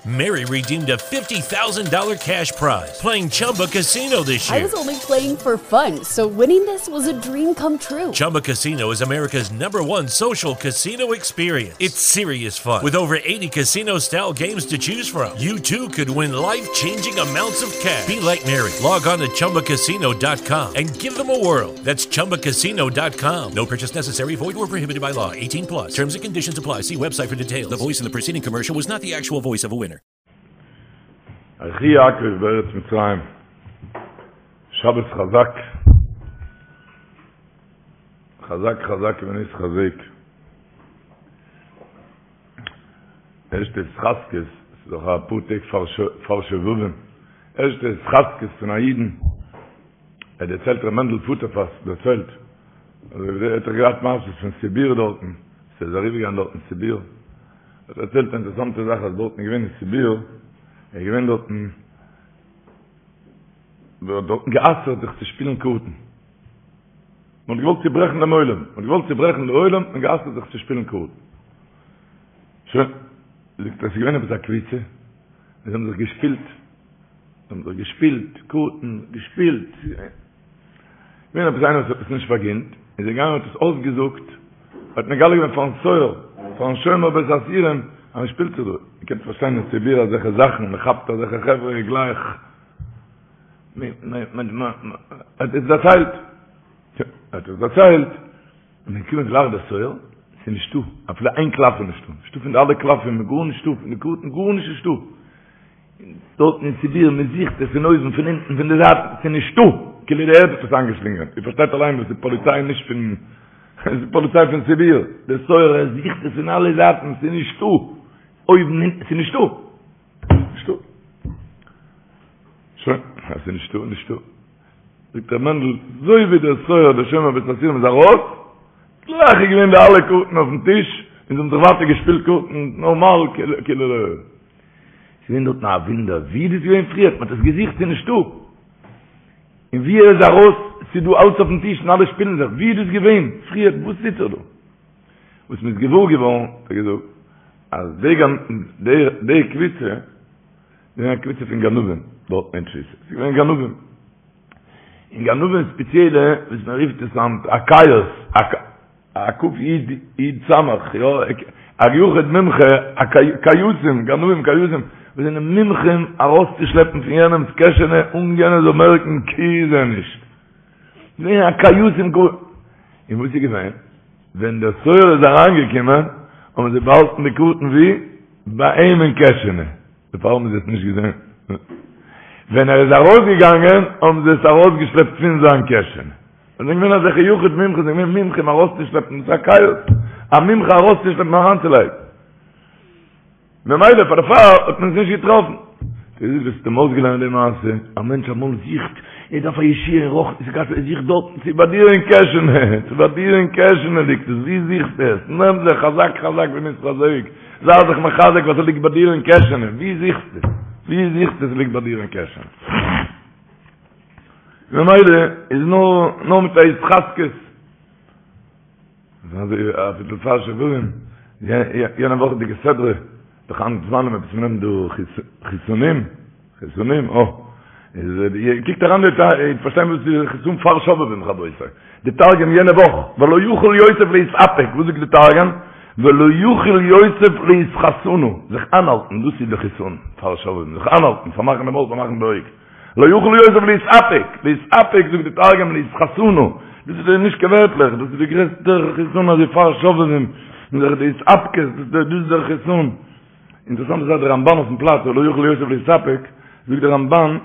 Mary redeemed a $50,000 cash prize playing Chumba Casino this year. I was only playing for fun, so winning this was a dream come true. Chumba Casino is America's number one social casino experience. It's serious fun. With over 80 casino style games to choose from, you too could win life changing amounts of cash. Be like Mary. Log on to chumbacasino.com and give them a whirl. That's chumbacasino.com. No purchase necessary, void where prohibited by law. 18 plus. Terms and conditions apply. See website for details. The voice in the preceding commercial was not the actual voice of a winner. ויחי יעקב בארץ מצרים, שבת חזק, חזק חזק ונתחזק. ערשטע התחזקות, ס'איז דאך א פאר טעג פאר שובבים, ערשטע התחזקות פון א אידן, ער דערציילט ר' מענדל פוטערפאס דערציילט, ער האט דאך געהאט מעשות פון סיביר דארטן, ס'איז אריבערגעגאנגען דארטן סיביר, האט דערציילט א אינטערעסאנטע זאך אז דארטן איז געווען אין סיביר, איז געווען דארטן, מען האט דארטן גע'אסר'ט זיך צו שפילן קארטן. מען האט געוואלט צוברעכן דעם עולם, מען האט געוואלט צוברעכן די עולם און גע'אסר'ט זיך צו שפילן קארטן. שוין, זאגט ער, עס איז געווען עפעס א קבוצה, זיי האבן זיך געשפילט, זיי האבן זיך געשפילט קארטן, געשפילט, געווען עפעס איינער וואס האט עס נישט פארגינט, איז ער געגאנגען האט עס אויסגעזאגט, האט מגלה געווען פארן סוהר, פארן שומר בית האסירים, אז מען שפילט זיך דא, איר קענט פארשטיין אין סיביר אזעלכע זאכן, מען כאפט אזעלכע חברה גלייך, מען האט עס דערציילט, האט עס דערציילט, און מען קומט גלייך דער סוהר, ס'איז נישטא, אפילו איין קלף איז נישטא, נישטא פון די אלע קלפים, גארנישטא, פון די קארטן גארנישט נישטא. דארטן אין סיביר, מען זוכט עס פון אויבן, פון אונטן, פון די זייטן, ס'איז נישטא! כאילו די ערד האט עס איינגעשלינגען. איר פארשטייט אליין וואס איז פאליציי נישט פון, עס איז פאליציי פון סיביר. דער סוהר ער זוכט עס פון אלע זייטן, ס'איז נישטא! אויבן, אונטן, ס'איז נישטא! נישטא! שוין, אז ס'איז נישטא, נישטא. זאגט ר' מענדל, אזוי ווי דער סוהר דער שומר בית האסירים איז ארויס, גלייך איז געווען די אלע קארטן אויפן טיש, און זיי האבן זיך ווייטער געשפילט קארטן נארמאל כאילו לא. ס'איז געווען דארטן א וואונדער, ווי איז דאס געווען פריער? מ'האט עס געזוכט, ס'איז נישטא. און ווי ער איז ארויס, ס'איז דא אלץ אויפן טיש און אלע שפילן זיך, ווי איז דאס געווען פריער? וואס טוט זיך דא? וואס מ'איז געוואר געווארן, האט ער געזאגט, אז די די קבוצה, איז געווען א קבוצה פון גנבים דארט אין תפיסה, ס'איז געווען גנבים. און גנבים ספעציעלע, וואס מען רופט עס היינט א קייס, א ק י י ס, יא, א יחיד מומחה, א קייסים, גנבים קייסים, וואס זענען מומחים ארויסצושלעפן פון יענעמ'ס קעשענע אן יענער זאל מערקן כי זה נישט. געווען א קייסים גאר. און וואס איז געווען? ווען דער סוהר איז אריינגעקומען, האבן זיי באהאלטן די קארטן וואו? ביי אים אין קעשענע. דערפאר האבן זיי עס נישט געזען. ווען ער איז ארויסגעגאנגען האבן זיי עס ארויסגעשלעפט פון זיין קעשענע. זיי זענען געווען אזעלכע יחיד מומחה, זיי זענען געווען מומחים ארויסצושלעפן, דאס איז א קייס, א מומחה ארויסצושלעפן אריינצולייגן. ממילא פאר דערפאר האט מען עס נישט געטראפן. דאס איז וואס האט אים אויסגעלערנט די מעשה, א מענטש אמאל זוכט, ער דארף א ישועה אין רוחניות, ער זוכט דארטן, ס'איז ביי דיר אין קעשענע, ס'איז ביי דיר אין קעשענע ליגט עס, וואו זוכסטו עס? נעם זיך חזק חזק ונתחזק. זיי זיך מחזק וואס ליגט ביי דיר אין קעשענע, ווי זוכסטו? ווי זוכסטו עס ליגט ביי דיר אין קעשענע? ממילא איז נאר נאר מיט א התחזקות. אזוי אביסל פאר שובבים, יענע וואכעדיגע סדרה, דאך היינט זמנים עפעס מ'נעמט דא חיסונים, חיסונים, אה. איז קוקט אריין די איר פארשטיין וואס איז חיסון פאר שובבים רבותי. די תרגום יענע וואך, ולא יכול יוסף להתאפק, וואס זאגט די תרגום? ולא יכול יוסף לאתחסנא, זיך איינהאלטן, דאס איז די חיסון פאר שובבים, זיך איינהאלטן, פארמאכן די מויל, פארמאכן די אויג. לא יכול יוסף להתאפק, להתאפק זאגט די תרגום לאתחסנא, דאס איז נישט קיין ווערטלעך, דאס איז די גרעסטע חיסון אזוי פאר שובבים, די התאפקות, דאס איז דער חיסון. אינטערעסאנט איז אז דער רמבן אויפן פלאץ ולא יכול יוסף להתאפק, זאגט דער רמבן,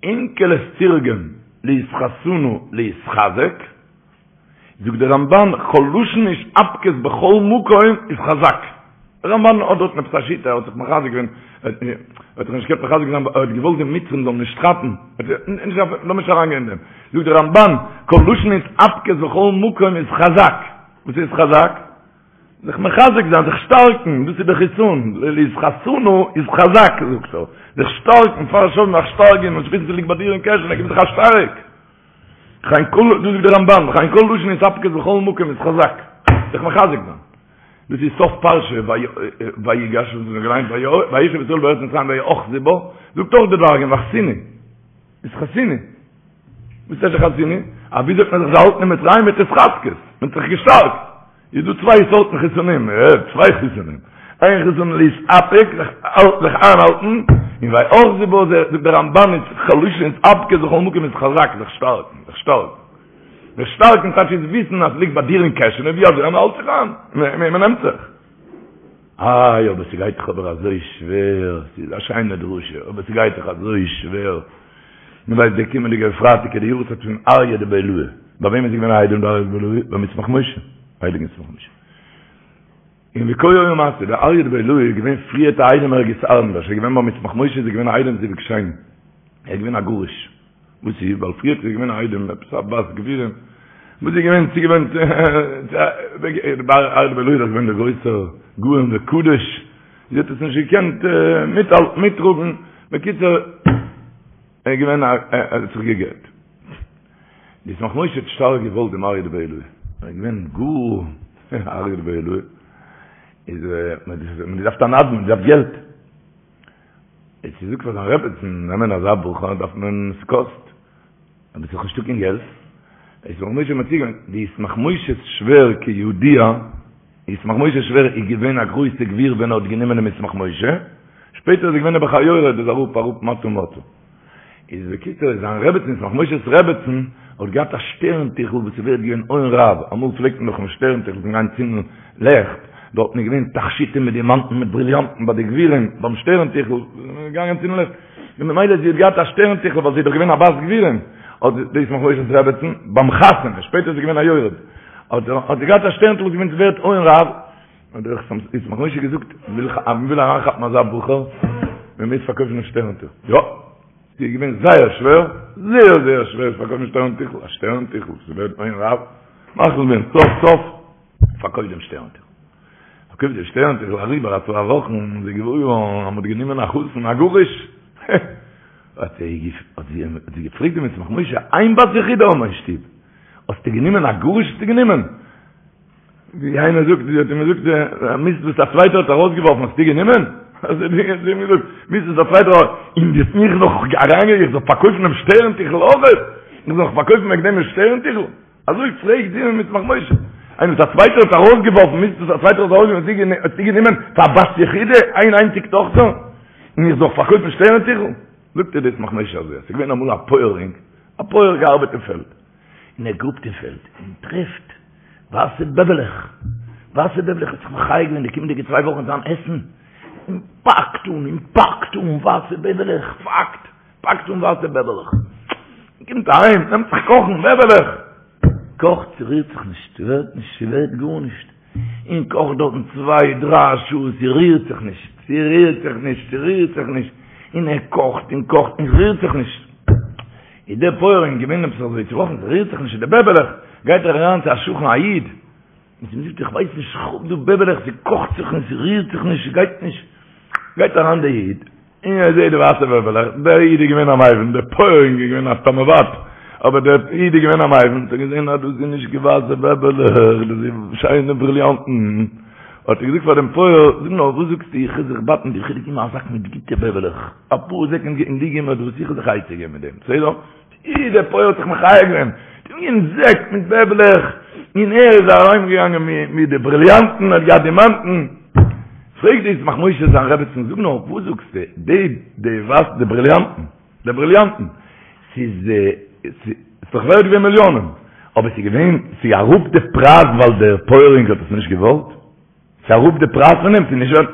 אונקלוס תרגם לאתחסנא להתחזק, זאגט דער רמבן, כל לשון התאפקות בכל מקום איז חזק. דער רמבן האט דארטן עפעס א שיטה, ער האט זיך מחזק געווען, ער האט זיך נישט געקענט מחזק זיין, ער האט געוואלט די מצרים זאלן נישט כאפן, לאמיר נישט אריינגיין אין דעם. זאגט דער רמבן, כל לשון התאפקות בכל מקום איז חזק. וואס איז חזק? זיך מחזק זיין, זיך שטארקן, דאס איז די חיסון, לאתחסנא איז חזק, זאגט ער, זיך שטארקן, פאר שובבים זיך שטארקן, און שפיצן ס'ליגט ביי דיר אין קעשענע, גיב זיך א שטארק. וכן כל, דאס זאגט דער רמבן, וכן כל לשון התאפקות בכל מקום איז חזק, זיך מחזק זיין. דאס איז סוף פרשה ויגש וואס מ'האט געליינט וישב ישראל בארץ מצרים ויאחזו בה, זאגט אויך די תרגום וחסינו, אתחסינו. וואס איז וחסינו? א וויאזוי האט מען זיך געהאלטן אין מצרים מיט התחזקות, מען האט זיך געשטארקט. איז דא צוויי סארטן חיסונים, צוויי חיסונים. איין חיסון להתאפק, זיך זיך איינהאלטן, און ויאחזו בה, זאגט דער רמבן איז לשון התאפקות בכל מקום להתחזק, זיך שטארקן, זיך שטארקן. זיך שטארקן טייטש איז וויסן אז ס'ליגט ביי דיר אין קעשענע ווי אזוי אז מ'האלט זיך איין, מ'נעמט זיך. איי אבער ס'גייט דאך אבער אזוי שווער, ס'איז א שיינע דרשה, אבער ס'גייט דאך אזוי שווער. מ'ווייסט דער קומענדיגער פרייטאג איז די יארצייט פון אריה דבי עילאי. ביי וועם איז געווען א איידעם דער אריה דבי עילאי? ביים ישמח משה, הייליגן ישמח משה. און ווי כה היה מעשה, דער אריה דבי עילאי איז געווען פריערט א איידעם ערגעץ אנדערש, ער איז געווען ביים ישמח משה איז ער געווען א איידעם זיווג שני, ער איז געווען א גרוש. וואס איז? ווייל פריערט איז געווען א איידעם עפעס א בת גבירים, וואס איז געווען צוגעוואוינט דער אריה דבי עילאי איז דאך געווען דער גרויסער גאון וקדוש, זי האט עס נישט געקענט מיטהאלטן מיטטראגן, בקיצור ער איז געווען א ער האט זיך גע'גט. די ישמח משה האט שטארק געוואלט דעם אריה דבי עילאי, ער איז געווען גאר אריה דבי עילאי, איז מען האט געדארפט א נדן, מען האט געדארפט געלט, האט געזאגט פאר זיין רעבעצן, נעמען אזא בחור דארף מען, ס'קאסט, אבער ס'איז נישטא קיין געלט, ישמח משה מציע געווען, די ישמח משה'ס שווער כידוע, ישמח משה'ס שווער איז געווען א גרויסע גביר ווען ער האט גענומען דעם ישמח משה, שפעטער איז ער געווען נעבעך א יורד, איז אראפ אראפ מטה מטה. איז בקיצור איז זיין רעבעצן ישמח משה'ס רעבעצן האט געהאט א שטערן טיכל וואס איז ווערט געווען הון רב, אמאל פלעגט מען דאך אין שטערן טיכל פון גיין צינדן לעכט, דארטן איז געווען תכשיטים מיט דימאנטן מיט בריליאנטן ביי די גבירים ביים שטערן טיכל, געגאנגען צינדן לעכט, און ממילא זי האט געהאט א שטערן טיכל ווייל זי איז דאך געווען א בת גבירים, האט די ישמח משה'ס רעבעצן ביים חתונה, שפעטער איז זי געווען א יורד, האט זי געהאט א שטערן טיכל וואס איז געווען ווערט הון רב, האט דער ישמח משה געזאגט, מען וויל אריינכאפן אזא בחור, מען מוז פארקויפן דעם שטערן טיכל. יא, ס'איז געווען זייער שווער, זייער זייער שווער צו פארקויפן שטערן טיכל, א שטערן טיכל, ס'איז ווערט הון רב, מחליט געווען סוף סוף, פארקויפט דעם שטערן טיכל. פארקויפט דעם שטערן טיכל אריבער א צוויי וואכן, איז זי געוואר געווארן אז מ'האט גענומען א חתן א גרוש. האט זי געפרעגט דעם ישמח משה, איין בת יחידה האבן מיר אין שטוב, האסטו גענומען א גרוש האסטו גענומען? ווי איינער זאגט, זי האט אים געזאגט, מיסט וואס א צווייטער האט ארויסגעווארפן האסטו גענומען? האט זי אים געזאגט, מיסט וואס א צווייטער האט, און דו האסט מיך נאך אריינגערעדט איך זאל פארקויפן דעם שטערן טיכל אויך? איך זאל נאך פארקויפן וועגן דעם דעם שטערן טיכל? אזוי פרעגט זי דעם ישמח משה. איינער וואס א צווייטער האט ארויסגעווארפן, מיסט וואס א צווייטער האט ארויסגעווארפן האסטו גענומען פאר בת יחידה, איין איינציג טאכטער, און איך זאל פארקויפן שטערן טיכל? זאגט איר דער ישמח משה אזוי, עס איז געווען אמאל א פויערינג, א פויער געארבעט אין פעלד, און ער גראבט אין פעלד און טרעפט ווייסע בעבעלעך, ווייסע בעבעלעך האט זיך מחיה געווען די קומענדיגע צוויי וואכן זיין עסן, און פאקט אן און פאקט אן ווייסע בעבעלעך, פאקט, פאקט אן ווייסע בעבעלעך, קומט אהיים, נעמט זיך קאכן בעבעלעך, קאכט, ס'רירט זיך נישט, ס'ווערט נישט, ס'ווערט גארנישט, און קאכט דארטן צוויי דריי שעה, ס'רירט זיך נישט, ס'רירט זיך נישט, ס'רירט זיך נישט, און ער קאכט און קאכט און ס'רירט זיך נישט. איז דער פויערינג געווען עפעס אזוי צובראכן, ס'רירט זיך נישט די בעבעלעך, גייט ער אריין צו א שכן א איד, און צו אים זאגט איך ווייס נישט, איך האב דא בעבעלעך, ס'קאכט זיך און ס'רירט זיך נישט, ס'גייט נישט, גייט אריין דער איד, און ער זעט די ווייסע בעבעלעך, דער איד איז געווען א מבין, דער פויערינג איז געווען א תמ'עוואט, אבער דער איד איז געווען א מבין, האט ער געזען אז דאס איז נישט קיין ווייסע בעבעלעך, דאס איז שיינע בריליאנטן, האט ער געזאגט פאר דעם פויער, זאג נאר, וואס זאגסטו, איך וויל זיך בייטן, איך וועל דיר געבן א זאק מיט גוטע בעבעלעך, אפאר זעק און דו גיב מיר דאס, איך וועל זיך עצה געבן מיט דעם, בסדר? אי, דער פויער האט זיך מחיה געווען, גענומען זעק מיט בעבעלעך, און ער איז אהיימגעגאנגען מיט די בריליאנטן, האט געהאט דימאנטן. פרעגט דער ישמח משה זיין רעבעצן, זאג נאר, וואס זאגסטו, די, די וואס, די בריליאנטן, די בריליאנטן, ס'איז, ס'איז דאך ווערט געווען מיליאנען, אבער ס'איז געווען, ס'איז אראפ די פרייז ווייל דער פויערינג האט עס נישט געוואלט? ס'איז אראפ די פרייז פון דעם? ס'איז נישט ווערט?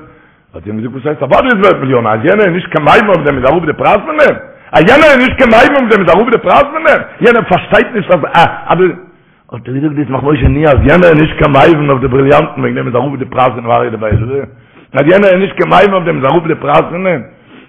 האט זי אים געזאגט, וואס הייסט אוודאי איז ווערט מיליאנען, אז יענער איז נישט קיין מבין אויף דעם איז אראפ די פרייז פון דעם? אז יענער איז נישט קיין מבין אויף דעם איז אראפ די פרייז פון דעם? יענער פארשטייט נישט אז א אז די. האט ער געזאגט דער ישמח משה נו אז יענער איז נישט קיין מבין אויף די בריליאנטן וועגן דעם איז אראפ די פרייז פון אריה דבי עילאי? אז יענער איז נישט קיין מבין אויף דעם איז אראפ די פרייז פון דעם?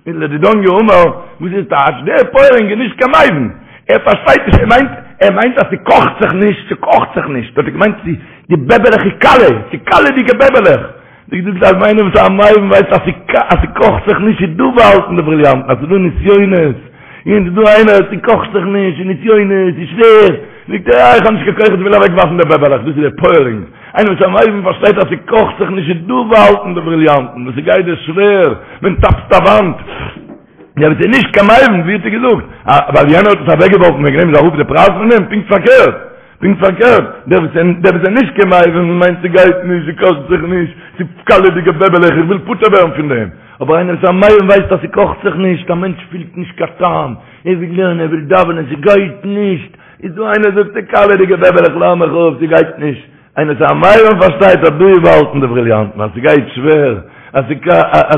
איז לדידן יאמר, וואס איז טייטש? דער פויערינג איז נישט קיין מבין, ער פארשטייט נישט, ער מיינט, ער מיינט אז ס'קאכט זיך נישט, ס'קאכט זיך נישט, האט ער געמיינט צו די בעבעלעך איז קאלע, ס'איז קאלעדיגע בעבעלעך. ווי געזאגט אז איינער וואס איז א מבין ווייסט אז אז ס'קאכט זיך נישט איז דא באהאלטן די בריליאנטן, אז ס'איז דא נסיונות, און ס'איז דא איינער ס'קאכט זיך נישט, און נסיונות, ס'איז שווער. זאגט ער, אה, איך האב נישט קיין כח, איך וויל אוועק ווארפן די בעבעלעך, דאס איז די פויערינג. איינער וואס איז א מבין פארשטייט אז ס'קאכט זיך נישט, איז דא באהאלטן די בריליאנטן, וואס ס'גייט דיר שווער, מען טאפט א וואנט. דער וואס איז נישט קיין מבין, ווי האט ער געזאגט? ווייל יענער האט עס אוועק געווארפן, וועגן דעם איז אראפ די פרייז פון דעם? פונקט פארקערט. פונקט פארקערט, דער וואס דער וואס איז נישט קיין מבין מיינט ס'גייט נישט, ס'קאכט זיך נישט, ס'איז קאלעדיגע בעבעלעך, איך וויל פטור ווערן פון דעם. אבער איינער וואס איז א מבין ווייסט אז ס'קאכט זיך נישט, א מענטש פילט נישט קיין טעם, ער וויל לערנען, ער וויל דאווענען, ס'גייט נישט, איז דא איינער זאגט ס'איז קאלעדיגע בעבעלעך לאז מיך אפ, ס'גייט נישט. איינער וואס איז א מבין פארשטייט אז דא איז באהאלטן די בריליאנטן, אז ס'גייט שווער, אז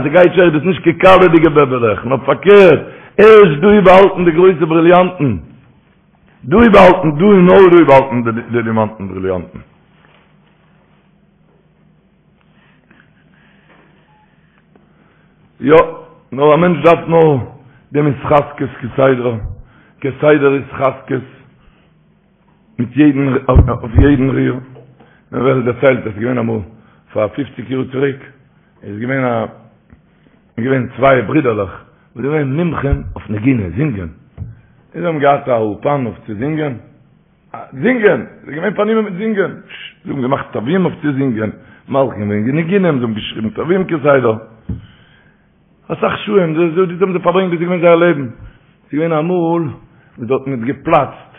ס'גייט שווער איז דאס נישט קיין קאלעדיגע בעבעלעך, נאר פארקערט, ערשט דא איז באהאלטן די גרויסע בריליאנטן. דא איז באהאלטן, דא און נאר דא איז באהאלטן די דימאנטן בריליאנטן. יא, נאר א מענטש דארף נאר דעם התחזקות כסדר, כסדר התחזקות מיט יעדן, אויף יעדן ריר. מען ווערט דערציילט אז עס איז געווען אמאל פאר פופציג יאר צוריק, איז געווען א איז געווען צוויי ברידערלעך וואס זענען געווען מומחים אויף נגינה, זינגען. און זיי האבן געהאט א אולפאן אויף צו זינגען. זינגען! זיי זענען געווען פארנומען מיט זינגען. זיי האבן געמאכט תווים אויף צו זינגען, מלחין געווען ניגונים, זיי האבן געשריבן תווים כסדר. אסאך שעה'ן, דאס האבן זיי פארברענגט, דאס איז געווען זייער לעבן. ס'איז געווען אמאל וואס דארטן האט געפלאצט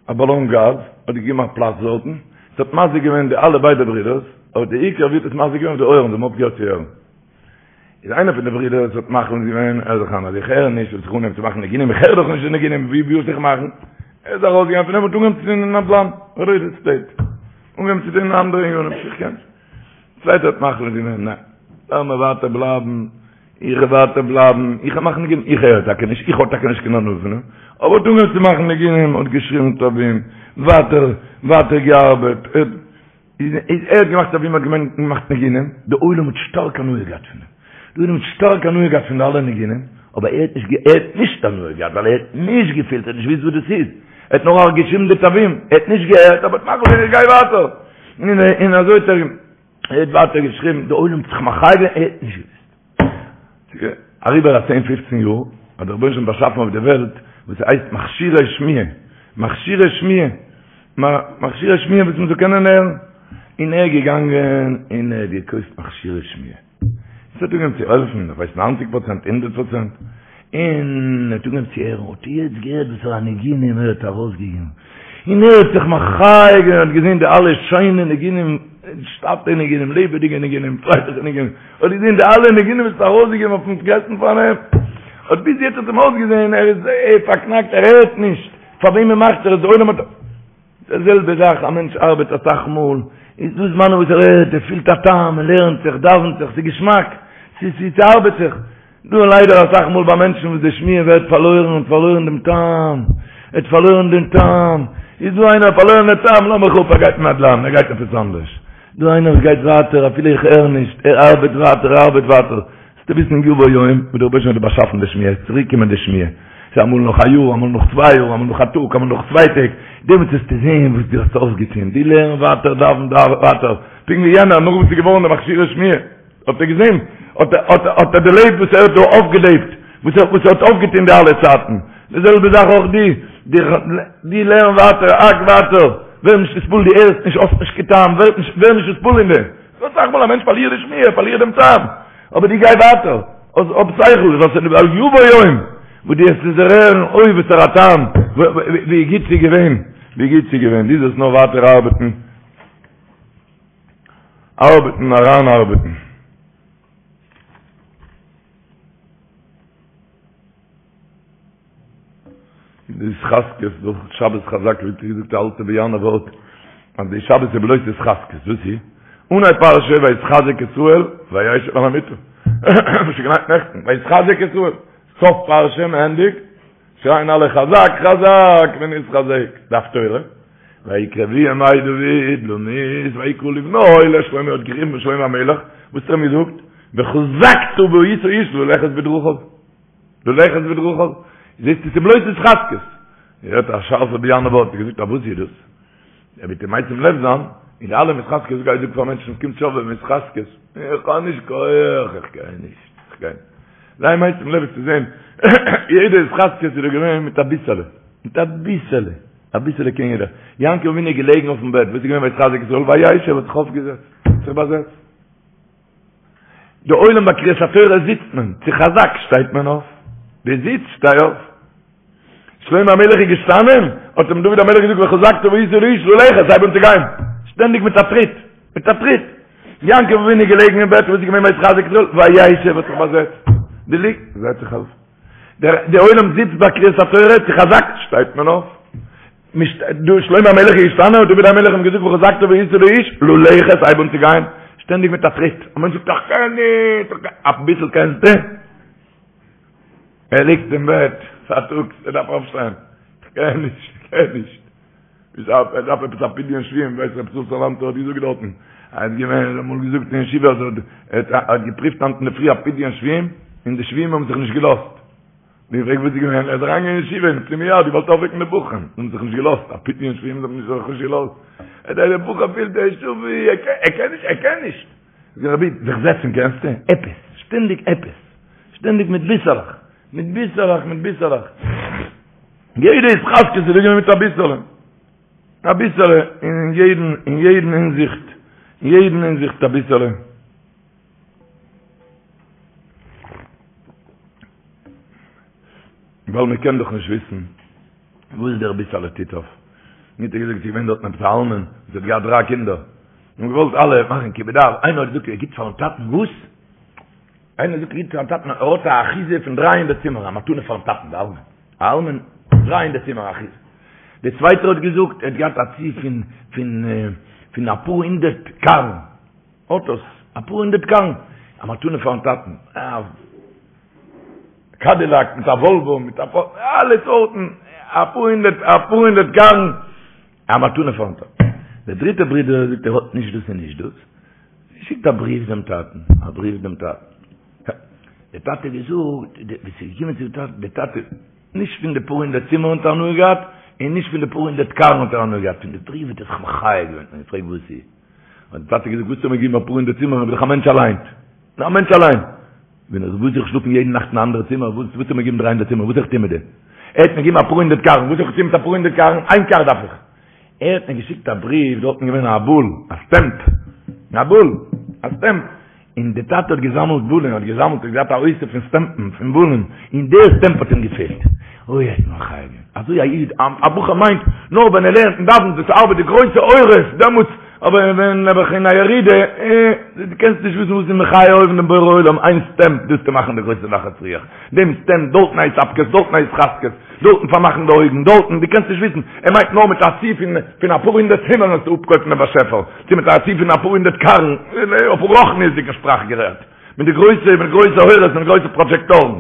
א באלאן גאז, האט געגעבן א פלאץ דארטן, ס'האט מזיק געווען די אלע ביידע ברידערס, אבער די עיקר ווי האט עס מזיק געווען אויף די אויערן, זיי האבן אויפגעהערט צו הערן. איז איינער פון די ברידערס האט מחליט געווען, ער זיך אן אז איך הער נישט, וועל איך אנהייבן צו מאכן ניגונים, איך הער דאך נישט די ניגונים, ווי ווי זאל איך מאכן? ער איז ארויסגעגאנגען פון דעם און האט אנגעהויבן צו טון אין נדל"ן, ריעל עסטעיט, אנגעהויבן צו טון אין אנדערע ענינים, איך קען. צווייטער האט מחליט געווען, ניין, לאמיר ווייטער בלייבן, איך וועל ווייטער בלייבן, איך וועל מאכן ניגונים, איך הער טאקע נישט, איך האב טאקע נישט קיין הנאה פון דעם, אבער האט אנגעהויבן צו מאכן ניגונים, האט געשריבן תווים, ווייטער, ווייטער געארבעט, איז ער האט געמאכט תווים האט געמאכט ניגונים, די עולם האט שטארק הנאה געהאט פון אים, די עולם האט שטארק הנאה געהאט פון די אלע ניגונים, אבער ער האט נישט ער האט נישט הנאה געהאט ווייל ער האט נישט געפילט, ער האט נישט געוואוסט וואס דאס איז, ער האט נאר געשריבן די תווים, ער האט נישט געהערט, אבער האט מחליט געווען איך גיי ווייטער, און אזוי האט ער ער האט ווייטער געשריבן, די עולם האט זיך מחיה געווען, ער האט נישט געוואוסט. אריבער א צען פופצן יאר האט דער רבונו של עולם באשאפן אויף די וועלט וואס ס'הייסט מכשירי שמיעה, מכשירי שמיעה, מכשירי שמיעה וואס מ'זאל קענען הערן, און ער איז געגאנגען און ער האט געקויפט מכשירי שמיעה, עס האט אנגעהויבן צו העלפן, איך ווייס ניינציג פראצענט, הונדערט פראצענט, און ער האט אנגעהויבן צו הערן, האט ער יעצט געהערט וואסערע ניגונים ער האט ארויסגעגעבן, און ער האט זיך מחיה געווען, האט געזען די אלע שיינע ניגונים, שטאטע ניגונים, לעבעדיגע ניגונים, פרייליכע ניגונים, האט געזען די אלע ניגונים וואס האט ארויסגעגעבן אויפן גרעסטן פארנעם, האט ביז יעצט האט אים אויסגעזען ער איז פארקנאקט, ער הערט נישט, פאר וועמען מאכט ער עס, די עולם האט, די זעלבע זאך, א מענטש ארבעט אסאך מאל, איז דא זמנים וואס ער הערט, ער פילט א טעם, ער לערנט זיך, דאווענט זיך, ס'איז געשמאק, ס'ארבעט זיך. דא ליידער אסאך מאל ביי מענטשן וואס די שמיעה ווערט פארלוירן, האט פארלוירן דעם טעם, ער האט פארלוירן דעם טעם, איז דא איינער האט פארלוירן דעם טעם, לאז מיך אפ, ער גייט אין נדל"ן, ער גייט עפעס אנדערש. דא איינער וואס גייט ווייטער אפילו איך הער נישט, ער ארבעט ווייטער, ער ארבעט ווייטער. זאלסטו וויסן יבוא יום וואס דער רבוש"ע האט דיר באשאפן די שמיעה, עס וועט צוריק קומען די שמיעה. ס'איז אמאל נאך א יאר, אמאל נאך צוויי יאר, אמאל נאך א טאג, אמאל נאך צוויי טעג, דעמאלטס וועסטו זען וואס דו האסט אויפגעטון, דו לערן ווייטער, דאווען ווייטער, פונקט ווי יענער, נאך וואס איז געווארן די מכשירי שמיעה. האט ער געזען, האט ער, האט ער, האט ער דערלעבט וואס ער האט דא אויפגעלעבט, וואס ער, וואס ער האט אויפגעטון די אלע צייטן. די זעלבע זאך אויך דו, דו, דו לערן ווייטער, האק ווייטער, ווער נישט נתפעל, דו הערסט נישט, האסט נישט קיין טעם, ווער נישט, ווער נישט נתפעל אין דעם. ס'דא אסאך מאל א מענטש פארלירט די שמיעה, ער פארלירט דעם טעם, אבער דו גיי ווייטער, האב שכל, ווייל יבוא יום, וואס דו וועסט עס דערהערן, אוי וואסערע א טעם, ווי גוט ס'איז געווען, ווי גוט ס'איז געווען, דו זאלסט נאר ווייטער ארבעטן. ארבעטן אריינארבעטן. די התחזקות דורך שבת חזק ווי געזאגט די אלטע באיאנער ווארט אז די שבת איז בלויז התחזקות וואס איז אנהייב פרשה ויתחזק ישראל וישב על המיטה וואס איז געליינט נעכטן ויתחזק ישראל סוף פרשה מ'ענדיגט שרייען אלע חזק חזק ונתחזק די הפטורה ויקרבו ימי דוד למות ויקרא לבנו לשלמה האט גערופן שלמה המלך וואס האט ער אים געזאגט וחזקת והיית איש ללכת בדרכיו ללכת בדרכיו זעסט עס איז בלויז התחזקות ער האט א שארפע באיאנער ווארט געזאגט א וואס איז דאס ער וועט אים משים לב זיין אין די אלע התחזקות גיי זאג פאר מענטשן קומט שובבים התחזקות איך האב נישט כח איך גיי נישט איך גיי זיי משים לב צו זען יעדע התחזקות איז דא געווען מיט א ביסעלע מיט א ביסעלע. אביסעלע קען יעדער. יעקב אבינו איז געלעגן אויפן בעט, וואס איז געווען ויתחזק ישראל? וישב האט זיך אויפגעזעצט, האט זיך באזעצט. די עולם ביי קריאת התורה זיצט מען, צו חזק שטייט מען אויף. דו זיצט, שטיי אויף. שלמה המלך איז געשטאנען, האט אים דוד המלך געזאגט וחזקת והיית לאיש ללכת, הייב אן צו גיין. שטענדיג מיט א טריט, מיט א טריט. יעקב אבינו איז געלעגן אין בעט, וואס איז געווען ויתחזק ישראל? וישב האט זיך באזעצט. דו ליגסט, זעץ זיך אויף. דער די עולם זיצט ביי קריאת התורה, צו חזק שטייט מען אויף. דא שלמה המלך איז געשטאנען, האט דוד המלך אים געזאגט וחזקת והיית לאיש, ללכת, הייב אן צו גיין. שטענדיג מיט א טריט. א מענטש זאגט איך קען נישט, איך קען, אביסל קענסטו? ער ליגט אין בעט פארטאגס, ער דארף אויפשטיין, איך קען נישט, איך קען נישט. ער דארף עפעס א פדיון שבויים, ווייסט רב ישראל סאלאנטער האט געזאגט דארטן, ער האט געווען, ער האט אמאל געזאגט אין ישיבה אז ער האט געפריווט היינט אינדערפרי א פדיון שבויים, און די שבויים האבן זיך נישט געלאזט. מ'האט געפרעגט וואס איז געווען, ער איז אריינגעגאנגען אין ישיבה אין פנימייה, האט געוואלט אויפוועקן די בחורים, זיי האבן זיך נישט געלאזט, א פדיון שבויים זיי האבן זיך נישט געלאזט. ער דער בחור פילט ער איז שבוי, ער קען נישט, ער קען נישט. זאג רבי, זיך זעצן קענסטו? עפעס, שטענדיג עפעס, שטענדיג מיט ביסעלעך, מיט ביסעלעך, מיט ביסעלעך. יעדע התחזקות איז געווען מיט אביסעלע, אביסעלע, אין יעדן, אין יעדן הינזיכט, אין יעדן הינזיכט אביסעלע. ווייל מען קען דאך נישט וויסן וואס דער ביסעלע טוט אויף. מיר האט ער געזאגט, ס'איז געווען דארטן עפעס א אלמן וואס האט געהאט דריי קינדער, און געוואלט אלע מאכן כיבוד אב, איינער האט געזאגט ער גיבט פארן טאטן וואס? איינער זאגט ער גיבט פארן טאטן, ער האט א אחיזה פון דריי הונדערט צימער, א מתנה פארן טאטן, די אלמן, א אלמן, דריי הונדערט צימער אחיזה. דער צווייטער האט געזאגט ער האט געהאט א צי פון פון פון אפאר הונדערט קארן, אוטוס, אפאר הונדערט קארן, א מתנה פארן טאטן, א קאדילאק מיט א וואלווא מיט א אלע סארטן, אפאר הונדערט, אפאר הונדערט קארן, א מתנה פארן טאטן. דער דריטער ברודער זאגט ער האט נישט דאס און נישט דאס, שיקט א בריוו דעם טאטן, א בריוו דעם טאטן. דער טאטע האט געזאגט, ווען ס'איז געקומען צו די טאטע, דער טאטע, נישט פון די פאר הונדערט צימערן האט ער הנאה געהאט, און נישט פון די פאר הונדערט קארן האט ער הנאה געהאט, פון די בריוו האט ער זיך מחיה געווען, און געפרעגט וואס איז. האט דער טאטע געזאגט, וואס האסטו מיר געגעבן אפאר הונדערט צימערן, איך בין דאך א מענטש אליין. א מענטש אליין. ווען איך וואס איך שלאפן יעדן נאכט אין א אנדערע צימער, וואס וואס האסטו מיר געגעבן דריי הונדערט צימער, וואס זאל איך טון מיט דעם? ער האט מיר געגעבן אפאר הונדערט קארן, וואס זאל איך טון מיט אפאר הונדערט קארן? איין קאר דארף איך. ער האט מיר געשיקט א בריוו, דארטן געווען א בול, א סטעמפ, א בול, א סטעמפ, און די טאטע האט געזאמלט בולען, האט געזאמלט, האט געהאט א אוסף פון סטעמפן, פון בולען, און דער סטעמפ האט אים געפעלט. אוי, ער האט מחיה געווען. אזוי א איד, א בחור מיינט, נאר ווען ער לערנט און דאווענט, דאס ארבעט די גרויסע אורות, דעמאלטס, אבער ווען נעבעך אין א ירידה, אה, דו קענסט נישט וויסן וואס איז מחיה אויבן דעם בורא עולם, איין סטעמפ, דאס צו מאכן די גרויסע נחת רוח, דעם סטעמפ, דארטן א התאפקות, דארטן א התחזקות, דארטן פארמאכן די אויגן, דארטן, דו קענסט נישט וויסן, ער מיינט נאר מיט א צי פון פון אפאר הונדערט צימערן וועסטו אפקויפן דעם באשעפער, צו מיט א צי פון אפאר הונדערט קארן, אויף רוחניות'דיגן שפראך גערעדט, מיט די גרויסע, מיט גרויסע אורות, מיט גרויסע פראדזשעקטארן.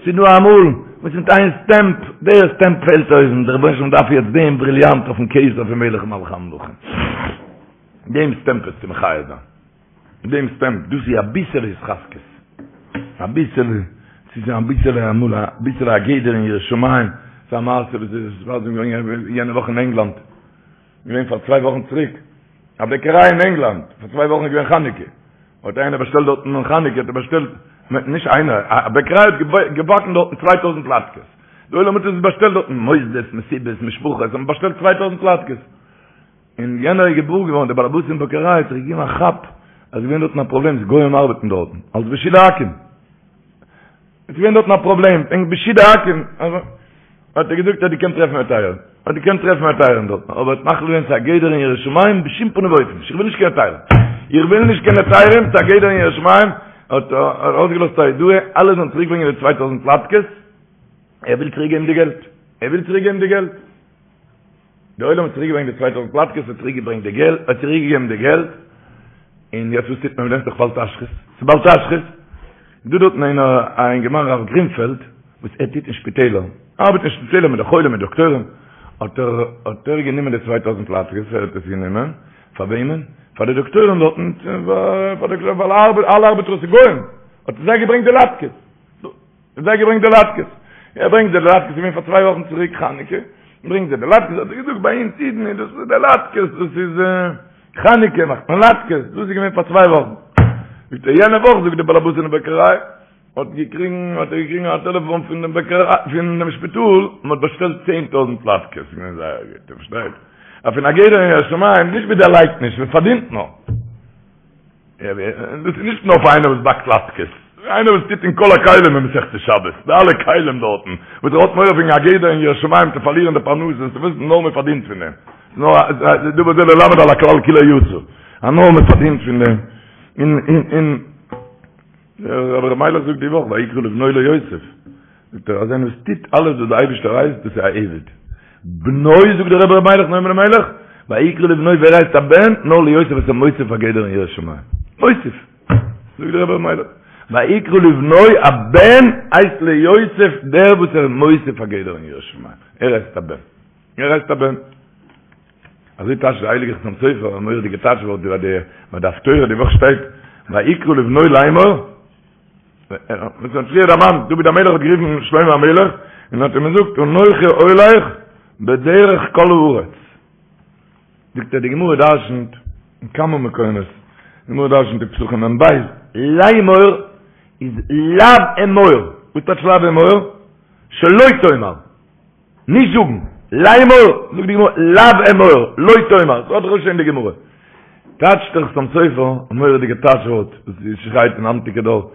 ס'איז דא אמאל וואס מיט איין סטעמפ, דער סטעמפ פעלט אויס, און דער רבונו של עולם דארף יעצט דעם בריליאנט אויפן כתר פון מלך מלכי המלכים. דעם סטעמפ עס צו מחיה זיין. דעם סטעמפ, דאס איז אביסעלע התחזקות. אביסעלע, ס'איז אביסעלע אמאל, אביסעלע א גדר אין יראת שמים. ס'איז א מעשה וואס איז געווען יענע וואך אין ענגלאנד. געווען פאר צוויי וואכן צוריק. א בעקעריי אין ענגלאנד, פאר צוויי וואכן איז געווען חנוכה. האט איינער באשטעלט דארטן אין חנוכה, האט ער באשטעלט, נישט איינער, א בעקעריי האט געבאקן דארטן צוויי טויזנט לאטקעס. די עולם האט עס באשטעלט דארטן, מוסדות, מסיבות, משפחות, האבן באשטעלט צוויי טויזנט לאטקעס. און יענער איז געוואר געווארן, דער באלעבאס אין בעקעריי האט זיך געגעבן א כאפ, אז ס'איז געווען דארטן א פראבלעם, ס'איז גוים ארבעטן דארטן, אלס בישול עכו"ם. עס איז געווען דארטן א פראבלעם, וועגן בישול עכו"ם, האט ער געזאגט אז דו קענסט טרעפן היתרים, האט געקענט טרעפן היתרים דארטן, אבער האט מחליט געווען ס'איז א גדר אין יראת שמים בשום פנים ואופן נישט, איך וויל נישט קיין היתרים, איך וויל נישט קיין היתרים, ס'איז א גדר אין יראת שמים, האט ער ארויסגעלאזט א הודעה, אלע זאלן צוריקברענגען די צוויי טויזנט לאטקעס, ער וויל צוריקגעבן די געלט, ער וויל צוריקגעבן די געלט. די עולם האט צוריק געברענגט די צוויי טויזנט לאטקעס, האט צוריק געברענגט די געלט, האט צוריק געגעבן די געלט, און יעצט וואס טוט מען מיט דעם? ס'דאך בל תשחית, ס'איז בל תשחית. דא דארטן איינער א אינגערמאן רב גרינפעלד, וואס ער טוט אין שפיטעלער, ארבעט אין שפיטעלער מיט די חולים מיט דאקטוירים, האט ער האט ער גענומען די צוויי טויזנט לאטקעס, ער האט עס גענומען, פאר וועמען? פאר די דאקטוירים דארטן, פאר די ווייל אלע ארבעטער איז גוים, האט ער זיי געברענגט די לאטקעס. האט זיי געברענגט די לאטקעס. ער ברענגט זיי די לאטקעס, געווען פאר צוויי וואכן צוריק חנוכה, ברענגט זיי די לאטקעס, האט ער געזאגט ביי אונז אידן איז דאס די לאטקעס, דאס איז חנוכה מאכט מען לאטקעס, דאס איז געווען פאר צוויי וואכן. זאגט ער יענע וואך זאגט די באלעבאס אין די בעקעריי. האט געקריגן האט ער געקריגן א טעלעפאן פון דעם בעקעריי פון דעם שפיטאל מען האט באשטעלט 10000 לאטקעס געווען זייער גוט איר פארשטייט אז פון א גדר אין יראת שמים נישט ווי דערלייגט נישט מען פארדינט נאר דאס איז נישט נאר פאר איינער וואס באקט לאטקעס איינער וואס טוט אין כל הכלים אין מסכת שבת די אלע כלים דארטן וואס ער האט מורא פון א גדר אין יראת שמים צו פארלירן די פרנסה צו וויסן נאר מען פארדינט פון דעם נאר דבר זה ללמד על הכלל כולו יצא אז נאר מען פארדינט פון דעם אין אין אין דער רבי ר' מיילעך זאגט די וואך ויקרא לבנו ליוסף, זאגט ער אז איינער וואס טוט אלעס וואס דער אייבערשטער הייסט דאס איז א עבד, בנו זאגט דער רבי ר' מיילעך נועם אלימלך, ויקרא לבנו ווער הייסט א בן? נאר ליוסף וואס איז מוסיף א גדר אין יראת שמים, מוסיף, זאגט דער רבי ר' מיילעך, ויקרא לבנו א בן הייסט ליוסף דער וואס ער איז מוסיף א גדר אין יראת שמים, ער הייסט א בן. ער הייסט א בן. אזוי טייטשט דער הייליגער חתם סופר, א מורא'דיגע טייטש ווארט ביי די ביי די הפטורה די וואך שטייט ויקרא לבנו לאמור, וואס האט פריער דערמאנט, דוד המלך האט גערופן שלמה המלך און האט אים געזאגט אנכי הולך בדרך כל הארץ. זאגט ער די גמרא דרשנ'ט אין כמה מקומות, די גמרא דרשנ'ט אין פסחים מ"ב, לאמור איז לאו אמור, וואס טייטש לאו אמור? שלא תאמר. נישט זאגן, לאמור, זאגט די גמרא, לאו אמור, לא תאמר, ס'האט דאך שוין די גמרא. טייטשט דער חתם סופר, א מורא'דיגע טייטש ווארט, וואס שרייט אין היינטיגע דור.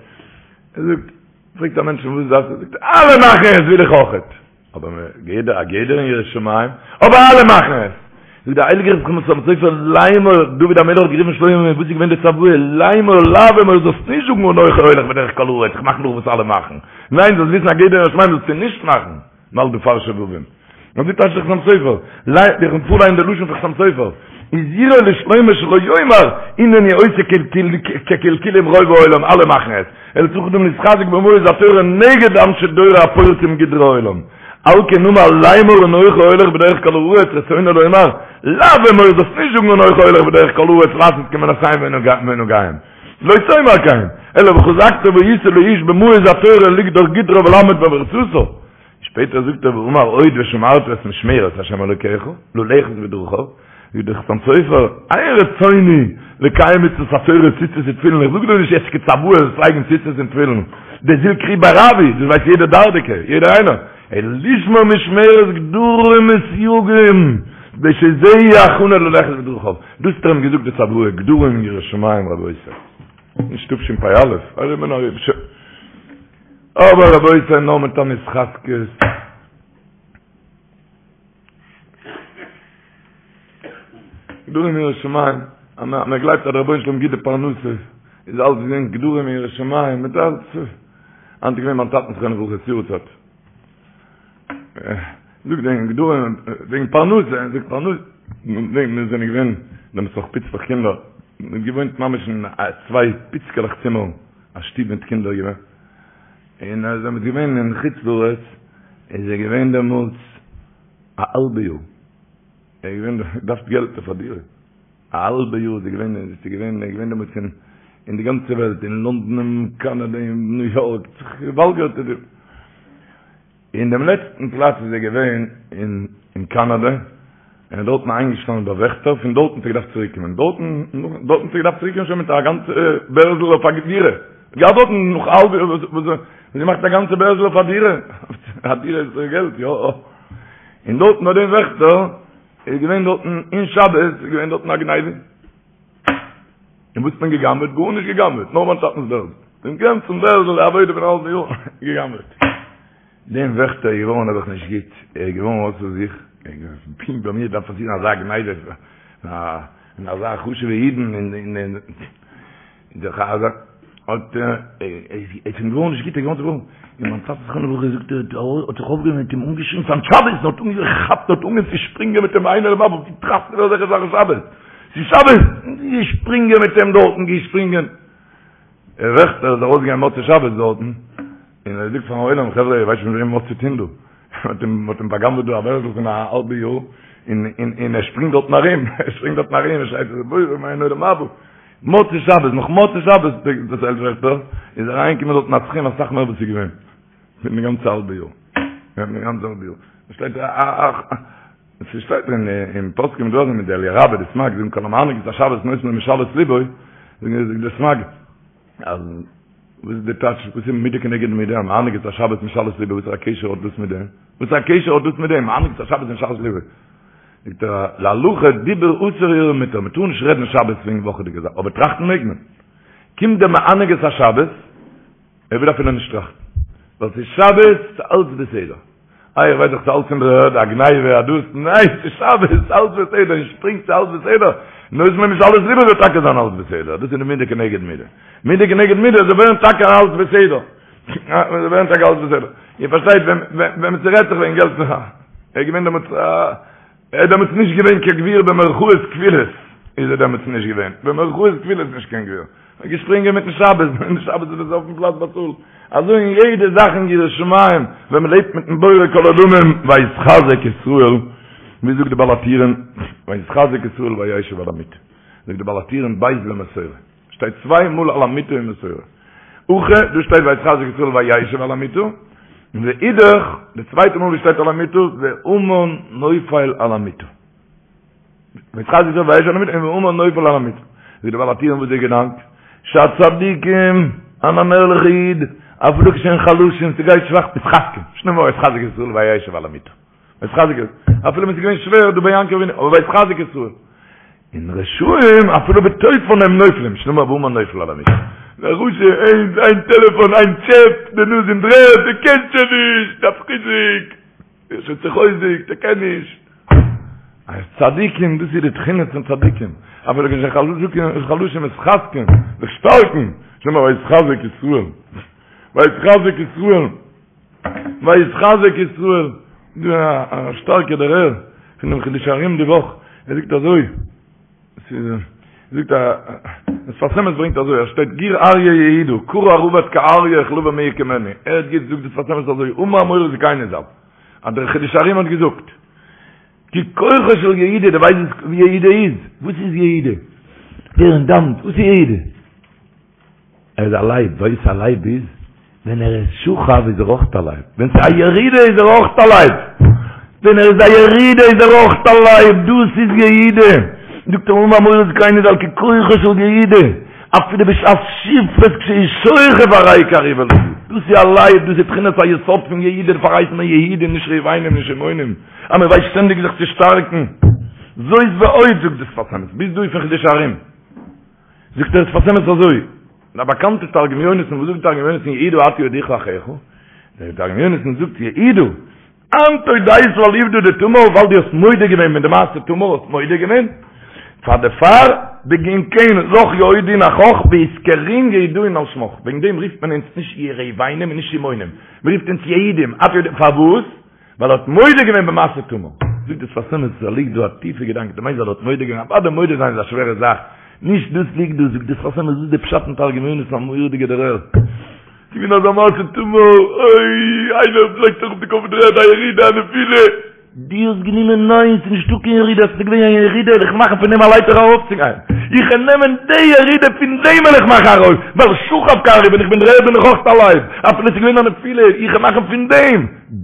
ער זאגט, פרעגט א מענטש וואס דארפסטו, זאגט ער, אלע מאכן עס וויל איך אויכעט. אבער גדר, א גדר אין יראת שמים, אבער אלע מאכן עס. זאגט דער הייליגער חתם סופר, לאמור, דוד המלך האט גערופן שלמה, וואס איז געווען די צוואה, לאמור, לאו אמור, זאלסט נישט זאגן אנכי הולך בדרך כל הארץ, איך מאך נאך וואס אלע מאכן. ניין, זאלסט וויסן א גדר אין יראת שמים זאלסטו נישט מאכן. ווייל דו פארשער וואווען. אזוי טייטשט דער חתם סופר, ליי, איך פארליין די לשון פון חתם סופר, הזהירו לשלמה שלא יאמר הנני עושה כקלקולים רוב העולם, אלע מאכן עס, אלא צריך אדם להתחזק במעוז התורה נגד אנשי דורו הפורצים גדרי העולם. על כן אמר לאמור אנכי הולך בדרך כל הארץ רצונו לומר, לאו אמור זאלסט נישט זאגן אנכי הולך בדרך כל הארץ לעשות כמעשיהם ונהגיהם. לא תאמר כן, אלא וחזקת והיית לאיש במעוז התורה לגדור גדרה ולעמוד בפרצתה. שפעטער זאגט ער ואמר עוד ושמרת את משמרת ה' אלוקיך, ללכת בדרכיו, זאגט דער חתם סופר, אין רצוני לקיים מצוות התורה ציצית ותפילין, איך זאג דיר נישט יעצט כצוואה זאלסט לייגן ציצית און תפילין, דזיל קרי ברבי, דאס ווייסט יעדער דרדקי, יעדער איינער, אלא לשמור משמרת גדרים וסייגים, כדי שזה יהיה הכנה ללכת בדרכיו. דאס האט ער אים געזאגט די צוואה, גדרים יראת שמים רבותי. נישט תשפ"א, ארום און ארום. אבער רבותי נאר מיט אן התחזקות. גדרים יראת שמים, אז מען גלייבט אז דער רבונו של עולם גיט די פרנסה, איז אלץ געווען גדרים יראת שמים, מיט אלץ. היינט איז געווען מיין טאטנ'ס זכרונו לברכה'ס יארצייט. זאגט וועגן גדרים, וועגן פרנסה, זאגט פרנסה, מיר זענען געווען דעמאלטס נאך פיצלעך קינדער, מ'האט געוואוינט ממש אין צוויי פיצקעלעך צימערן, א שטוב מיט קינדער געווען, און אז ער איז געווען אין חוץ לארץ, איז ער געווען דעמאלטס א האלבע יאר, ער איז געווען, געדארפט געלט אויף א דירה, א האלבע יאר איז ער געווען, איז ער געווען, ער איז געווען דעמאלטס אין אין די גאנצע וועלט, אין לונדון, אין קאנאדע, אין ניו יארק, זיך געוואלגערט איז ער. אין דעם לעצטן פלאץ איז ער געווען אין אין קאנאדע, און איז דארטן איינגעשטאנען ביי וועכטער, פון דארטן האט ער געדארפט צוריק קומען, דארטן, דארטן האט ער געדארפט צוריק קומען שוין מיט א גאנצע בערזל אויף א דירה, געהאט דארטן נאך א האלבע יאר וואס וואס וואס געמאכט א גאנצע בערזל אויף א דירה, א דירה איז געלט, יא, און דארטן ביי דעם וועכטער איז געווען דארטן אין שבת איז געווען דארטן א גניבה. און וואס האט מען געגנבעט? גארנישט געגנבעט, נאר מיין טאטנ'ס בערזל. דעם גאנצן בערזל, די עבודה פון א האלבן יאר, געגנבעט. דעם וועכטער איז געווארן נעבעך נישט גוט, ער איז געווארן אויסער זיך, ער האט געזאגט, פונקט ביי מיר דארף פאסירן אזא גניבה, און אזא חשוב'ע אידן, און און און דער חזן האט איז אים געווארן נישט גוט, ער איז געווארן צובראכן, און מיין טאטע זכרונו לברכה זאגט ער האט זיך אויפגעהויבן און האט אים אנגעשריגן ס'איז היינט שבת, און האט אנגעכאפט און האט אנגעהויבן צו שפרינגען מיט אים איינער דעם אנדערן, ווי טראכסטו דיר אזעלכע זאכן שבת? ס'איז שבת! געשפרינגען מיט אים דארטן, געשפרינגען. דער וועכטער איז ארויסגעגאנגען מוצאי שבת דארטן, און ער זאגט פארן עולם, חברה, איר ווייסט נישט מיט וועם מ'האט צו טון דא. מ'האט אים, מ'האט אים בא'גנב'עט דא א בערזל פון א האלבע יאר, און, און, און ער שפרינגט דארטן ארום, ער שפרינגט דארטן ארום, ער שרייט, בורא מיין עולם הבא. מוצאי שבת, נאך מוצאי שבת, דערציילט וועכטער, איז אריינגעקומען דארטן א סכום אסאך מער וואס איז געווען. פון די גאנצע האלבע יאר. פון די גאנצע האלבע יאר. שטייט א א א עס שטייט אין אין פוסקים דא מיט דער אליה רבה די סמ"ג זאגן כל המענג את השבת נותן לו משאלות לבו זאגן זאגט דער סמ"ג אז. וואס איז די טייטש? וואס איז מידה כנגד מידה? המענג את השבת משאלות לבו, וואס א קשר האט דאס מיט דעם? וואס א קשר האט דאס מיט דעם? מענג את השבת משאלות לבו. זאגט ער, להלכה דיבור אסור הרהור מותר, מען טאר נישט רעדן שבת וועגן וואכעדיגע זאכן, אבער טראכטן מעג מען. קומט דער מענג את השבת, ער וויל אפילו נישט טראכטן, ווייל ס'איז שבת, ס'איז אלץ בסדר. איי איך ווייס דאך ס'איז אלץ אין דער ערד, א גניבה, א דאס, ניין, ס'איז שבת, ס'איז אלץ בסדר, און שפרינגט ס'איז אלץ בסדר, נותן לו משאלות לבו זאל טאקע זיין אלץ בסדר, דאס איז די מידה כנגד מידה. מידה כנגד מידה זאל ווערן טאקע אלץ בסדר. זאל ווערן טאקע אלץ בסדר. איר פארשטייט, ווען ווען ס'רעדט זיך וועגן געלט, ער איז געווען דעמאלטס א, ער איז דעמאלטס נישט געווען קיין גביר במרכאות כפולות, איז ער דעמאלטס נישט געווען, במרכאות כפולות נישט קיין גביר. ער איז געשפרינגען מיטן שבת, און שבת איז עס אויפן פלאץ באצאלט. אזוי אין יעדע זאך אין יראת שמים, ווען מען לעבט מיטן בורא כל עולמים, ויתחזק ישראל, ווי זאגט די בעל הטורים, ויתחזק ישראל וישב על המיטה. זאגט די בעל הטורים ב' למסורה. שטייט צוויי מאל על המיטה אין מסורה. הכא, דא שטייט ויתחזק ישראל וישב על המיטה, ואידך, די צווייטע מאל ווי שטייט על המיטה, והמן נופל על המיטה. ויתחזק ישראל וישב על המיטה, און והמן נופל על המיטה. זאגט די בעל הטורים וואס איז די געדאנק? שהצדיקים, אן אן ערליכע איד, אפילו כשהם חלשים, ס'גייט שוואך, מתחזקים, שנאמר ויתחזק ישראל וישב על המיטה. ויתחזק ישראל, אפילו ווען ס'איז געווען שווער דא ביי יעקב אבינו, אבער ויתחזק ישראל. און רשעים אפילו בתופן הם נופלים, שנאמר והמן נופל על המיטה. דער רשע, איין איין טעלעפאן, איין טשעפ, די נאז אין דר'ערד, ער קען שוין נישט, דארף חיזוק, ער איז שוין צוחוזק'ט, ער קען נישט. אז צדיקים, דאס איז די תכונות פון צדיקים, אפילו כשהם חלשים מתחזקים, זיך שטארקן, שנאמר ויתחזק ישראל, ויתחזק ישראל. ויתחזק ישראל, דא א שטארקע דערהער פון דעם חידושי הרי"ם די וואך, ער זאגט אזוי, זאגט א, דער שפת אמת ברענגט אזוי, עס שטייט גור אריה יהודה, כרע רבץ כאריה וכלביא מי יקימנו, ער האט געזאגט זאגט דער שפת אמת אזוי, אמר מורי זקיני ז"ל, אז דער חידושי הרי"ם האט געזאגט, כי כוחו של יהודה, דו ווייסט וואס יהודה איז? וואס איז יהודה? דער און דאנט, וואס איז יהודה? ער איז א לייב, ווייסט וואס א לייב איז? ווען ער איז שוכב איז ער אויך א לייב, ווען ס'איז א ירידה איז ער אויך א לייב, ווען ער איז א ירידה איז ער אויך א לייב, דאס איז יהודה, זאגט ער אמר מורי זקיני ז"ל כי כוחו של יהודה, אפילו בשעת שפלות כשהוא שוכב הרי כארי ולביא, דאס איז א לייב, דאס איז בחינת היסוד פון יהודה, דערפאר הייסט מען יהודים נישט ראובנים נישט שמעונים, אז מען ווייסט שטענדיג זיך צו שטארקן, זאת ועוד זאגט דער שפת אמת, ביז דא איז פון חידושי הרי"ם. זאגט דער שפת אמת אזוי, א באקאנטע תרגום יונתן, וואס זאגט תרגום יונתן יהודה אתה יודוך לאחיך? דער תרגום יונתן זאגט יהודה, אנת אודית על עובדא דתמר, ווייל דו האסט מודה געווען מיט די מעשה תמר, האסט מודה געווען, פאר דערפאר בגין כן לך יהודון אחך ואתקרון יהודאין על שמך, וועגן דעם רופט מען אונז נישט ראובנים און נישט שמעונים, מען רופט אונז יהודים, פארוואס? ווייל ער האט מודה געווען במעשה תמר. זאגט דער שפת אמת, עס ליגט דא א טיפע געדאנק, דו מיינסט ווייל ער האט מודה געווען, אוודאי מודה זיין איז א שווערע זאך, נישט דאס ליגט דא, זאגט דער שפת אמת, דאס איז די פשט אין תרגום יונתן, א מורא'דיגע דערהער. ס'איז געווען אזא מעשה תמר, אוי, איינער לייגט זיך אויף די קאפ אין דר'ערד, א ירידה, א נפילה. דו האסט גענומען ניין, ס'איז נישטא קיין ירידה, ס'איז געווען א ירידה, וועל איך מאכן פון דעם א לייטער ארויפצוגיין. איך וועל נעמען די ירידה, פון דעם וועל איך מאכן ארויף, ווייל שכב כארי, ווען איך בין דר'ערד בין איך אויך א לייב, אפילו ס'איז געווען א נפילה, איך וועל מאכן פון דעם.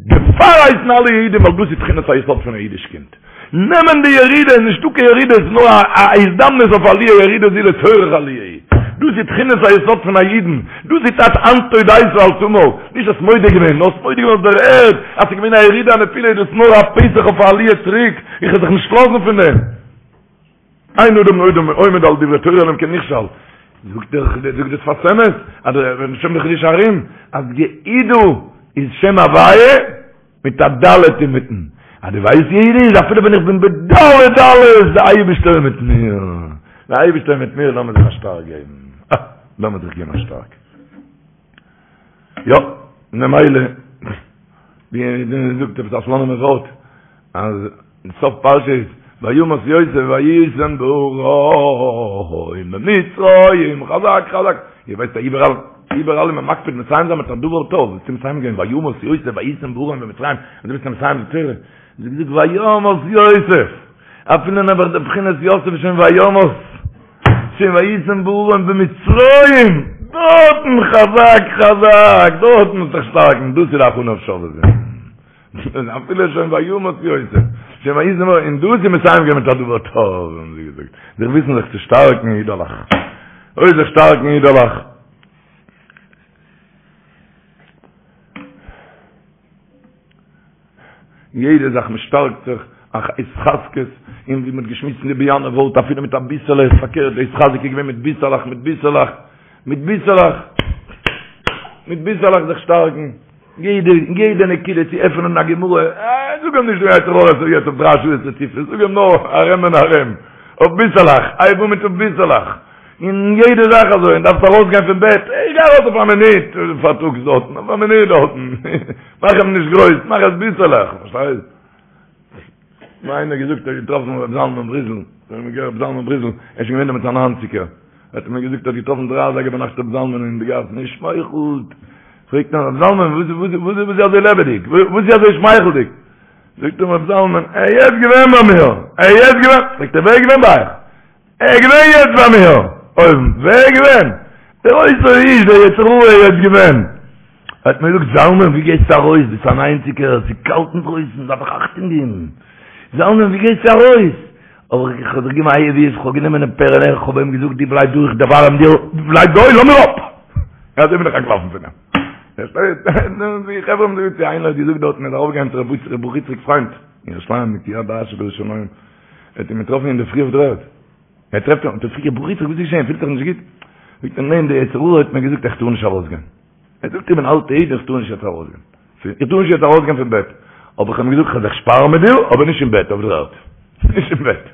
דערפאר הייסן אלע יהודים ווייל דאס איז תכונת היסוד פון א אידיש קינד. נעמען די ירידה איז נישטא קיין ירידה עס איז נאר א הזדמנות אויף עליה ירידה זו לצורך עליה היא. דאס איז תכונת היסוד פון א אידן. דאס איז טייטש אנת אודית על תמר. נישט האסט מודה געווען, נאר האסט מודה געווען אויף דער ערד אז ס'איז געווען א ירידה א נפילה איז דאס נאר א פתח אויף א עליה צוריק. איך וועל זיך נישט לאזן פון דעם. אין אדם עומד על דברי תורה אלא אם כן נכשל. זאגט דער זאגט דער שפת אמת, אז דער שם דער חידושי הרי"ם, אז יהודה איז שם הוויה מיט א ד' אינמיטן. אז דו ווייסט יהודה איז אפילו ווען איך בין בד' דלות, דער אייבערשטער איז מיט מיר. דער אייבערשטער איז מיט מיר, לאמיר זיך א שטארק געבן. אה, לאמיר זיך געבן א שטארק. יא, ממילא, ווי מ'זאגט עפעס א סלאנימער ווארט, אז סוף פרשה איז וימות יוסף ויישם בארון במצרים, חזק חזק, איר ווייסט אז איבעראל, איבעראל איז מען מקפיד מסיים זיין מיט א דבר טוב, וואס איז מסיים געווען וימות יוסף ויישם בארון במצרים, און דו ביסט מסיים די תורה, זאגט זאגט וימות יוסף, אפילו נעבעך די בחינת יוסף איז שוין וימות, שוין ויישם בארון במצרים, דארטן חזק חזק, דארטן מוז זיך שטארקן, דאס איז די הכנה אויף שובבים. אפילו שוין וימות יוסף, שוין ויישם בארון, און דאס איז מסיים געווען מיט א דבר טוב, האבן זיי געזאגט, זיך וויסן זיך צו שטארקן אידעלעך, אוי זיך שטארקן אידעלעך. יעדע זאך מען שטארקט זיך, א התחזקות, און ווי מען האט געשמועסט אין די באיאנער ווארט אפילו מיט אביסעלע, איז פארקערט די התחזקות איז געווען מיט ביסעלעך, מיט ביסעלעך, מיט ביסעלעך, מיט ביסעלעך זיך שטארקן, יעדע, יעדע נקודה צו עפענען א גמרא, אה, זאג אים נישט דו יצר הרע ס'איז יעצט אויף דריי שעות רציפות, זאג אים נאר ארום און ארום, אויף ביסעלעך, הייב אן מיט אויף ביסעלעך. און יעדע זאך אזוי, און דארפסט ארויסגיין פון בעט, איך גיי ארויס אויף א מינוט פארטאגס דארטן, אויף א מינוט דארטן, מאך אים נישט גרויס, מאך עס ביסעלעך, פארשטייסט? מיר איינער געזאגט ער האט געטראפן ר' זלמן בריזל, ר' זלמן בריזל, ער איז שוין געווען דעמאלטס א ניינציגער, האט ער מיר געזאגט ער האט געטראפן דריי אזייגער ביינאכט ר' זלמן אין די גאס, און ער שמייכלט, פרעגט אים ר' זלמן וואס וואס וואס איז אזוי לעבעדיג, וואס איז אזוי שמייכלדיג? זאגט אים ר' זלמן, ער איז יעצט געווען ביי מיר, ער איז יעצט געווען, פרעגט ער ווער איז געווען ביי אייך? ער איז געווען יעצט ביי מיר אויבן, ווער איז געווען? דער אותו האיש, דער יצר הרע איז יעצט געווען. האט מיר געזאגט, זלמן ווי גייסטו ארויס, ביסט אן איינציגער, עס איז קאלט אינדרויסן, דארף איך אכטונג געבן. זלמן ווי גייסטו ארויס? אבער איך האב זיך געגעבן א הייב אויף, איך האב גענומען דעם פערעלע, איך האב אים געזאגט, דו בלייב דא, איך דערווארעם דיר, דו בלייב דא, לאז מיר אפ! אזוי בין איך אנטלאפן פון אים. די חברה האבן געזאגט, איינער האט געזאגט דארטן, ער איז ארויפגעגאנגען צו ר' ברוך יצחק פריינד, אין ירושלים, מיט יד אשר בירושלים. ער האט אים געטראפן אין דער פרי אויף דער ערד. ער טרעפט אים, האט ער געפרעגט, ברוך יצחק, וואס איז געשען, פילסט דיך נישט גוט? זאגט ער, ניין, דער יצר הרע האט מיר געזאגט איך טאר נישט ארויסגיין. ער זאגט, איך בין אלטע איד, איך טאר נישט יעצט ארויסגיין. איך טאר נישט יעצט ארויסגיין פון בעט. אבער איך האב אים געזאגט, איך וועל זיך שפארן מיט דיר, אבער נישט אין בעט, אויף דער ערד. נישט אין בעט.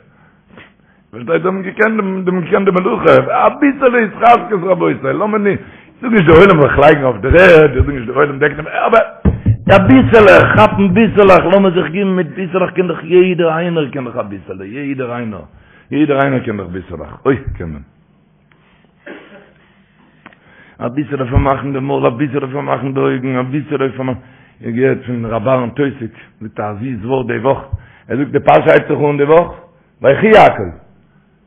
פארשטייט, זיי האבן געקענט דעם, זיי האבן געקענט די מלאכה. אביסעלע התחזקות רבותי, לאמיר נישט, איך זאג נישט דער עולם זאל זיך לייגן אויף דער ערד, איך זאג נישט דער עולם דעקט דעם, אבער אביסעלע, כאפן ביסעלעך, לאמיר זיך געבן מיט ביסעלעך, קען דאך יעדער איינער קען דאך אביסעלע, יעדער איינער, יעדער איינער קען דאך ביסעלעך, אוי קען מען. אביסעלע פארמאכן די מויל, אביסעלע פארמאכן די אויגן, אביסעלע פארמאכן, איך געהערט פון ר' אהרן טויסיג, זאגט א זיס ווארט די וואך, ער זאגט די פרשה הייבט זיך אן די וואך, ויחי יעקב,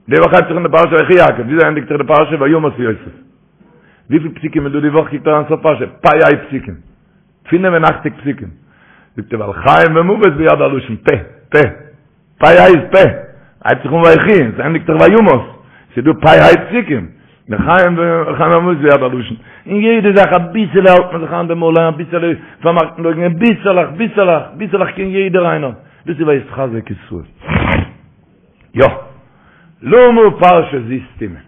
די וואך הייבט זיך אן די פרשה ויחי יעקב, וויאזוי ענדיגט זיך די פרשה וימת יוסף? וויפיל פסוקים איז דא די וואך? קוקט אריין סוף פרשה, פ"ה פסוקים, 85 פסוקים. זאגט ער ווייל חיים ומוות ביד הלשון, פה, פה, פ"ה איז פה, הייבט זיך אן ויחי, עס ענדיגט זיך וימת, ס'איז דא פ"ה פסוקים, חיים חיים ומוות ביד הלשון. אין יעדע זאך אביסעלע האלט מען זיך איין די מויל, אביסעלע פארמאכט מען די אויגן, ביסעלעך, ביסעלעך, ביסעלעך קען יעדער איינער. דאס איז ויתחזק ישראל. יא. למה פרשה זו סתומה?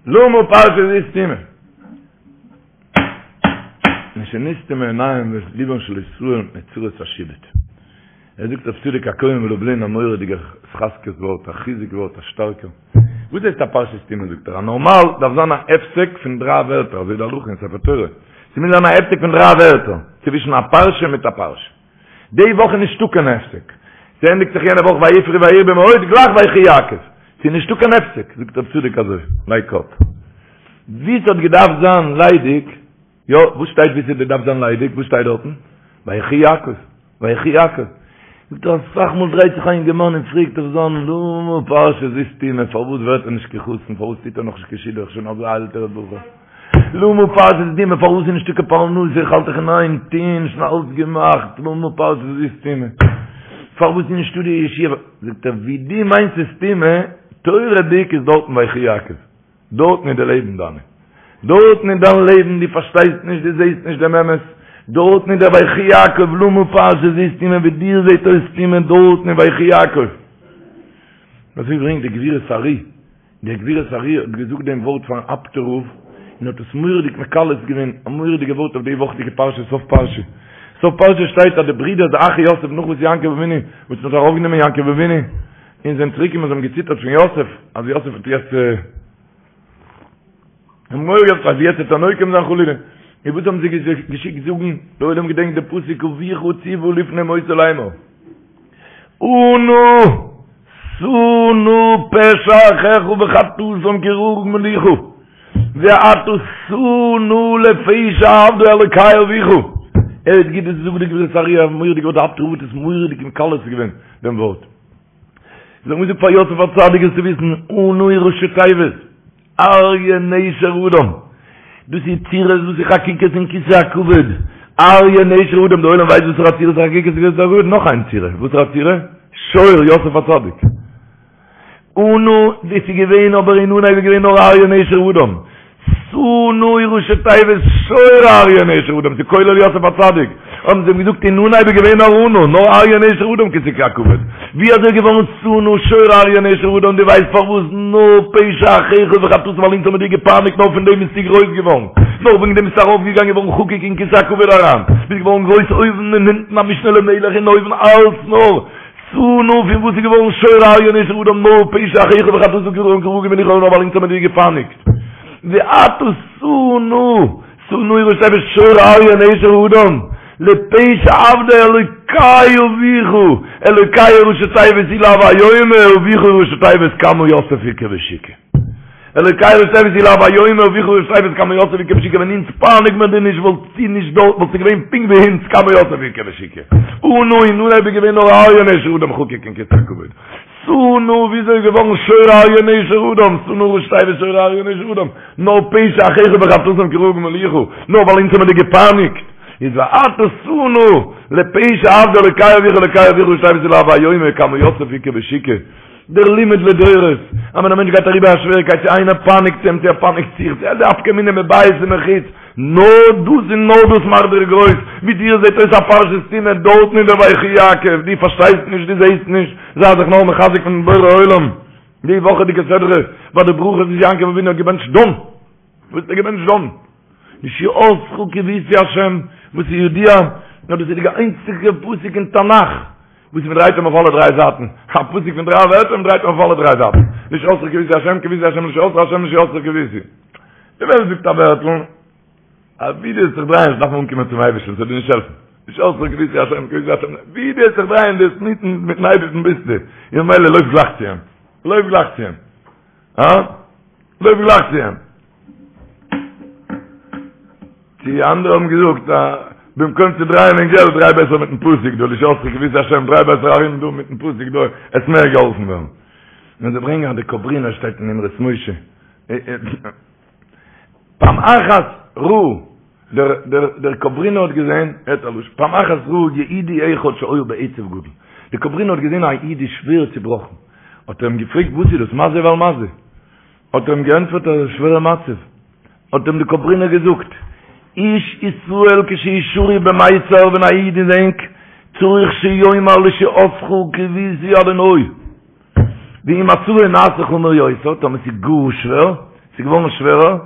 למה פרשה זו סתומה? משנסתמו עיניהם ולבם של ישראל מפני צרות השעבוד. ער זאגט רב צדוק הכהן מלובלין א מורא'דיגע התחזקות ווארט, א חיזוק ווארט, א שטארקער. וואס הייסט א פרשה סתומה זאגט ער, א נארמאל דארף זיין א הפסק פון דריי ווערטער, אזוי די הלכה אין ספר תורה. ס'מוז זיין א הפסק פון דריי ווערטער, צווישן א פרשה מיט א פרשה. די וואך איז נישטא קיין הפסק. ס'ענדיגט זיך יענע וואך ויפרו וירבו מאוד, גלייך ויחי יעקב. ס'איז נישטא קיין הפסק, זאגט רב צדוק אזוי, לייג קאפ. ווי ס'האט געדארפט זיין ליידיג, יא, וואס שטייט ווי ס'האט געדארפט זיין ליידיג, וואס שטייט דארטן? ויחי יעקב, ויחי יעקב. זאגט ער אסאך מאל דרייט זיך א אינגערמאן און פרעגט אויף זיין למה פרשה זו סתומה, פארוואס ווערט ער נישט קיין חתן, פארוואס טוט ער נאכנישט קיין שידוך, שוין אזא עלטערע בחור. למה פרשה זו סתומה, פארוואס איז נישטא קיין פרנסה, איך האלט דאך אין איין טוהן, שוין אלץ געמאכט, למה פרשה זו סתומה, פארוואס איז נישטא די ישועה, זאגט ער, ווי דו מיינסט ס'איז סתומה, תורה'דיג איז דארטן ויחי יעקב, דארטן איז די לעבן דיינע, דארטן איז דיין לעבן, דו פארשטייסט נישט, דו זעהסט נישט דעם אמת, דארטן איז דער ויחי יעקב, למה פרשה זו סתומה, ווי דיר זעהט אויס סתומה, דארטן איז ויחי יעקב. אזוי ברענגט די גבורות ארי. דער גבורות ארי' האט געזאגט דעם ווארט פארן אפטער רב, און האט עס מורא'דיג מקלס געווען, א מורא'דיגע ווארט אויף די וואכעדיגע פרשה, סוף פרשה. סוף פרשה שטייט אז די ברידער די אחי יוסף נאך וואס יעקב אבינו, וואס מען האט ארויפגענומען יעקב אבינו, און זענען צוריק געקומען זיי האבן געציטערט פון יוסף, אז יוסף האט יעצט האבן מורא געהאט אז יעצט וועט ער נוקם זיין חלילה. און וואס האבן זיי געשיקט זאגן, דער עולם געדענקט די פסוק אביך צוה לפני מותו לאמור. אנא שא נא פשע אחיך וחטאתם כי גמלוך ועתה שא נא לפשע עבדי אלקי אביך. ער האט גוט זאגט די גבורות ארי' א מורא'דיגע ווארט די אפטער רב האט עס מורא'דיג מקלס געווען דעם ווארט. זיי האבן געזאגט פאר יוסף הצדיק זאלסטו וויסן אנא איז ראשי תיבות. אריה נשר אדם, דאס איז צורות וואס איז חקוקות אין כסא הכבוד, אריה נשר אדם, די עולם ווייסט וואסערע צורות איז חקוקות אין כסא הכבוד? נאך איין צורה, וואסערע צורה? שור, יוסף הצדיק. אנא, דאס איז געווען אבער אין אנהייב איז געווען נאר אריה נשר אדם. שא נא איז ראשי תיבות שור אריה נשר אדם, ס'איז כולל יוסף הצדיק. האבן זיי אים געזאגט אין אנהייב איז געווען נאר אנה, נאר אריה נשר אדם כסא הכבוד, ווי אזוי איז געווארן שא נא שור אריה נשר אדם, דו ווייסט פארוואס נאר פשע אחיך וחטאתם ווייל אונז האבן דיר געפייניגט נאר פון דעם ביסטו גרויס געווארן, נאר וועגן דעם ביסטו ארויף געגאנגען געווארן חקוק אין כסא הכבוד אריין, ביסט געווארן גרויס אויבן און אונטן א משנה למלך און אויבן אלץ נאר שא נא פון וואס איז געווארן שור אריה נשר אדם נאר פשע אחיך וחטאתם כי רעה גמילוך נאר ווייל אונז האבן דיר געפייניגט ועתה שא נא שא נא ראשי תיבות שור אריה נשר אדם לפשע עבדי אלוקי אביך אלוקי ראשי תיבות הוא לאו איומה אביך ראשי תיבות כמה יוסף איכא בשוקא אלוקי ראשי תיבות הוא לאו איומה אביך ראשי תיבות כמה יוסף איכא בשוקא ווען אונז פייניג מיר דיר נישט וואלטסטו נישט דארט וואלסטו געווען פונקט ווי אונז כמה יוסף איכא בשוקא אנא אין אנהייב איז געווען נאר אריה נשר אדם חקוק אין כסא הכבוד שא נא וויאזוי איז געווארן שור אריה נשר אדם שא נא ראשי תיבות שור אריה נשר אדם נאר פשע אחיך וחטאתם כי רעה גמילוך נאר ווייל אונז האבן דיר געפייניגט איז ועתה שא נא לפשע עבדי אלוקי אביך אלוקי אביך ראשי תיבות הוא לאו איומה כמה יוסף איכא בשוקא דער לימוד לדורות, אז ווען א מענטש גייט אריבער א שוועריקייט, צו איינער פייניגט אים, צו ער פייניגט זיך, צו די נפקא מינה מבית ומחוץ, נאר דאס און נאר דאס מאכט דיר גרויס, ווי דיר זעט אויס א פרשה סתומה דארטן אין דער ויחי יעקב, דו פארשטייסט נישט, דו זעסט נישט, זיי זיך נאר מחזק פון בורא עולם, די וואכעדיגע סדרה, ביי די ברכות וואס יעקב אבינו האט געבענטשט דן, וואס האט ער געבענטשט דן? לישועתך קויתי השם, וואס איז ידוע, נאר דאס איז די איינציגע פסוק אין תנך, וואס מען דרייט אים אויף אלע דריי זייטן, א פסוק פון דריי ווערטער, מען דרייט אים אויף אלע דריי זייטן, לישועתך קויתי השם, קויתי השם לישועתך השם לישועתך קויתי. די וועלט זאגט א ווערטל, אז ווי דו וועסט זיך דרייען, דארף מען אנקומען צום אייבערשטן, ס'וועט דיר נישט העלפן. לישועתך קויתי השם, קויתי השם, ווי דו וועסט זיך דרייען, דו וועסט מיטן מיטן אייבערשטן ביסטו, און ממילא לויף גלייך צו אים, לויף גלייך צו אים. הא? לויף גלייך צו אים. די אנדערע האבן געזאגט, במקום צו דרייען אין געלט, דריי בעסער מיטן פסוק דא, לישועתך קויתי השם, דריי בעסער ארום דא מיטן פסוק דא, וועסט מער געהאלפן ווערן. און זיי ברענגען אז די קאברינער שטייט אין אמרות משה. פעם אחת ראה, דער דער דער קאברינער האט געזען, הערט א לשון, פעם אחת ראה יהודי אחד שהיה בעצב גדול. דער קאברינער האט געזען א איד איז שווער צובראכן. האט ער אים געפרעגט וואס איז דאס, מה זה ועל מה זה? האט ער אים געענטפערט אז עס איז א שווערע מצב. האט אים די קאברינער געזאגט, איש ישראל כשהוא שרוי במיצר ווען א איד איז ענג, צריך שיאמר לישועתך קויתי אדוני. ואם מצבו נעשה חמור יותר, טאמער ס'איז גאר שווער, ס'איז געווארן שווערער,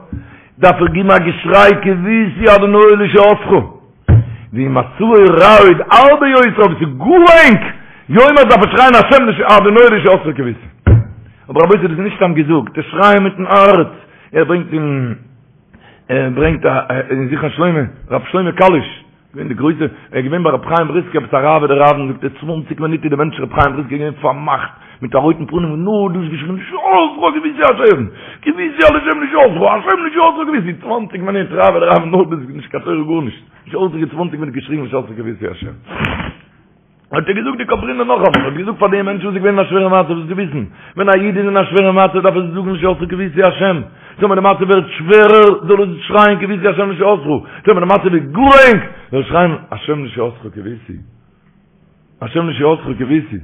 דארף ער גיבן א געשריי קויתי אדוני לישועתך. ואם מצבו רע עוד הרבה יותר, אויב ס'איז גאר ענג, יאמר דארף ער שרייען השם אדוני לישועתך קויתי. אבער רבותי דאס איז נישט סתם געזאגט, דאס שרייען מיטן הארץ, ער ברענגט אין ער ברענגט אין זכרון שלמה, רב שלמה קאליש, געווען די גרויסע, ער איז געווען ביי רב חיים בריסקער עפעס א רב אדער רב, זאגט ער צוואנציג מינוט איז דער מענטש רב חיים בריסקער געווען פארמאכט מיט א רויטן פנים און נאר דאס געשריגן לישועתך קויתי השם, קויתי השם לישועתך, השם לישועתך קויתי, צוואנציג מינוט רב אדער רב נאר דאס נישט קיין תורה גארנישט, לישועתך צוואנציג מינוט געשריגן לישועתך קויתי השם. האט ער געזאגט די קאברינער נאכאמאל, האט געזאגט פאר די מענטשן וואס איז געווען אין א שווערע מצב, זאלסטו וויסן, ווען א איד איז אין א שווערע מצב דארף ער זאגן לישועתך קויתי השם, טאמער די מצב ווערט שווערער זאל ער שרייען קויתי השם לישועתך, טאמער די מצב איז גאר ענג זאל ער שרייען השם לישועתך קויתי, השם לישועתך קויתי.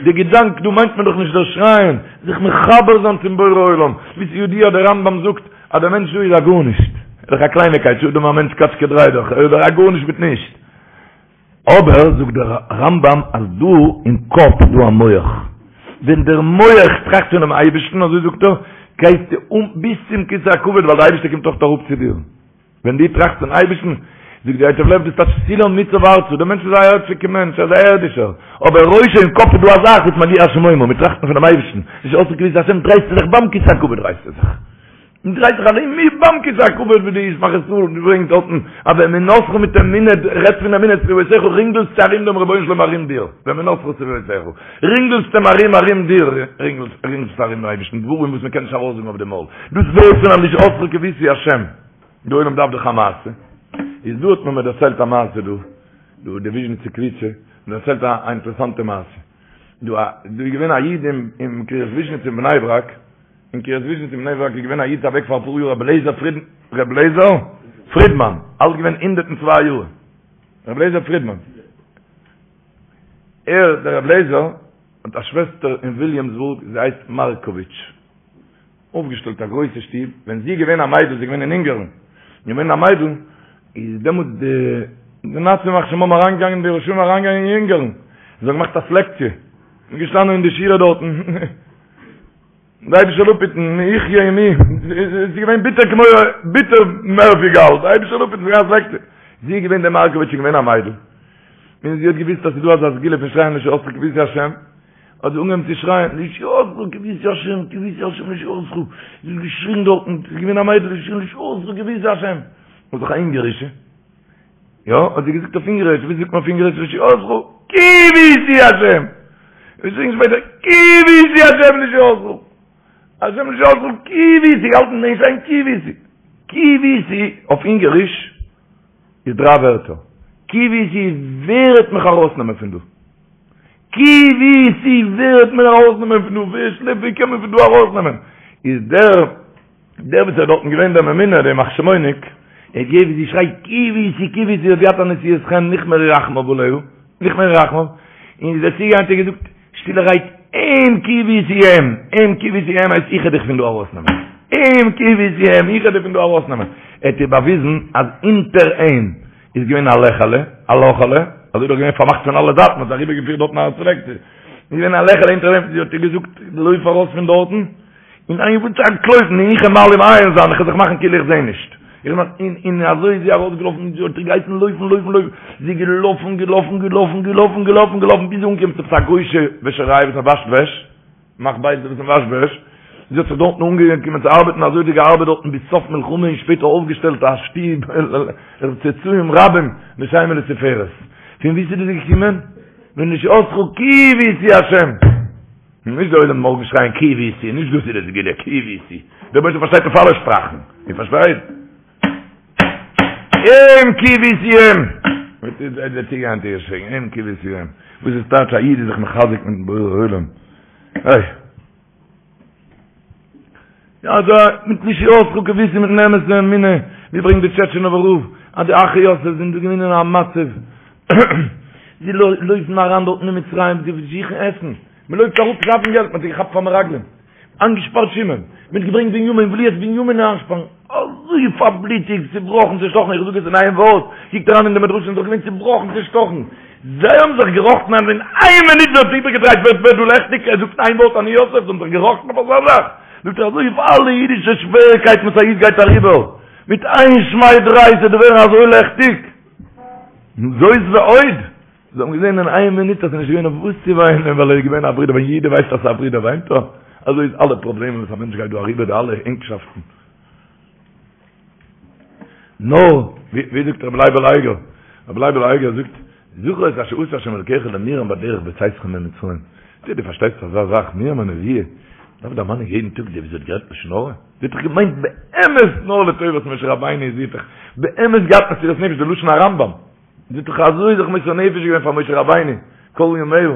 די געדאנק דא מיינט מען דאך נישט דער שרייען, זיך מחבר זיין צום בורא עולם, ווי ס'איז ידוע דער רמב"ם זאגט אז דער מענטש דא איז א גארנישט, ער איז דאך א קלייניקייט, שאדם א מענטש קאטשקע דריי דאך, ער איז דאך א גארנישט מיט נישט. אבער זאגט דער רמב"ם אז דא אין קאפ איז דא א מח, ווען דער מח טראכט פונעם אייבערשטן, אזוי זאגט ער, גייסטו אן ביז צום כסא הכבוד ווייל דער אייבערשטער קומט אויך אראפ צו דיר. ווען דו טראכסט פון אייבערשטן, זאגט די ייטב לב דאס טייטש סולם מוצב ארצה, דער מענטש איז א ערדשיגע מענטש, ער איז א ערדישער, אבער ראשו אין קאפ איז דא א זאך וואס מגיע השמימה, מיר טראכטן פונעם אייבערשטן, לישועתך קויתי השם, דרייסטו זיך ביים כסא הכבוד דרייסטו זיך, מען דרייט זיך ארום מיר ביים כסא הכבוד ווי די ישמח ישראל ברענגט דארטן, אז ואמונתך מיט אמונה, רעדט פון אמונה סביבותיך רינגלסטו ארום דעם רבונו של עולם ארום דיר, ואמונתך סביבותיך, רינגלסט אים ארום ארום דיר, רינגלסט ארום דעם אייבערשטן, דברים וואס מען קען נישט ארויסזאגן אויף די מויל, דאס ווערט פון א לישועתך קויתי השם. די עולם דארף דאך א מעשה, איז דא האט מען מיר דערציילט א מעשה דא, דא די וויזשניצע קבוצה, מיר דערציילט א אינטערעסאנטע מעשה, דא א דא איז געווען א איד אין אין קרית וויזשניץ אין בני ברק, אין קרית וויזשניץ אין בני ברק איז געווען א איד אוועק פאר אפאר יאר רבי לייזער פריד רבי לייזער פרידמאן, אלט געווען 102 יאר, רבי לייזער פרידמאן, ער דער רבי לייזער האט א שוועסטער אין וויליאמסבורג זי הייסט מארקאוויטש. אויפגעשטעלט א גרויסע שטוב, ווען זי איז געווען א מיידל, זי איז געווען אין אונגערן, געווען א מיידל, איז דעמאלטס די די נאצים ימח שמם אריינגעגאנגען די רשעים אריינגעגאנגען אין אונגארן, זיי האבן געמאכט א סלעקציע, מ'איז געשטאנען אין די שורה דארטן, די אייבישטער זאל אפהיטן, מי יחיה ומי, עס איז געווען ביטער כמו ביטער מער ווי גאל, די אייבישטער זאל אפהיטן, ס'איז געווען א סלעקציע, זי איז געווען די מארקאוויטש איז געווען א מיידל, און זי האט געוויסט אז ס'איז דא אזא סגולה פון שרייען לישועתך קויתי השם, האט זי אנגעהויבן צו שרייען, לישועתך קויתי השם, קויתי השם לישועתך, זי האט געשריגן דארטן, זי איז געווען א מיידל, זי האט געשריגן לישועתך קויתי השם, האט זיך א אונגערישע, יא, האט זי געזאגט אויף אונגעריש, ווי זאגט מען אויף אונגעריש לישועתך, קויתי השם, געשריגן שפעטער, קויתי השם לישועתך, השם לישועתך, קויתי, געהאלטן אין שרייען קויתי, קויתי אויף אונגעריש איז דריי ווערטער, קויתי ווער וועט מיך ארויסנעמען פון דא? קויתי ווער וועט מיר ארויסנעמען פון דא? ווער שלעפט ווער קען מיר פון דא ארויסנעמען? איז דער דער וואס איז דארטן געווען דער ממונה דער ימח שמו'ניק, ער האט געהערט ווי זי שרייט קויתי קויתי האט געהאט א נשיאת חן נכמרו רחמיו עליה, נכמרו רחמיו, און איז ער צוגעגאנגען האט ער געזאגט שטילערהייט אים קויתי אים, אים קויתי אים הייסט איך וועל דיך פון דא ארויסנעמען, אים קויתי אים איך וועל דיך פון דא ארויסנעמען, ער האט איר באוויזן אז אונטער אים איז געווען א לעכעלע, א לאכעלע, אזוי דאך געווען פארמאכט פון אלע זייטן, מ'האט אריבערגעפירט דארטן א סלעקציע, איז געווען א לעכעלע אונטער דעם, זי האט איר געזאגט לויף ארויס פון דארטן, און איין וואס צו אנטלויפן, און איך וועל מעלים עין זיין, איך וועל זיך מאכן כאילו איך זע נישט. איך מאך, און, און אזוי איז זי ארויסגעלאפן, זי האט איר געהייסן לויפן, לויפן, לויפן, זי איז געלאפן, געלאפן, געלאפן, געלאפן, געלאפן, געלאפן, ביז זי איז אנגעקומען צו עפעס א גוי'שע וועשעריי וואס מ'וואשט וועש, מאכט בית וואס מ'וואשט וועש, זי האט זיך דארטן אנגעקומען צו ארבעטן, אזוי האט זי געארבעט דארטן ביז סוף מלחמה און שפעטער אויפגעשטעלט א שטוב, צאצאים רבים לשם ולתפארת. פון וואו איז דאס געקומען? ולישועתך קויתי השם. נישט דער עולם מארגן שרייען קויתי, נישט דאס איז די סגולה, קויתי. דער אייבערשטער פארשטייט אויף אלע שפראכן. איר פארשטייט? אים קויתי אים. וואס איז דער צוגעהאנט איר שרייען אים קויתי אים. וואס איז טייטש א איד איז זיך מחזק מיטן בורא עולם. איי. יא אזוי מיט לישועתך קויתי מיטן אמת'ן אמונה, ווי ברענגט די טשעטשינאווער רב אז די אחי יוסף זענען דא געווען אין א מצב, זיי לויפן אריין דארטן אין מצרים, זיי זוכן עסן, מען לויפט אראפ שאפן געלט, מען האט זיי געכאפט פאר מרגלים, איינגעשפארט שמעון, מען האט געברענגט בנימין, וויל יעצט בנימין איינשפארן, אזוי פארבליטיגט, צובראכן, צעשטאכן, איך זאג עס אין איין ווארט, קוקט אריין אין די מדרשים, זיי זענען געווען צובראכן, צעשטאכן, זיי האבן זיך געראכטן אז אין איין מינוט ווערט איבערגעדרייט, ווערט ווערט דא לעכטיג, ער זאגט איין ווארט אני יוסף, זיי האבן זיך געראכטן אויף אזא זאך, זאגט ער אזוי אויף אלע אידישע שוועריקייטן וואס א איד גייט אריבער, מיט איין שמיי דריי ס'וועט ווערן אזוי לעכטיג, זאת ועוד. זיי האבן געזען אין איין מינוט אז ס'איז נישט געווען אויף וואס צו וויינען ווייל ער איז געווען א ברודער, ווען יעדער ווייסט אז ס'איז א ברודער וויינט ער, אזוי איז אלע פראבלעמען וואס א מענטש גייט דא אריבער די אלע ענגשאפטן. נאר, ווי זאגט רבי לייבל אייגער, רבי לייבל אייגער זאגט, זכור את אשר עשה השם אלקיך למרים בדרך בצאתכם ממצרים. דו דו פארשטייסט אזא זאך, מרים הנביאה, דארף דערמאנען יעדן טאג די וואס זי האט גערעדט לשון הרע? זי האט דאך געמיינט באמת נאר לטובת משה רבינו, זי האט דאך באמת געהאט מסירת נפש, די לשון הרמב"ם. זי האט דאך אזוי זיך מוסר נפש געווען פאר משה רבינו כל ימיה,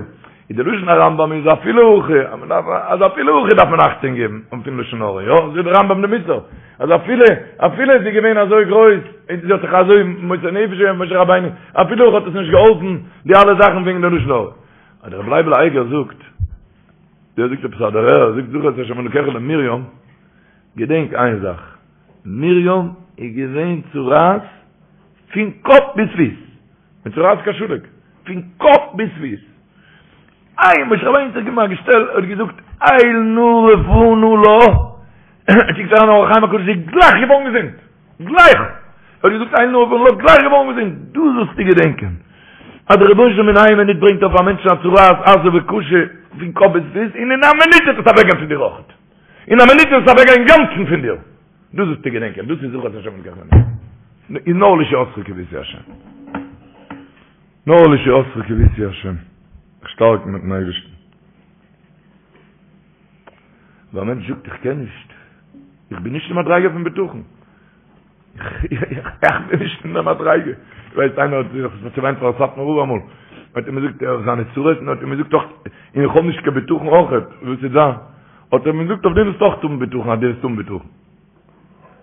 איז די לשון הרמב"ם איז אפילו הכי, אז מען דארף, אז אפילו הכי דארף מען אכטונג געבן און פון לשון הרע, יא, זאגט די רמב"ם די מוסר, אז אפילו, אפילו איז זי געווען אזוי גרויס, און זי האט זיך אזוי מוסר נפש געווען פאר משה רבינו, אפילו הכי האט עס נישט געהאלפן די אלע זאכן וועגן די לשון הרע. אבער רבי לייבל אייגער זאגט, דער זאגט עפעס א דערהער, ער זאגט זכור את אשר אלקיך למרים, געדענק איין זאך, מרים איז געווען צרעת פון קאפ ביז פיס, מצורעת כשלג, פון קאפ ביז פיס. איי, משה רבינו האט זיך געגעבן א געשטעל, ער האט געזאגט, אל נא רפא נא לה, קוקט אריין אור החיים הקדוש, זי איז גלייך געווארן געזונט, גלייך! ער האט געזאגט אל נא רפא נא לה, גלייך געווארן געזונט, דאס זאלסטו געדענקען, אז דער רבונו של עולם אין איין מינוט ברענגט אויף א מענטשן א צרעת עזה וקשה פון קאפ ביז פיס, און אין א מינוט וועט עס אוועקגיין פון דיר אויכעט, אין א מינוט וועט עס אוועקגיין אינגאנצן פון דיר. דאס זאלסטו געדענקען, דאס איז זכור את אשר אלקיך איז נאר לישועתך קויתי השם. נאר לישועתך קויתי השם. זיך שטארקן מיטן אייבערשטן. ווען א מענטש זאגט איך קען נישט, איך בין נישט אין מדריגה פון בטחון. איך בין נישט אין דער מדריגה. איך ווייס איינער האט זיך צעוויינט פאר סאטמאר רב אמאל. האט אים געזאגט ער זיינע צרות און האט אים געזאגט אויך און איך האב נישט קיין בטחון אויך. וואס איז דא? האט ער אים געזאגט אויף דעם וועסטו אויך האבן בטחון אז דו וועסט האבן בטחון.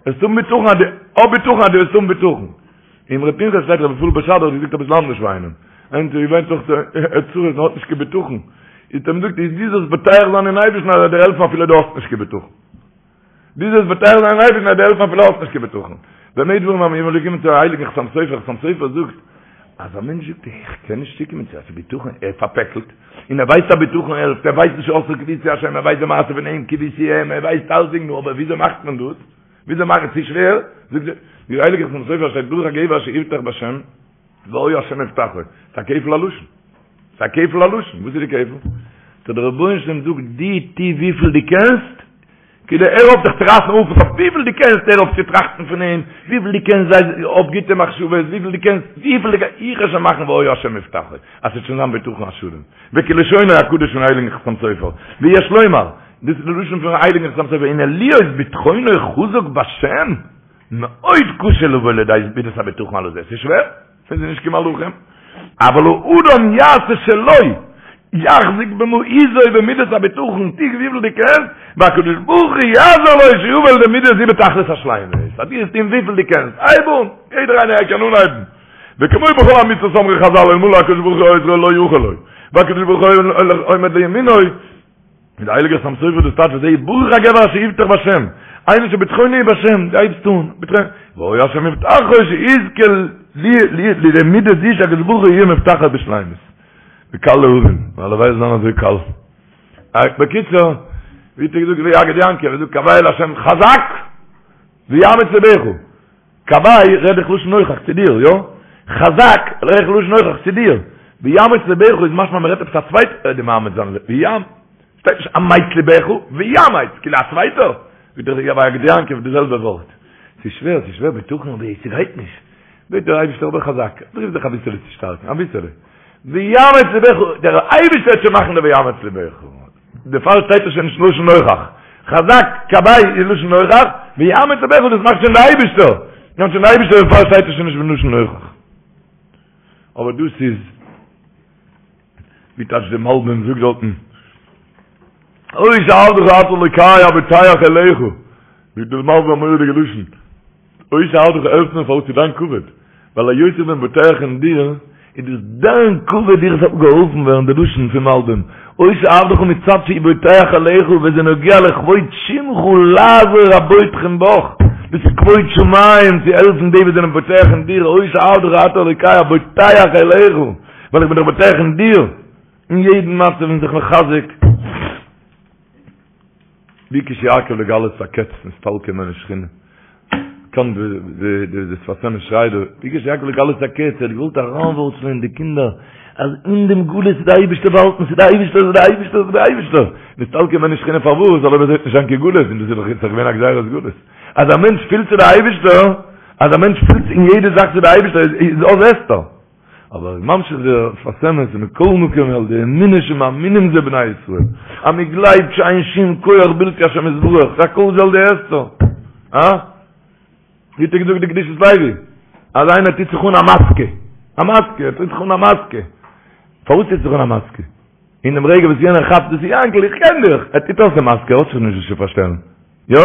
וועסט האבן בטחון אז דו האב בטחון אז דו וועסט האבן בטחון. אין אמרי פנחס שטייט רבי רפאל בשאדער האט געזאגט אביסל אנדערש פאר איינעם. איינער האט געוויינט אויך צרות און האט נישט קיין בטחון. האט ער אים געזאגט איז דו זאלסט בוטח זיין אין אייבערשטן אז ער וועט דיר העלפן אפילו דו האסט נישט קיין בטחון. דו זאלסט בוטח זיין אין אייבערשטן אז ער וועט דיר העלפן אפילו האסט נישט קיין בטחון. במה דברים אמורים מ'איז געקומען צו הייליגן חתם סופר, חתם סופר זאגט אז א מענטש זאגט איך קען נישט צוקומען צו אזא בטחון, ער איז פארפעקלט, און ער ווייסט אז בטחון העלפט, ער ווייסט לישועתך קויתי השם, ער ווייסט די מעשה פון אים קויתי אים, ער ווייסט אלסדינג, נו אבער וויאזוי מאכט מען דאס? וויאזוי מאכט עס? ס'איז שווער, זאגט דער הייליגער חתם סופר שטייט ברוך הגבר אשר יבטח בשם והיה השם מבטחו, ס'איז א כפל הלשון, ס'איז א כפל הלשון, וואס איז די כפל? טא דער רבונו של עולם זאגט דו טו וויפיל דו קענסט, כאילו הער אויף זיך צו רייסן אויף אויף וויפיל דו קענסט הער אויף צו טראכטן פון אים, וויפיל דו קענסט זיי האב גוטע מחשבות, וויפיל דו קענסט, וויפיל דו קענסט, איך וועל שוין מאכן והיה השם מבטחו, אז ס'וועט שוין זיין בטחון השלם, וכלשונו הקדוש פון הייליגן חתם סופר, ויש לומר, דאס איז די לשון פון הייליגן חתם סופר, הנה להיות בטחונו חזק בשם, מאוד קשה לבוא לידי מידת הבטחון הלזה, ס'איז שווער, מיר זענען נישט קיין מלאכים, אבל האדם יעשה שלו, יחזיק במעוזו במידת הבטחון, טו וויפיל דו קענסט, והקדוש ברוך הוא יעזור לו שיבוא לידי מידה זו בתכלית השלימות, אז דו וועסט טון וויפיל דו קענסט, הייב אן, יעדער איינער קען אנהייבן, וכמו בכל המצוות אמרו חזל אלמלא הקדוש ברוך הוא עוזרו לא יכול לו, והקדוש ברוך הוא עומד לימינו, מיט די הייליגע חתם סופר דאס טייטש וזה ברוך הגבר אשר יבטח בשם, איינער שבטחונו בשם, די הייבסט אן, בטחון, והיה השם מבטחו שיזכה לידי מידה זו שהקדוש ברוך הוא יהיה מבטחו בשלימות. וקל להבין, והלוואי זאל זיין אזוי קל. בקיצור, ווי האט ער געזאגט ויגד יעקב, ער זאגט קוה אל השם חזק ויאמץ לבך. קוה רעד איך לשון נוכח צו דיר, יא? חזק רעד איך לשון נוכח צו דיר. ויאמץ לבך איז משמע מ'רעדט עפעס א צווייטער וועט דיר מאמץ זיין ויאמ. שטייט נישט אמץ לבך, ויאמץ, כאילו א צווייטער. ווי דער ויגד יעקב די זעלבע ווארט. ס'איז שווער, ס'איז שווער בטחון אבער ס'גייט נישט. בעט דער אייבערשטער אבער חזק, פרואוו זיך אביסעלע צו שטארקן, אביסעלע. ויאמץ לבך, דער אייבערשטער וועט שוין מאכן די ויאמץ לבך. דערפאר שטייט עס שוין נישט לשון נוכח. חזק קוה איז לשון נוכח, ויאמץ לבך דאס מאכט שוין דער אייבערשטער. מאכט שוין דער אייבערשטער דערפאר שטייט עס שוין נישט בלשון נוכח. אבער דאס איז ווי טייטש דער מלבים זאגט דארטן, אותי עבדך אתה אלוקי הבוטח אליך. זאגט דער מלבים א מורא'דיגע לשון. אותי עבדך העלפט מיר פארוואס צו דיין כבוד, ווייל היות איך בין בוטח אין דיר, איז דאס דיין כבוד איך זאל געהאלפן ווערן, די לשון פון מלבים, אותי עבדך מצד שהוא בוטח אליך וזה נוגע לכבוד שמך לעזור הבוטחים בך, דאס איז כבוד שמים צו העלפן די וואס זענען בוטח אין דיר, אותי עבדך אתה אלוקי הבוטח אליך, ווייל איך בין דאך בוטח אין דיר, אין יעדן מצב און זיך מחזק. ביקש יעקב לגלות הקץ נסתלקה ממנו שכינה. קאן די די די שפת אמת שרייט דא, ביקש יעקב לגלות הקץ, ער האט געוואלט אריינווארצלען אין די קינדער, אז אין דעם גלות איז די אייבערשטער באהאלטן, ס'איז די אייבערשטער, ס'איז די אייבערשטער, ס'איז די אייבערשטער. נסתלקה ממנו שכינה פארוואס? ווייל אויב אזוי וועט נישט זיין קיין גלות, און דאס איז דאך יעצט געווען א גזירת גלות. אז א מענטש פילט צו די אייבערשטער, אז א מענטש פילט אין יעדע זאך צו די אייבערשטער, איז אז הסתר. אבער איז ממשיך דער שפת אמת ומכל מקום על ידי אמונה שמאמינים זה בני ישראל אז מען גלייבט שאין שום כח בלתי השם יתברך הכל זה על ידי הסתר אה? ווי האט ער געזאגט די קדושת לוי אז איינער טוט זיך אן א מאסקע א מאסקע ער טוט זיך אן א מאסקע פארוואס טוט זיך אן א מאסקע? אין דעם רגע וואס יענער כאפט דאס איז יענקל איך קען דיך ער טוט אויס די מאסקע ער האט זיך נישט וואס צו פארשטעלן יא?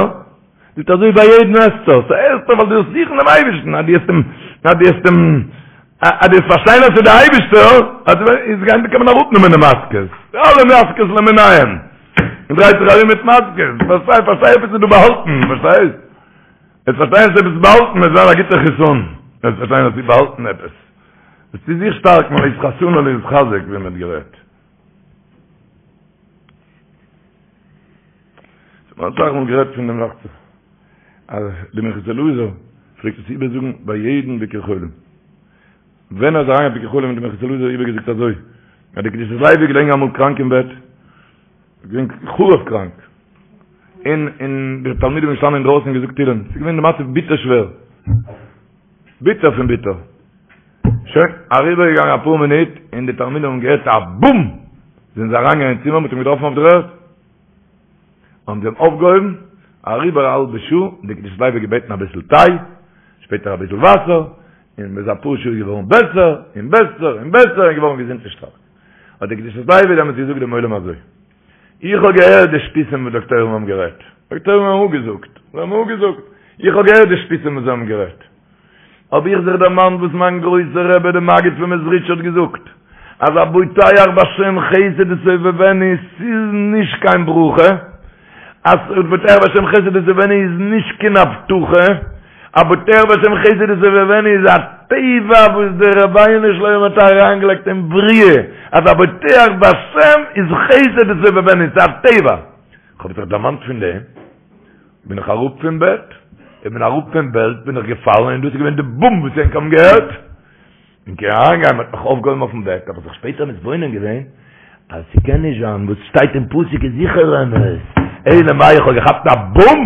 זאגט אזוי ביי יעדן הסתר, ס'איז הסתר ווייל דו ווילסט זוכן דעם אייבערשטן, אז דו וועסט אים, אז דו וועסט אים, אז דו וועסט פארשטיין אז ס'איז דער אייבערשטער, אז איז גיין קען מען אראפנעמען די מאסקעס, די אלע מאסקעס למיניהם, מען דרייט זיך ארום מיט מאסקעס, פארשטיי, פארשטיי עפעס איז דא באהאלטן, פארשטייסט? וועסט פארשטיין אז עפעס איז באהאלטן, וועט זיין א גוטער חיסון, וועסט פארשטיין אז ס'איז באהאלטן עפעס, וועסטו זיך שטארקן, להתחסן ולהתחזק ווי מען האט גערעדט. מ'האט אסאך מאל גערעדט פון דעם דאכט זיך אז די מנחת אלעזר פלעגט עס איבערזאגן ביי יעדן ביקור חולים. ווען ער איז אריין אויף ביקור חולים האט די מנחת אלעזר איבערגעזאגט אזוי, אז די קדושת לוי איז געלעגן אמאל קראנק אין בעט, געווען חרוב קראנק, און און די תלמידים זענען געשטאנען אינדרויסן און געזאגט תהילים, ס'איז געווען די מצב ביטער שווער, ביטער פון ביטער. שוין, אריבערגעגאנגען אפאר מינוט, און די תלמידים האבן געהערט א בום! זענען זיי אריינגעגאנגען אין צימער, מ'האט אים געטראפן אויף דער ערד. האבן זיי אים אויפגעהויבן, אריבער א האלבע שעה, און די קדושת לוי האט געבעטן אביסל טיי, שפעטער אביסל וואסער, און ביז אפאר שעה איז געווארן בעסער, און בעסער, און בעסער, און געווארן געזונט און שטארק. האט די קדושת לוי דעמאלטס געזאגט דעם עולם אזוי, איך האב געהערט די שטותים וואס דאקטוירים האבן גערעדט, דאקטוירים האבן אפגעזאגט, זיי האבן אפגעזאגט, איך האב געהערט די שטותים וואס זיי האבן גערעדט, האב איך זיך דערמאנט וואס מיין גרויסער רבי דער מגיד פון מעזריטש האט געזאגט, אז הבוטח בשם חסד יסובבנו ס'איז נישט קיין ברכה, אז הבוטח בשם חסד יסובבנו איז נישט קיין הבטחה. הבוטח בהשם חסד יסובבנו איז א טבע וואס דער רבונו של עולם האט אריינגעלייגט אין בריאה, אז הבוטח בהשם איז חסד יסובבנו, ס'איז א טבע. כ'האב זיך דערמאנט פון דעם, בין איך אראפ פון בעט, איך בין אראפ פון בעט בין איך געפאלן און דאס איז געווען די בום וואס ענק האבן געהערט. און קען אריינגיין, מ'האט מיך אויפגעהויבן אויפן בעט, האב איך זיך שפעטער מתבונן געווען, אז ס'קען נישט זיין, וואס שטייט אין פסוק איז זיכער אמת, אלא מאי איך האב געכאפט א בום,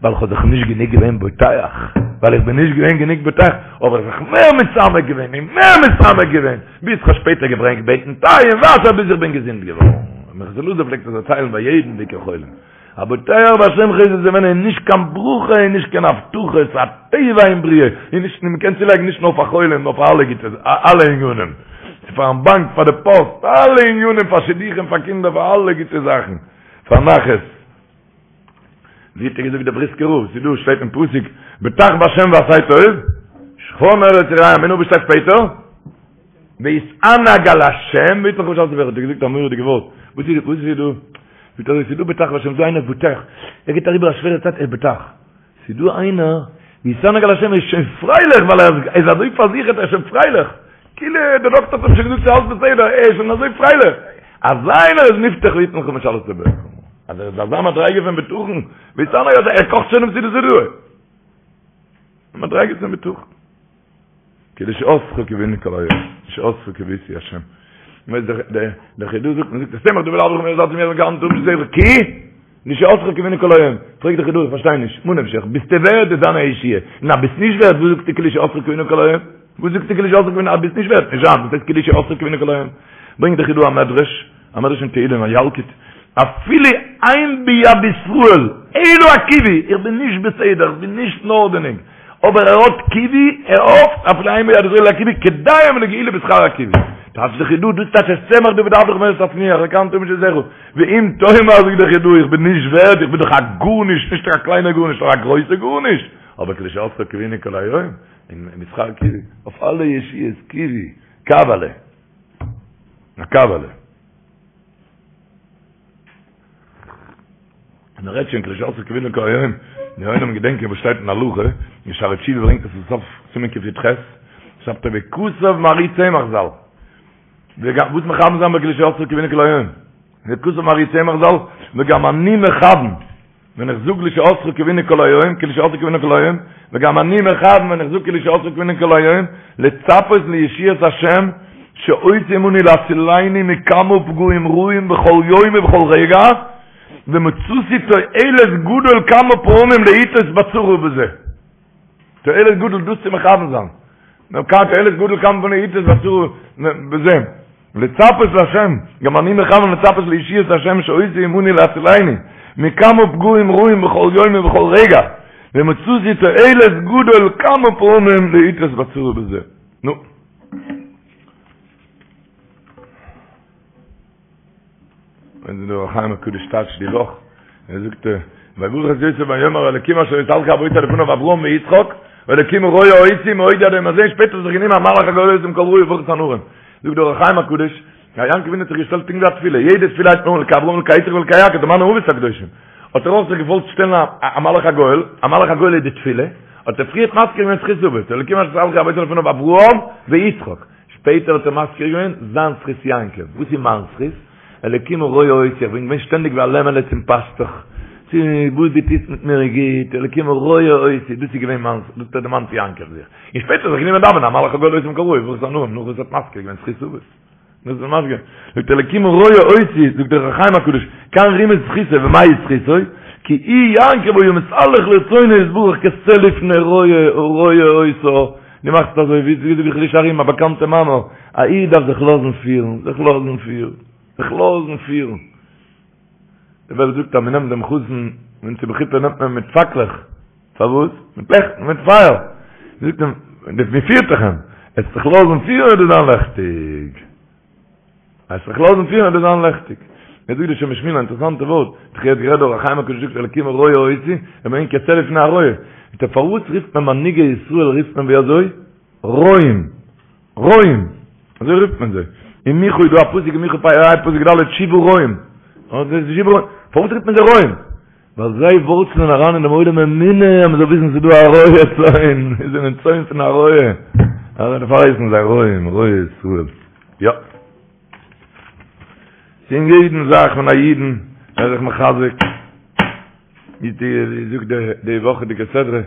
ווייל איך האב זיך נישט גענוג געווען בוטח, ווייל איך בין נישט געווען גענוג בוטח, האב איך זיך מער מתעמק געווען און מער מתעמק געווען, ביז כ'האב שפעטער געברענגט בעטן טיי און וואסער ביז איך בין געזונט געווארן. מנחת אלעזר פלעגט עס דערציילן ביי יעדן ביקור חולים. הבוטח בהשם חסד יסובבנו איז נישט קיין ברכה און נישט קיין הבטחה, ס'איז א טבע אין בריאה, און נישט, מען קען צולייגן נישט נאר פאר חולים נאר פאר אלע גוטע, אלע ענינים, ס'איז פארן באנק, פאר די פאסט, אלע ענינים, פאר שידוכים, פאר קינדער, פאר אלע גוטע זאכן, פאר נחת. ווי האט ער געזאגט דער בריסקער רב, ס'איז דא, שטייט אין פסוק, בטח בהשם ועשה טוב, שכון ארץ ורעה אמונה, וואס שטייט שפעטער? והתענג על השם, ויתן לך משאלות לבך, האט ער געזאגט א מורא'דיגע ווארט, וואס איז וואס איז דא? זאגט ער, ס'איז דא בטח בהשם, ס'איז דא איינער בוטח, ער גייט אריבער א שווערע צייט, ער איז בוטח. ס'איז דא איינער, והתענג על השם, ער איז שוין פרייליך, ווייל ער איז אזוי פארזיכערט, ער איז שוין פרייליך. כאילו דער דאקטער האט אים שוין געזאגט ס'איז אלס בסדר, ער איז שוין אזוי פרייליך. אזא איינער איז מובטח ויתן לך משאלות לבך. אז ער איז אזא מדריגה פון בטחון, והתענג על השם, ער קאכט שוין דעם סעודת הודאה. מדריגה פון בטחון. כי לישועתך קוינו כל היום, לישועתך קויתי השם. מ'ווייס דער דער דער חיד"א זאגט, מ'זאגט את צמח דוד עבדך מהרה תצמיח כענף תמים שדך כי לישועתך קוינו כל היום. פרעגט דער חיד"א, איך פארשטיי נישט, ממה נפשך, ביסטו ווערד איז זיין א ישועה, און אז ביסט נישט ווערד, וואס זאגסטו כי לישועתך קוינו כל היום? וואס זאגסטו כי לישועתך קוינו, אז ביסט נישט ווערד, נישט זיין, וואס הייסט כי לישועתך קוינו כל היום? ברענגט דער חיד"א א מדרש, א מדרש אין תהילים, א ילקוט, אפילו אין ביד ישראל, אלא הקיווי, איך בין נישט בסדר, איך בין נישט אין ארדענונג, אבער ער האט קיווי, ער האפט, אפילו אין ביד ישראל אלא הקיווי, כדאי הם לגאולה בשכר הקיווי. טייטש דער חיד"א, דאס טייטש את צמח דוד עבדך מהרה תצמיח, כענף תמים שדך. ואם תאמר זאגט דער חיד"א, איך בין נישט ווערד, איך בין דאך א גארנישט, נישט א קליינער גארנישט, נאר א גרויסע גארנישט, אבער כי לישועתך קוינו כל היום, און בשכר קיווי, אויף אלע ישועות, קיווי, קוועלע. א קוועלע. און ער רעדט שוין כי לישועתך קוינו כל היום, מיר עולם געדענקען וואס שטייט אין הלכה, אין שערי תשובה ברענגט עס אין סוף סימן קי"ח, שרייבט ער וכתב מהר"י צמח ז"ל, וגם וואס מכוון זיין כי לישועתך קוינו כל היום, וכתב מהר"י צמח ז"ל, וגם אני מכוון, ווען איך זאג לישועתך קוינו כל היום, כי לישועתך קוינו כל היום, וגם אני מכוון ווען איך זאג כי לישועתך קוינו כל היום, לצפות לישועת השם, שעושה עמנו להצילני מכמה פגעים רעים בכל יום ובכל רגע, ומצאתי תועלת גדול כמה פעמים לעתות בצרה בזה. תועלת גדול דאס צו מכוון זיין. תועלת גדול כמה פעמים לעתות בצרה בזה. לצפות להשם, גם אני מכוון לצפות לישועת השם שעושה עמנו להצילני מכמה פגעים רעים בכל יום ובכל רגע, ומצאתי תועלת גדול כמה פעמים לעתות בצרה בזה. נו. ווען דער אור החיים הקדוש טייטשט די וואך, ער זאגט, ויברך את יוסף ויאמר האלקים אשר התהלכו אבותי לפניו אברהם ויצחק, והאלקים הרועה אותי מאוד עד היום הזה, שפעטער האט זיך גענומען המלאך הגואל אותי מכל רע יברך את הנערים. זאגט דער אור החיים הקדוש, יעקב אבינו האט זיך געשטעלט פונקט ווי א תפילה, יעדע תפילה הייבט מען אן אלקי אברהם אלקי יצחק ואלקי יעקב, די מיינע אבות הקדושים. האט ער אויך זיך געוואלט שטעלן א מלאך הגואל, א מלאך הגואל איז די תפילה, האט ער פריערט מזכיר געווען זכות אבות, אלקים אשר התהלכו אבותי לפניו אברהם ויצחק. שפעטער האט ער מזכיר געווען זיין זכות יעקב, וואס איז מיין זכות? אלקים הרועה אותי, איך בין געווען שטענדיג ווי א לעמעלע צום פאסטוך, צו וואס דו טוסט מיט מיר איז גוט, אלקים הרועה אותי, דאס איז געווען מיין זכות, דאס האט דערמאנט יעקב זיך, און שפעטער זיך גענומען דאווענען המלאך הגואל אותי מכל רע יברך את הנערים, נאך וואס ער האט מזכיר געווען זכות אבות. דאס איז מזכיר, זאגט אלקים הרועה אותי, זאגט דער אור החיים הקדוש, כאן רימז זכותו, ומהי זכותו? כי הוא יעקב היה מתהלך לרצונו יתברך כשה לפני רועה הרועה אותו, דו מאכסט אזוי ווי זאגט דער חידושי הרי"ם א באקאנטע מאמר, א איד דארף זיך לאזן פירן, זיך לאזן פירן, זיך לאזן פירן. די וועלט זאגט אז מען נעמט דעם חתן ווען צו בחופה נעמט מען מיט פאקלעך, פארוואס? מיט לעכט, מיט פייער. זאגט אים, מען פירט דאך אים, עסט זיך לאזן פירן וועט דיר זיין לעכטיג. עסט זיך לאזן פירן וועט דיר זיין לעכטיג. יעצט זאגט דער שם משמואל א אינטערעסאנטע ווארט, איך האב גערעדט דער אור החיים הקדוש זאגט אלקים הרועה אותי, ער מיינט כשה לפני הרועה. זאגט ער פארוואס רופט מען מנהיגי ישראל רופט מען ווי אזוי? רועים. רועים. אזוי רופט מען זיי. אין מיכה איז דא א פסוק אין מיכה פ ה פסוק ד' שבעה רועים. פארוואס רופט מען זיי רועים? ווייל זיי ווארצלען אריין אין דעם עולם אמונה אז מען זאל וויסן ס'איז דא א רועה צאן, זיי זענען צאן פון א רועה, דערפאר הייסן זיי רועים, רועי ישראל. יא. אין יעדן זאך פון א אידן ער איז זיך מחזק, ווי זאגט די וואכעדיגע סדרה,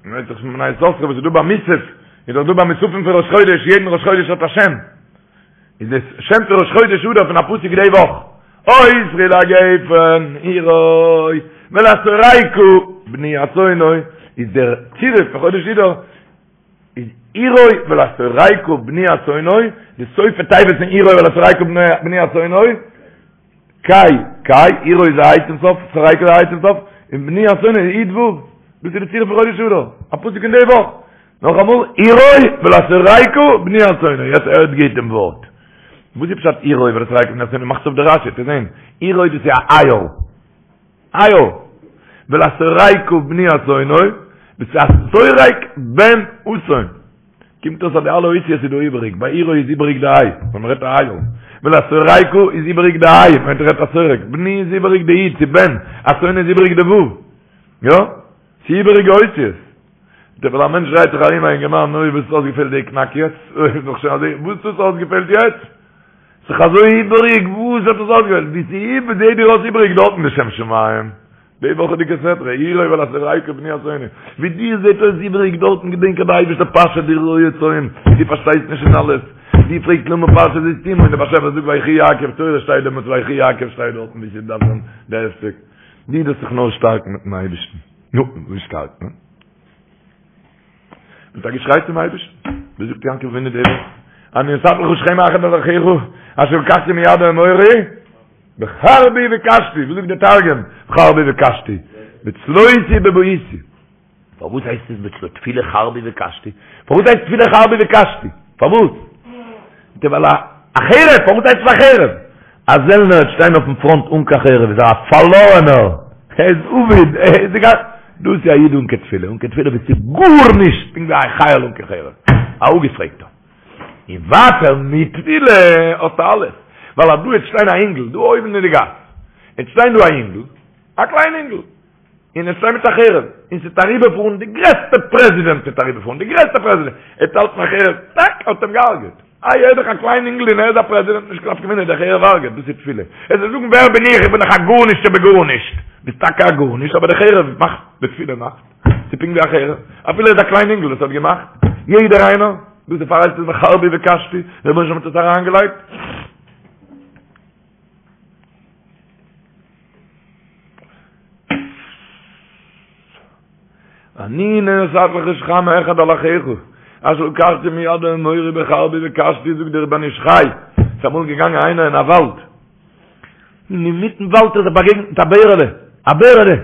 מ'רעדט זיך פון בני יששכר וואס איז דא ביי מוסף, איז דאך דא ביי מוספים פון ראש חודש, יעדן ראש חודש האט א שם. איז דאס שם פון ראש חודש אדר פון א פסוק די וואך. אוסרי לגפן עירוי ולשורקה בני אתונו איז דער צירוף פון חודש אדר איז עירוי ולשורקה בני אתונו, די סופי תיבות פון עירוי ולשורקה בני אתונו, קי, קי, עירוי איז א ה' צום סוף, שורקה איז א ה' צום סוף, און בני אתונו איז י' ו', דאס איז די צירוף פון חודש אדר, א פסוק אין די וואך. נאכאמאל, עירוי ולשורקה בני אתונו, יעצט הערט גוט דעם ווארט. וואס איז פשט עירוי ולשורקה בני אתונו? מאכטס אויף די רשי, צו זען. עירוי דאס איז א איל. איל. ולשורקה בני אתונו, דאס איז א שורק בן אתון. קומט אויס אז די אלע אותיות איז דא איבעריג, ביי עירוי איז איבעריג די היי, ווען מ'רעדט א איל. ולשורקה איז איבעריג די היי, ווען מ'רעדט א שורק. בני איז איבעריג די י', ס'איז בן. אתונו איז איבעריג די ו'. יא? ס'איז איבעריגע אותיות. ווייל א מענטש דרייט זיך ארום א אינגערמאן, אוי וואס האט אויסגעפעלט די קנאק יעצט? אוי איז דאך שוין אזוי, וואס האט אויסגעפעלט יעצט? ס'איז אזוי איבעריג, וואס האט עס אויסגעפעלט? ווי ס'איז זעהט דיר אויס איבעריג דארטן די שם שמים. די וואכעדיגע סדרה, עירוי ולשורקה בני אתונו. ווי דיר זעהט אויס איבעריג דארטן געדענק אז די אייבערשטער פאשעט די רועה צאן, דו פארשטייסט נישט אין אלעס. דו פרעגסט למה פרשה זו סתומה און דער באשעפער זאגט ויחי יעקב תורה שטייט דעמאלטס ויחי יעקב שטייט דארטן ווי ס'דארף זיין די הפסק. דו דארפסט זיך נאר שטארקן מיטן אייבערשטן. נו, ווי שטארקט מען? מיט א געשריי צום אייבערשטן. ווי זאגט יעקב אבינו די וואך? אני נתתי לך שכם אחד על אחיך, אשר לקחתי מיד האמורי, בחרבי וקשתי. ווי זאגט דער תרגום? בחרבי וקשתי. בצלותי ובבעותי. פארוואס הייסט עס בצלו תפילה חרבי וקשתי? פארוואס הייסט תפילה חרבי וקשתי? פארוואס? די ווייל א חרב, פארוואס הייסט עס א חרב? א זעלנער וועט שטיין אויפן פראנט אן קיין חרב איז ער א פארלארענער, ער איז אבוד, ער איז די דאס איז א איד אן קיין תפילה, אן קיין תפילה ביסטו גארנישט, פונקט ווי א חייל אן קיין חרב, א אפגעפרעגטער. און ווייטער מיט תפילה האסטו אלעס, ווייל אז דא וועט שטיין א אינגל, דא אויבן אין די גאס, וועט שטיין דא א אינגל, א קליין אינגל, און ער שטייט מיט א חרב, און ס'וועט אריבערפארן די גרעסטע פרעזידענט וועט אריבערפארן, די גרעסטע פרעזידענט, ער וועט האלטן א חרב, טאק, האט אים געהארגעט. איי ער איז דאך א קליין אינגל און ער איז א פרעזידענט, נישט קיין נפקא מינה, דער חרב הרג'עט, דאס איז תפילה. ער זאל זאגן ווער בין איך, איך בין דאך א גארנישט שבגארנישט. ביסט טאקע א גארנישט, אבער די חרב מאכט, די תפילה מאכט. ס'איז פונקט ווי א חרב, אפילו ער איז א קליין אינגל, עס האט געמאכט. יעדער איינער, דאס דערפאר הייסט עס בחרבי וקשתי, דער רבונו של עולם האט עס אריינגעלייגט. אני נתתי לך שכם אחד על אחיך, אשר לקחתי מיד האמורי בחרבי וקשתי, זאגט דער בן איש חי, ס'איז אמאל געגאנגען איינער אין א וואלד, און אינמיטן וואלד האט ער זיך באגעגנט מיט א בערעלע, א בערעלע,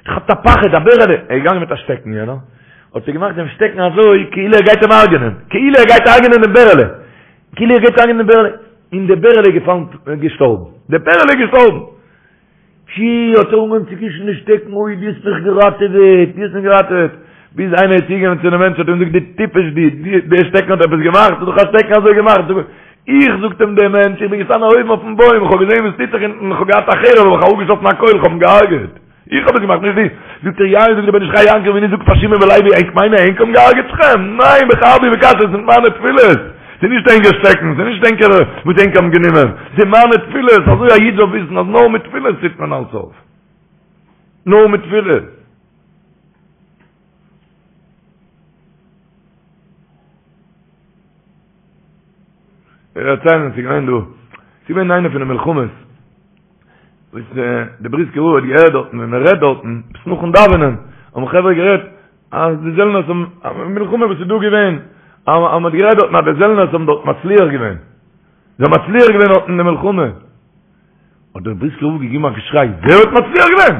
געכאפט א פחד, א בערעלע, ער איז געגאנגען מיט א שטעקן יענער, האט ער געמאכט דעם שטעקן אזוי כאילו ער גייט אים הרג'נען, כאילו ער גייט הרג'נען דעם בערעלע, כאילו ער גייט הרג'נען דעם בערעלע, און דער בערעלע איז געפאלן געשטארבן, דער בערעלע איז געשטארבן! פשי, האט ער אנגעהויבן צו קישן די שטעקן, אוי, דו האסט מיך געראטעוועט, דו האסט מיך געראטעוועט! ביז איינער איז צוגעגאנגען צו דעם מענטש האט אים געזאגט, דו טיפש דו, דער שטעקן האט עפעס געמאכט? ס'איז דאך א שטעקן אזוי געמאכט! זאג, איך, זאגט אים דער מענטש, איך בין געשטאנען אויבן אויפן בוים, איך האב געזען וואס טוט זיך אונטן, איך האב געהאט א חרב, האב איך אראפגעשאסן א קויל, איך האב אים געהארגעט. איך האב עס געמאכט, נישט דו. זאגט ער, יא, זאגט דער בן איש חי יעקב אבינו זאגט פאר שמעון ולוי, ענק מיינען ענק האבן געהארגעט שכם? ניין, בחרבי וקשתי, עס זענען מיינע תפילות. ס'איז נישט ענקער שטעקן, ס'איז נישט ענקער וואס ענק האבן גענומען, ס'איז מיינע תפילות. אזוי א איד זאל וויסן אז נאר מיט תפילות טוט מען אלץ אויף. נאר מיט תפילות. איך דערצייל, ס'איז געווען דא, ס'איז געווען איינע פון די מלחמות, וואס די בריסקער רב האט געהערט דארטן ווען מען רעדט דארטן, עפעס נאכן דאווענען, האבן חברה גערעדט אז די זעלנערס האבן, א מלחמה וואס איז דא געווען, אז מען האט גערעדט דארטן אז די זעלנערס האבן דארט מצליח געווען, זיי האבן מצליח געווען דארט אין די מלחמה. האט דער בריסקער רב געגעבן א געשריי, ווער האט מצליח געווען?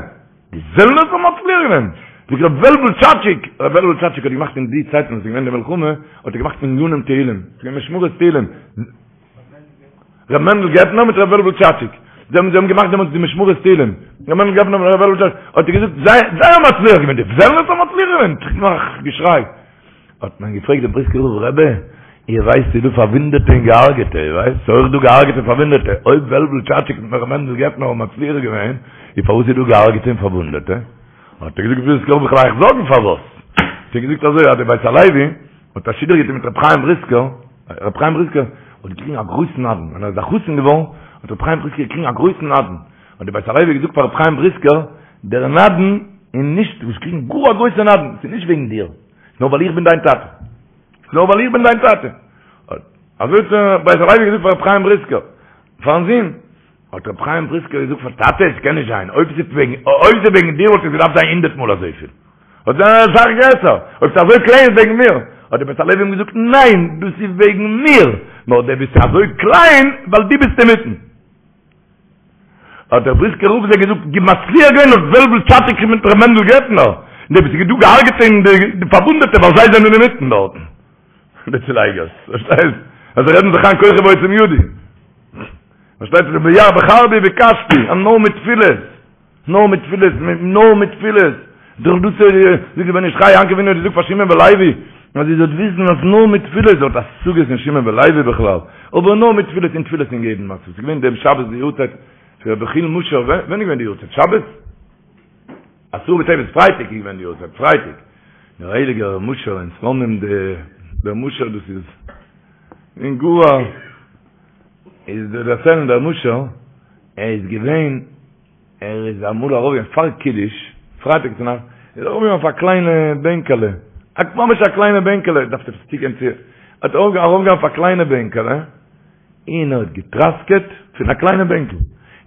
די זעלנערס האבן מצליח געווען! זאגט ר' וועלוול טשאטשיק, ר' וועלוול טשאטשיק האט געמאכט אין די צייטן וואס איז געווען די מלחמה, האט ער געמאכט מניינים תהילים, ס'איז געווען משמרות תהילים, ר' מענדל געפנער מיט ר' וועלוול טשאטשיק, זיי האבן זיי האבן געמאכט דעמאלטס די משמרות תהילים, ר' מענדל געפנער מיט ר' וועלוול טשאטשיק, האט ער געזאגט, זיי זיי האבן מצליח געווען, די זעלנערס האבן מצליח געווען, נאך געשריי. האט מען געפרעגט דעם בריסקער רב, רבי, איר ווייסט ס'איז דא פארוואונדעטע און געהארגעטע, איר ווייסט? ס'איז אויך דא געהארגעטע און פארוואונדעטע, אויב וועלוול טשאטשיק מיט ר' מענדל געפנער האבן מצליח געווען, איז פארוואס איז דא געהארגעטע און פארוואונדעטע? האט ער געזאגט ווילסט וועל איך אייך זאגן פארוואס? האט ער געזאגט אזוי אז די בית הלוי האט א שידוך געטון מיט ר' חיים בריסקער, ר' חיים בריסקער האט געקריגן א גרויסן נדן, ווען ער איז א חתן געווארן האט ר' חיים בריסקער געקריגן א גרויסן נדן, האט די בית הלוי געזאגט פאר ר' חיים בריסקער, דער נדן איז נישט, דו האסט געקריגן גאר א גרויסע נדן, ס'איז נישט וועגן דיר, נאר ווייל איך בין דיין טאטע. נאר ווייל איך בין דיין טאטע. אזוי האט דער בית הלוי געזאגט פאר ר' חיים בריסקער, פארן זון. האט ר' חיים בריסקער געזאגט פאר טאטע, עס קען נישט זיין, אויב ס'איז וועגן, אויב ס'איז וועגן דיר וואלט עס געדארפט זיין הונדערט מאל אזויפיל. וואלט זיין אסאך גרעסער, אויב ס'איז אזוי קליין איז וועגן מיר. האט דער בית הלוי אים געזאגט, ניין, דאס איז וועגן מיר, נאר דו ביסט אזוי קליין ווייל דו ביסט אינמיטן. האט דער בריסקער רב זיי געזאגט, די מצליח געווען האט וועלוול טשאטשיק מיט ר' מענדל געפנער, די וואס איז דא געהארגעטע און די פארוואונדעטע ווייל זיי זענען אינמיטן דארטן. די צולייגערס, פארשטייסט? אז זיי רעדן זיך איין כוחי ועוצם ידי. פארשטייט זיך ביער בחרבי ובקשתי, אז נאר מיט תפילות. נאר מיט תפילות, נאר מיט תפילות. דורך דאס זאגט דער בן איש חי, יעקב אבינו האט געזאגט פאר שמעון ולוי, אז איר זאלט וויסן אז נאר מיט תפילות, ער האט השגות אין שמעון ולוי בכלל, אבער נאר מיט תפילות און תפילות אין יעדן מצב. ס'איז געווען דעם שבת די יארצייט פון רבי יחיאל משה, ווען איז געווען די יארצייט? שבת? עשרה בטבת, פרייטאג איז געווען די יארצייט, פרייטאג. דער הייליגער משה אין סלאנים, דער משה דאס איז אין גאר איז דער דערציילן דער משה, ער איז געווען ער איז אמאל ארויף געגאנגען פאר קידוש, פרייטאג צו נאכט, איז ער ארויף געגאנגען אויף א קליינע בענקעלע, א ממש א קליינע בענקעלע, דארף עפעס צוגיין צו, האט ער ארויף געגאנגען אויף א קליינע בענקעלע, און ער האט געטראסקעט פון א קליינע בענקל,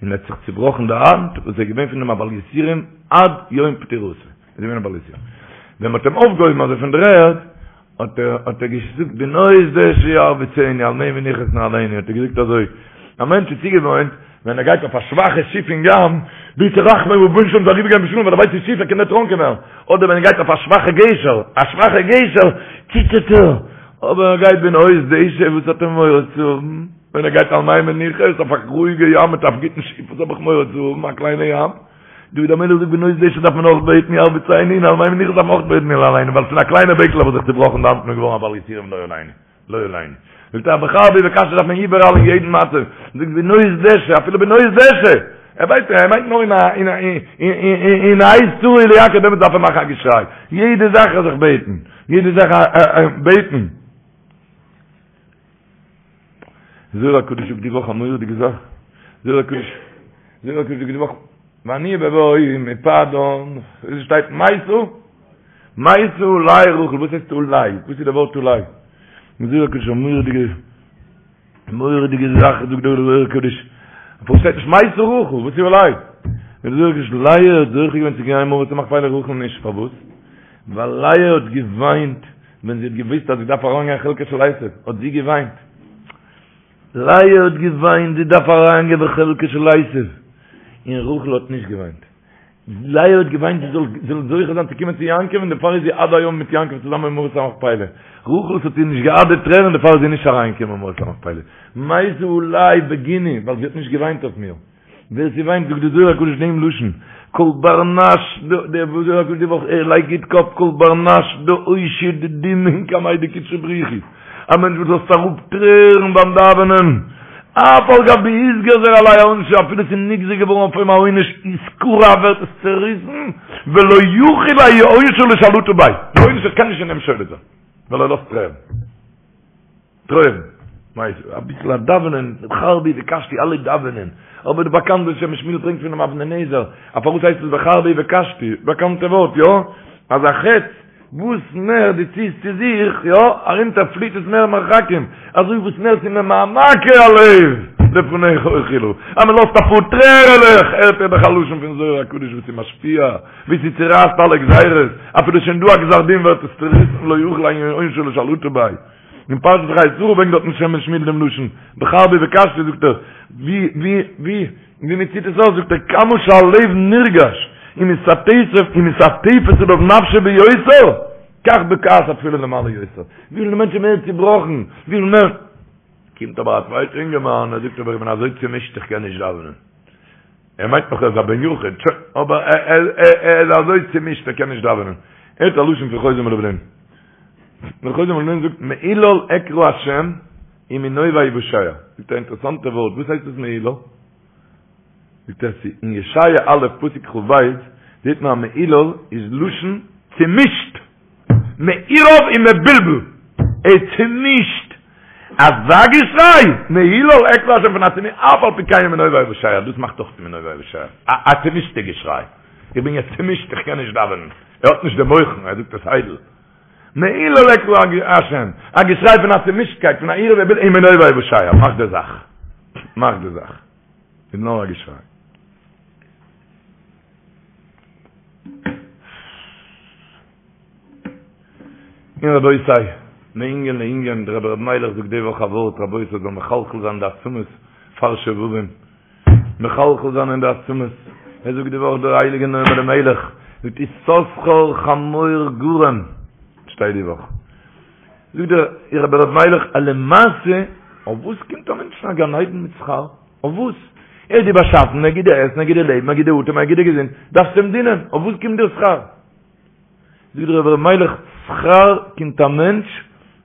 און ער האט זיך צובראכן די האנט, וואס איז געווען פון דעם א בעל יסורים עד יום פטירתו, איז געווען א בעל יסורים. ווען מען האט אים אויפגעהויבן אזוי פון דער ערד, האט ער האט ער געזאגט בנאות דשא ירביצני על מי מנוחות ינהלני האט ער געזאגט אזוי א מענטש איז צוגעוואוינט ווען ער גייט אויף א שוואכע שיף אין ים בעט ער רחמים רבונו של עולם זאל אריבערגיין בשלום ווייל ער ווייסט די שיף ער קען דערטראנקען ווערן אדער ווען ער גייט אויף א שוואכע גשר א שוואכע גשר ציטערט ער אבער ער גייט בנאות דשא וואס האט ער מורא צו האבן ווען ער גייט על מי מנוחות אויף א רואיגע ים מיט א גוטן שיף וואס האב איך מורא צו האבן א קליינע ים דוד המלך זאגט בנאות דשא דארף מען אויך בעטן ירביצני און על מי מנוחות דארף מען אויך בעטן ינהלני ווייל פון א קליינע בענקל האב איך זיך צובראכן די האנט און געווארן א בעל יסורים לא עלינו לא עלינו זאגט ער בחרבי ובקשתי דארף מען איבעראל אין יעדן מצב זאגט בנאות דשא אפילו בנאות דשא ער ווייסט ער מיינט נאר אין א אין א אין א עת צרה היא ליעקב דעמאלטס דארף ער מאכן א געשריי יעדע זאך זיך בעטן יעדע זאך בעטן זוהר הקדוש זאגט די וואך א מורא'דיגע זאך, זוהר הקדוש, זוהר הקדוש זאגט די וואך, ואני בבואי מפדן, עס שטייט מתה, מתה עלי רחל, וואס הייסט עלי? וואס איז די ווארט עלי? זוהר הקדוש א מורא'דיגע, מורא'דיגע זאך זאגט דער זוהר הקדוש, פארוואס שטייט נישט מתה רחל, וואס איז עלי? דער זוהר הקדוש, לאה האט זוכה געווען צו גיין מערת המכפלה רחל נישט, פארוואס? ווייל לאה האט געוויינט ווען זי האט געוואוסט אז זי דארף אריינגיין חלקה של עשו, האט זי געוויינט. לאה האט געוויינט, זי דארף אריינגיין בחלקה של עשו. און רחל האט נישט געוויינט. לאה האט געוויינט זי זאל זאל זוכה זיין צו קומען צו יעקב, און דערפאר איז זי עד היום מיט יעקב צוזאמען אין מערת המכפלה. רחל האט איר נישט געארט די טרערן, דערפאר איז זי נישט אריינגעקומען אין מערת המכפלה. מתה עלי בגיני, ווייל זי האט נישט געוויינט אויף מיר. ווער ס'וויינט זאגט די זוהר הקדוש דעם לשון, כל בר נש, דער זוהר הקדוש די וואך ער לייגט גוט קאפ, כל בר נש דאושיד דמעין קמיה דקודשא בריך הוא, א מענטש וואס לאזט אראפ טרערן ביים דאווענען, אף על גב דאתגזר עליה עונשא, אפילו ס'איז נגזר געווארן אויף אים א עונש, אתקרע ווערט עס צעריסן, ולא יכיל האי עונשא לשלטאה ביה, די עונש קען נישט אין אים שולט זיין, ווייל ער לאזט טרערן. טרערן, מיינסט אביסל א דאווענען, בחרבי ובקשתי אלע דאווענען, אבער די באקאנטע שם משמואל ברענגט פונעם אבני נזר, א פארוואס הייסט עס בחרבי ובקשתי, באקאנטע ווארט, יא? אז א חץ וואס מער דו ציסט צו זיך, יא, ארונטער פליט עס מער מרחקים, אזוי וואס מער ס'איז ממעמקי הלב לפניך אוחילה, אז מען לאזט אפאר טרערעלעך, הערט איר דאך א לשון פון זוהר הקדוש וואס איז משפיע, ווי ס'צורייסט אלע גזירות, אפילו שוין דא א גזר דין ווערט עס צוריסן לא יכיל האי עונשא לשלטאה ביה. אין פרשת חיי שרה ברענגט דארטן שם משמואל דעם לשון, בחרבי ובקשתי זאגט ער, ווי ווי ווי ווי מען ציט עס אויס זאגט ער כמה שהלב נרגש ומתעטפת עליו נפשו ביותר, כך בוקעת התפילה למעלה יותר, וויפיל די מענטש איז מער צובראכן, וויפיל מער, קומט אבער א צווייטער אינגערמאן ער זאגט אבער איך בין אזוי צומישט איך קען נישט דאווענען. ער מיינט נאך ער איז א בן יחיד, שוין, אבער ער איז אזוי צומישט ער קען נישט דאווענען. ער האט א לשון פון חוזה מלובלין. דער חוזה מלובלין זאגט מהולל אקרא השם ומנובי אושע. זאגט ער א אינטערעסאנטע ווארט, וואס הייסט דאס מהולל? זאגט ער ס'איז אין ישעיה א' פסוק כ"ב זעט מען אז מהולל איז לשון צומישט, מעורב און מבולבל, ער איז צומישט, אזא געשריי, מהולל אקרא השם פון א צומי אף על פי כן ומנובי אושע, דאס מאכט אויך מנובי אושע, א צומישטע געשריי, איך בין יעצט צומישט איך קען נישט דאווענען, ער האט נישט די מוחין, ער זאגט עס איידל. מהולל אקרא השם, א געשריי פון א צומישטקייט, פון א עירוב ובלבול, ומנובי אושע, מאך די זאך, מאך די זאך. איז נאר א געשריי. און רבותי, מענין לענין, דער רבי ר' מיילעך זאגט די וואך א ווארט, רבותי, זאל מחלחל זיין די עצמות פאר שובבים, מחלחל זיין אין די עצמות, ער זאגט די וואך דער הייליגער נועם אלימלך, זאגט יששכר חמור גרם, שטייט די וואך, זאגט דער רבי ר' מיילעך, אז למעשה, אויף וואס קומט א מענטשן א גן עדן מיט שכר? אויף וואס? ער האט דיר באשאפן, ער גיט דיר עסן, ער גיט דיר לעבן, ער גיט דיר אטעם, ער גיט דיר געזונט, דארפסט אים דינען, אויף וואס קומט דיר שכר? זאגט דער רבי ר' מיילעך, שכר קומט א מענטש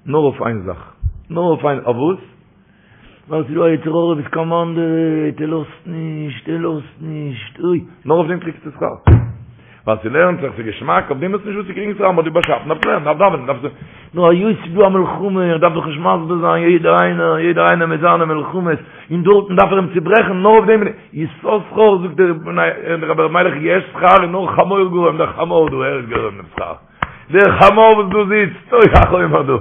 נאר אויף איין זאך, נאר אויף איין, אויף וואס? ווייל ס'איז דא א יצר הרע וואס קאמאנדעוועט, ער לאזט נישט, ער לאזט נישט, אוי, נאר אויף דעם קריגסטו שכר. ווייל ס'לערנט זיך, ס'איז געשמאק, אויף דעם האסטו נישט וואס צו קריגן שכר, מ'האט דיר באשאפן, דארפסט לערנען, דארפסט דאווענען, דארפסט. נאר היות ס'איז דא א מלחמה, איך דארף דאך נישט מסביר זיין, יעדער איינער, יעדער איינער מיט זיינע מלחמות, און דארטן דארף ער אים צוברעכן, נאר אויף דעם, יששכר, זאגט דער רבי ר' מיילעך, יש שכר און נאר חמור גרם, דער חמור דא, ער איז גורם דעם שכר. דער חמור וואס דא זיצט, אוי א חומר דא.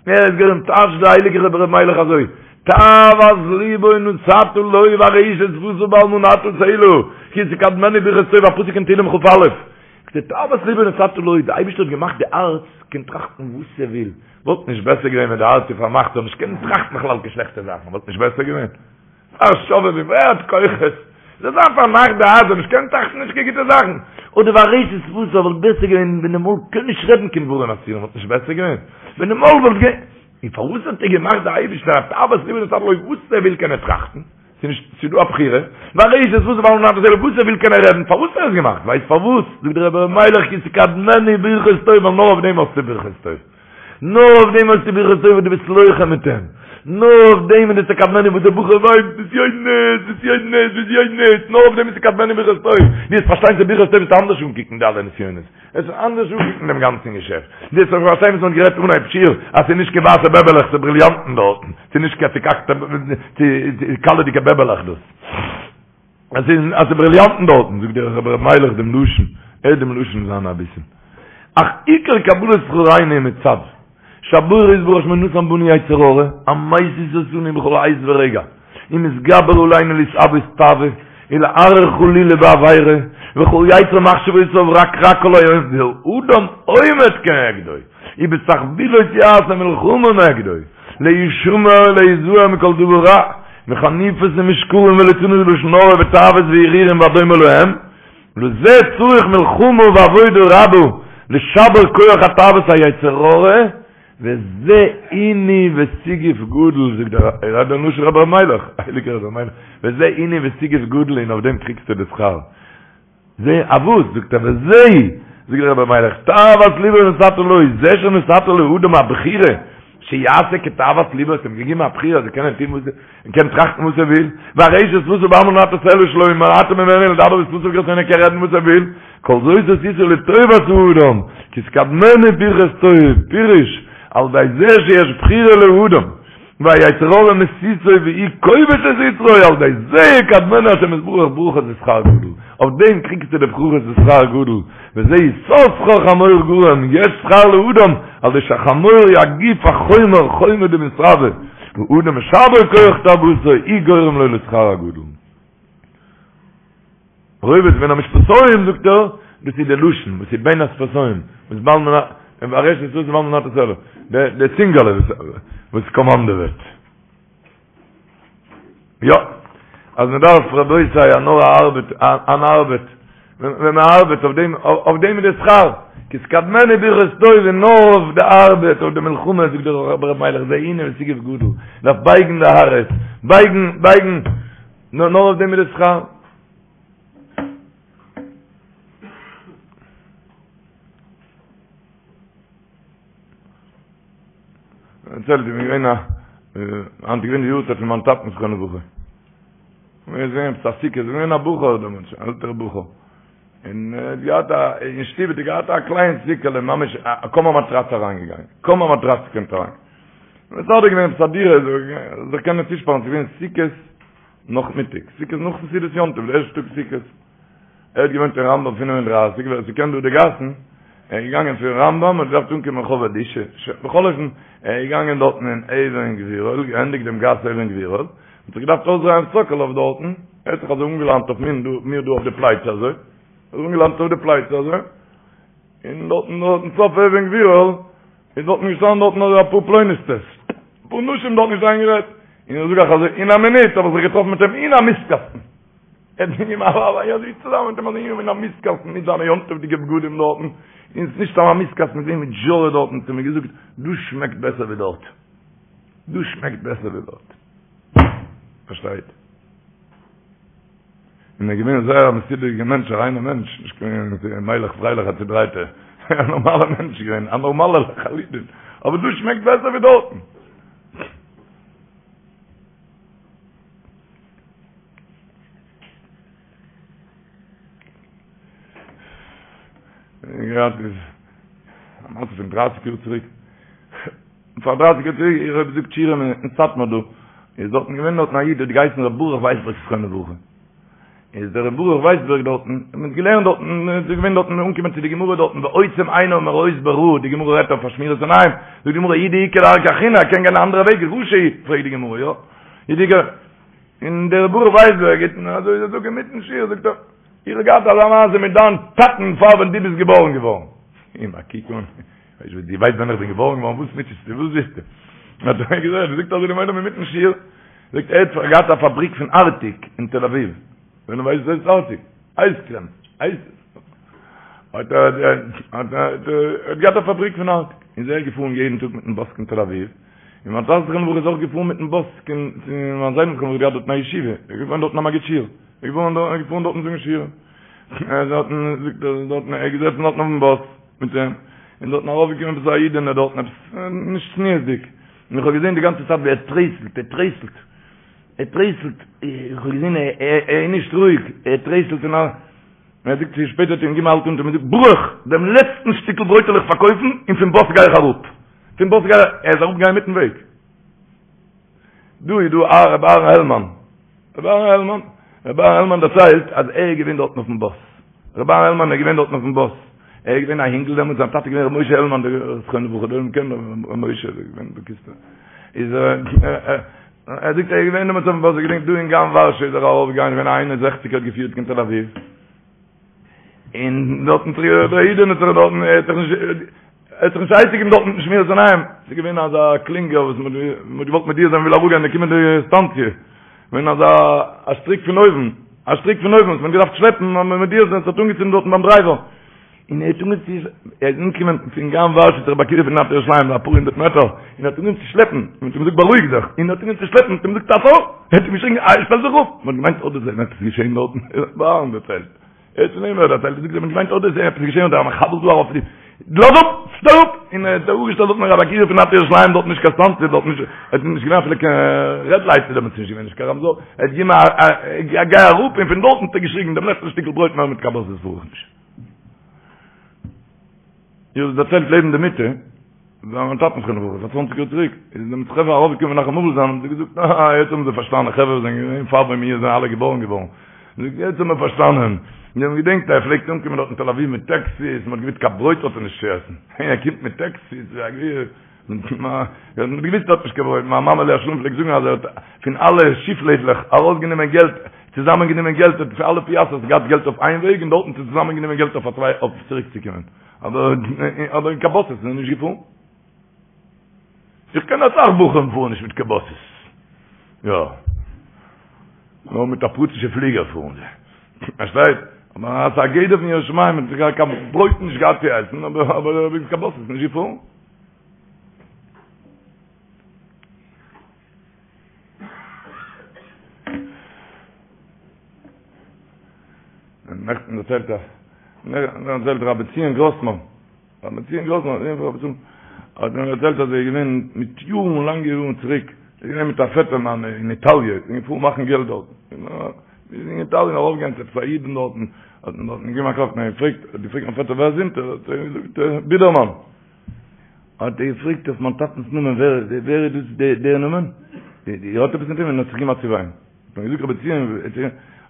ער איז גורם, טייטשט דער הייליגער רבי ר' מיילעך אזוי, תאוות לבו נתת לו וארשת שפתיו בל מנעת סלה, כי תקדמנו ברכות טוב, א פסוק אין תהילים כ"א. תאוות לבו נתת לו, די אייבערשטער האט געמאכט די הארץ קען טראכטן וואס ער וויל, וואלט נישט בעסער געווען ווען די הארץ איז פארמאכט זאל נישט קענען טראכטן בכלל קיין שלעכטע זאכן, וואלט נישט בעסער געווען? א שובבי"ם, ווער האט כוחות? זאל זיין פארמאכט די הארץ זאל נישט קענען טראכטן נישט קיין גוטע זאכן, אדער וארשת שפתיו וואלט בעסער געווען ווען די מויל קען נישט רעדן קיין דברים אסורים וואלט נישט בעסער געווען ווען די מויל וואלט גע. און פארוואס האט ער געמאכט די אייבישטער א תאוות לבו נתת לו וואס ער וויל קען ער טראכטן, ס'איז נישט ס'איז דא א בחירה, וארשת שפתיו בל מנעת סלה וואס ער וויל קען ער רעדן, פארוואס האט ער עס געמאכט? ווייסט פארוואס? זאגט דער רבי ר' מיילעך כי תקדמנו ברכות טוב ווייל נאר אויף דעם האסטו ברכות טוב. נאר אויף דעם האסטו ברכות טוב וואס דו ביסט לוחם מיט אים. נאר אויף דעם איז די תקדמנו וואס דער בחור וויינט בזיונות, בזיונות, בזיונות, נאר אויף דעם איז תקדמנו ברכות טוב. דו וועסט פארשטיין ס'איז ברכות טוב וועסטו אנדערש אנקוקן די אלע נסיונות. וועסט אנדערש אנקוקן דעם גאנצן געשעפט. דו וועסט פארשטיין וואס מ'האט גערעדט אנהייב שיעור, אז ס'איז נישט קיין ווייסע בעבעלעך, ס'איז בריליאנטן דארטן. ס'איז נישט קיין צוקאקטע קאלעדיגע בעבעלעך דאס. אז ס'איז אז ס'איז בריליאנטן דארטן, זאגט דער רבי ר' מיילעך דעם לשון, הערט דעם לשון זיינע אביסל. אך עיקר קבלת שכרינו מצד שהבורא יתברך שמו נתן בנו יצר הרע, המסית אותנו בכל עת ורגע, ומתגבר עלינו להתאוות תאווה, ולהרהר חלילה בעבירה, וכל יצר מחשבותיו רק רע כל היום, והאדם עומד כנגדו, ובתחבולות יעשה מלחמה נגדו, להישמר ולהיזהר מכל דבר רע, מחניפות ומשקרים וליצנות ולשון הרע ותאוות והרהורים והדומה להם, לזה צריך מלחמה ועבודה רבה לשבר כח התאוות היצר הרע, וזה עינוי וסיגוף גדול, זאגט דער רבי לשון רבי ר' מיילעך, הייליגער רבי ר' מיילעך, וזה עינוי וסיגוף גדול און אויף דעם קריגסטו די שכר. זה א וואס? זאגט ער וזה, זאגט דער רבי מיילעך, תאוות לבו נתת לו, זה שנתת לאדם הבחירה, שיעשה כתאוות לבו, האסט אים געגעבן א בחירה אז ער קען טון וואס ער קען טראכטן וואס ער וויל, וארשת שפתיו בל מנעת סלה שלא מנעת ממנו לדבר בשפתיו כרצונו ער קען רעדן וואס ער וויל, כל זאת עשית לטובת האדם, כי תקדמנו ברכת טוב, פירוש, על ידי זה שיש בחירה לאדם, והיצר הרע מסיתו והוא כובש את יצרו, על ידי זה יקדמנו השם יתברך ברכות ושכר גדול, אויף דעם קריגסטו די ברכות ושכר גדול, וזה יששכר חמור גרם, יש שכר לאדם, על ידי שהחמור הוא הגוף החומר, חומר דמתרבה, והאדם משבר כח תאוותו, הוא גורם לו לשכר הגדול. רובץ בין המשפתים זאגט ער, דאס איז די לשון וואס איז בין השפתים, וואס בל מנעת, וארשת שפתיו בל מנעת סלה, די צינגעלע וואס קאמאנדעוועט. יא, אז מען דארף רבותי א נאר א ארבעט, אן ארבעט, ווען מען ארבעט אויף דעם, אויף דעם איז די שכר, כי תקדמנו ברכות טוב און נאר אויף די ארבעט, אויף די מלחמה, זאגט דער רבי ר' מיילעך, זה עינוי וסיגוף גדול, דארף בייגן די הארץ, בייגן, בייגן, נאר אויף דעם איז די שכר. דערציילט איך בין געווען א היינט איז געווען די יארצייט פון מיין טאטן זכרונו לברכה. מיר זענען עפעס א סוכה, איז געווען א בחור דעמאלטס, אן עלטערע בחור. און ער האט געהאט א, אין שטוב האט ער געהאט א קליין סוכה'לע, ממש א קוים א מאטראץ אריינגעגאנגען, קוים א מאטראץ קומט אריין. מסדר געווען עפעס א דירה, זיך קענען צושפארן, ס'איז געווען סוכות נאכמיטאג, סוכות נאכן סעודת יום טוב, די ערשטע טאג סוכות. ער האט געוואוינט אין רמב"ם 35, ווער ס'קען דא די גאסן, ער איז געגאנגען פון רמב"ם און געדארפט אנקומען רחוב אלישע, בכל אופן, ער איז געגאנגען דארטן אין אבן גבירול, געענדיגט דעם גאס אבן גבירול, האט זיך געדארפט אויסדרייען סאקאלאוו דארטן, ער האט זיך אזוי אנגעלאנט אויף מיר דא, מיר דא אויף די פלייצע אזוי, אזוי אנגעלאנט אויף די פלייצע אזוי, און דארטן דארטן סוף אבן גבירול, איז דארטן געשטאנען דארטן אזוי אפאר פלונית'טעס, אפאר נשים דארטן געשטאנען גערעדט, און איך זאג אייך אזוי, אין א מינוט האב איך זיך געטראפן מיט אים אין א מיסטקאסטן. ער האט געגעבן א ווארף אזוי צוזאמען מיט אים אזוי אין א מיסטקאסטן מיט זיינע יום טוב'דיגע בגדים דארטן, און ס'איז נישט סתם א מיסטקאסטן, מיט מיט זשארע דארטן, האט ער מיר געזאגט, דא שמעקט בעסער ווי דארט. דא שמעקט בעסער ווי דארט. פארשטייט? און ער איז געווען זייער א מסודר'דיגער מענטש, א ריינער מענטש, נישט קיין מיילעך פרייליך א צודרייטער, א נארמאלער מענטש געווען, א נארמאלער לחלוטין, אבער דא שמעקט בעסער ווי דארטן. געהאט איז א מעשה פון דרייסיג יאר צוריק פאר דרייסיג יאר צוריק איך האב געזאגט שיעורים אין סאטמאר דא איז דארטן געווען דארטן א איד האט געהייסן ר' ברוך ווייסבערג זכרונו לברכה איז דער ר' ברוך ווייסבערג דארטן מען האט געלערנט דארטן איז געווען דארטן אנגעקומען צו די גמרא דארטן ועוצם עיניו מראות ברע די גמרא רעדט אויף שמירת עיניים זאגט די גמרא אי דאיכא דרכא אחרינא ער קען גיין א אנדערע וועג רשע פרעגט די גמרא יא אי דאיכא און דער ברוך ווייסבערג גיט און אזוי זאגט אינמיטן שיעור זאגט ער איך האב געהאט אזא מעשה מיט דיין טאטן פאר ווען דו ביסט געבארן געווארן. אים א קוק אן, ווייסט וואס דו ווייסט ווען איך בין געבארן געווארן וואס מוטשעסטו וואס ווילסטו? האט ער געזאגט, זאגט אזוי דעם עולם אינמיטן שיעור, זאגט ער האט געהאט א פאבריק פון ארטיק אין תל אביב, ווען דו ווייסט וואס איז ארטיק, אייזקרעם, אייז, האט ער האט ער געהאט א פאבריק פון ארטיק, איז ער געפארן יעדן טאג מיטן באס קיין תל אביב, און מיין טאטע זכרונו לברכה איז אויך געפארן מיטן באס קיין צו מיין זיידן זכרונו לברכה געהאט דארטן א ישיבה, ער איז געפארן דארטן א מגיד שיעור, ער איז געפארן דארט, ער איז געפארן דארטן זאגן שיעור, ער איז דארטן, זאגט ער, דארטן, ער איז געזעצן דארטן אויפן באס מיט אים, און דארטן ארויפגעקומען עפעס א אידענע דארטן עפעס נישט צניעות'דיג, און איך האב געזען די גאנצע צייט ווי ער טרייסלט, ער טרייסלט, ער טרייסלט, איך האב געזען ער איז נישט רואיג, ער טרייסלט און א. און ער זאגט צו שפעטער האט אים געגעבן א האלט אונטער און געזאגט ברוך, דעם לעצטן שטיקל ברויט וועל איך פארקויפן און פון באס גיי איך אראפ. פון באס גיי איך, ער איז אראפגעגאנגען אינמיטן וועג. דא איז דא א רבי אהרן העלמאן. רבי אהרן העלמאן, רבי אהרן העלמאן דערציילט אז ער איז געווען דארטן אויפן באס. רבי אהרן העלמאן איז געווען דארטן אויפן באס. ער איז געווען א אינגל דעמאלטס, זיין טאטע איז געווען רבי משה העלמאן, דער זכרונו לברכה, דער עולם קען רבי משה, איז געווען בקיצור. איז ער ער זאגט ער איז געווען דעמאלטס אויפן באס, ער געדענקט דא אין גן ווארשע איז ער ארויף געגאנגען געווען א איין און זעכציק האט געפירט קיין תל אביב, און דארטן האט זיך דער אידענע האט זיך דארטן ער האט זיך נישט ער האט זיך נישט עצה געגעבן דארטן מיטן שמירת עיניים, ס'איז געווען אזא קלינגער וואס מ'האט מ'האט געוואלט מודיע זיין מ'וויל אראפגיין די קומענדע סטאנציע, געווען אזא א שטריק פון אויבן, א שטריק פון אויבן וואס מ'האט געדארפט שלעפן מודיע זיין ס'האט אנגעצינדן דארטן ביים דרייווער. און ער האט אנגעהויבן צו, ער איז אנגעקומען פון גן ווארשע צו רבי עקיבא פון נארט ירושלים, אפאר הונדערט מעטער, און ער האט אנגעהויבן צו שלעפן, און מען האט אים געזאגט בארואיג זיך, און ער האט אנגעהויבן צו שלעפן, מען האט אים געזאגט עצור, ער האט אים געשריגן אה, שטעל זיך אפ, מען האט געמיינט אדער ס'איז עפעס געשען דארטן, ר' אהרן דערציילט, ער האט פון אים דערציילט, ער זאגט מען האט געמיינט אדער ס'איז עפעס געשען אדער א מחבל דא ארויף, לאז אפ, שטעל אפ, און ער האט זיך אפגעשטעלט דארט מיט רבי עקיבא פון נארט ירושלים, דארט נישט קיין סטאנציע, דארט נישט, עס איז נישט געווען אפילו קיין רעד לייט איז דעמאלטס נישט געווען, נישט קיין רמזור, ער האט געגעבן א גיי אראפ, און פון דארטן האט ער געשריגן דעם לעצטן שטיקל ברויט מער מיט קיין באסעס פאר איך נישט. איך האב דערציילט לעבן די מיטה, ביי מיין טאטן זכרונו לברכה, פאר צוואנציג יאר צוריק, איז די חברה ארויפגעקומען מנחם אבל זיין, האבן זיי געזאגט, אה, יעצט האבן זיי פארשטאנען, חברה וואס זענען געווען פאר ווען מיר זענען אלע געבארן געווארן, זאגט, יעצט האבן מיר פארשטאנען, מיר האבן געדענקט אז ער פלעגט אנקומען דארט אין תל אביב מיט טעקסיס, מען האט געוואוסט קיין ברויט האט ער נישט צו עסן, ער קומט מיט טעקסיס, ווי א גביר. מען האט געוויסט ער האט נישט קיין ברויט, מיין מאמע עליה השלום פלעגט זאגן אז ער האט פון אלע שיפלעדלעך ארויסגענומען געלט, צוזאמען גענומען געלט, האט פון אלע פיאסטערס געהאט געלט אויף איין וועג און דארטן צוזאמען גענומען געלט אויף א צוויי אויף צוריק צו קומען, אבער אבער אין קיין באסעס איז ער נישט געפארן. איך קען אסאך בחורים פארן נישט מיט קיין באסעס. יא. נאר מיט א פרטישע פליגער פארן זיי. פארשטייט? אבער אז א גדר פון יראת שמים האט זיך קיין ברויט נישט געהאט צו עסן, אבער אבער מיט קיין באסעס נישט געפארן. נעכטן דערציילט ער, נעכטן דערציילט רבי ציון גראסמאן, רבי ציון גראסמאן, זון פון רבי צום. האט מיר דערציילט אז ער איז געווען מיט יארן לאנגע יארן צוריק, ער איז געווען מיט א פעטער מיינע אין איטאליע, איז געפארן מאכן געלט דארטן, איז אין איטאליע ארויפגעגאנגען צו עפעס א אידן דארטן, האט מען דארטן געגעבן א קלאפ, און ער געפרעגט, האט געפרעגט מיין פעטער ווער זענט איר, האט ער געזאגט בידערמאן, האט ער געפרעגט אויף מיין טאטנס נאמען ווער ווער איז דאס דער נאמען, איר האט עפעס מיט אים, און האט זיך געגעבן א צעוויין. האט מען געזאגט רבי ציון, האט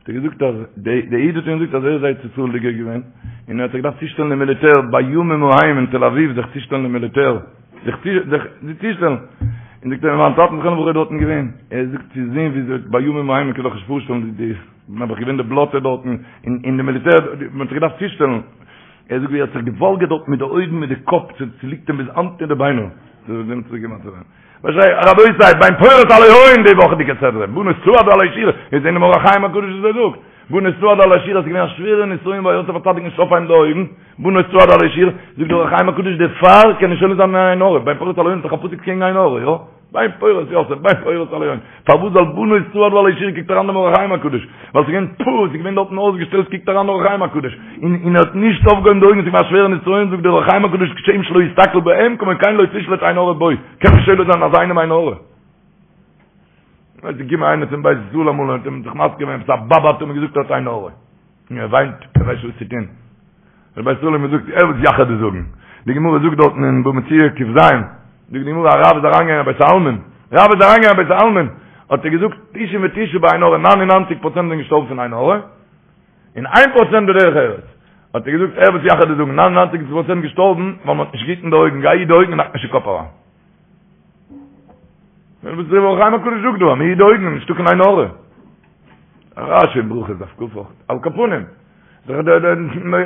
ער געזאגט אז דער איד האט אים געזאגט אז ער איז ארץ ישראל'דיגער געווען, און ער האט זיך געדארפט צושטעלן אין מיליטער בימים ההם אין תל אביב זיך צושטעלן אין מיליטער, זיך צושטעלן, און זאגט ער מיין טאטן זכרונו לברכה איז דארטן געווען, ער זאגט צו זען ווי אזוי בימים ההם מען קען זיך נישט פארשטעלן די נעבעך געווען די בלאטע דארטן אין די מיליטער, מען האט זיך געדארפט צושטעלן, ער זאגט ווי ער האט זיך געוואלגערט דארט מיט די אויגן מיט די קאפ, ס'ליגט אים ביז היינט אין די ביינער, רבותי, בן פורת עלי עין די וואכעדיגע סדרה, בנות צעדה עלי שור, איז אין אור החיים הקדוש וואס ער זאגט, בנות צעדה עלי שור איז געווען א שווערע נסיון ביי יוסף הצדיק נישט אויפהייבן די אויגן, בנות צעדה עלי שור, זאגט דער אור החיים הקדוש דערפאר קען נישט שולט זיין אין עין הרע, בן פורת עלי עין איז דאך א פסוק קעגן עין הרע, יא? בן פורת יוסף, בן פורת עלי עין, פארוואס זאל בנות צעדה עלי שור קוקט אריין דעם אור החיים הקדוש, ווייל ס'איז געווען פו, ס'איז געווען דארטן אויסגעשטעלט קוקט אריין אור החיים הקדוש, און און ער האט נישט אויפגעהויבן די אויגן, ס'איז געווען א שווערע נסיון, זאגט דער אור החיים הקדוש כשם שלא הסתכל בהם כמו כן לא תשלט עין הרע בו, קען נישט שולט זיין אזא איינעם עין הרע. ווייל ס'איז געקומען איינער צום בית ישראל אמאל און האט אים זיך מזכיר געווען עפעס א באבע האט אים געזאגט ער האט עין הרע. און ער וויינט, ער ווייסט נישט וואס צו טון. דער בית ישראל האט אים געזאגט, ער וואס יאך דיר זאגן. די גמרא זאגט דארטן אין בבא מציעא ק"ז, זאגט די גמרא א רב איז אריינגעגאנגען אין בית העלמין, רב איז אריינגעגאנגען אין בית העלמין, האט ער געזאגט תשעים ותשעה בעין הרע, ניין און ניינציג פראצענט זענען געשטארבן פון עין הרע, און איין פראצענט בדרך ארץ. האט ער געזאגט, הער וואס יאך דיר זאגן, ניין און ניינציג פראצענט געשטארבן ווייל מען האט נישט געהיטן די אויגן, גיי היט די אויגן און האק נישט אין קאפ אריין. וואס דער אור החיים הקדוש זאגט דא, אז מען היט די אויגן, נישטא קיין עין הרע. רש"י אין ברכות דף כ' אויך, על כל פנים,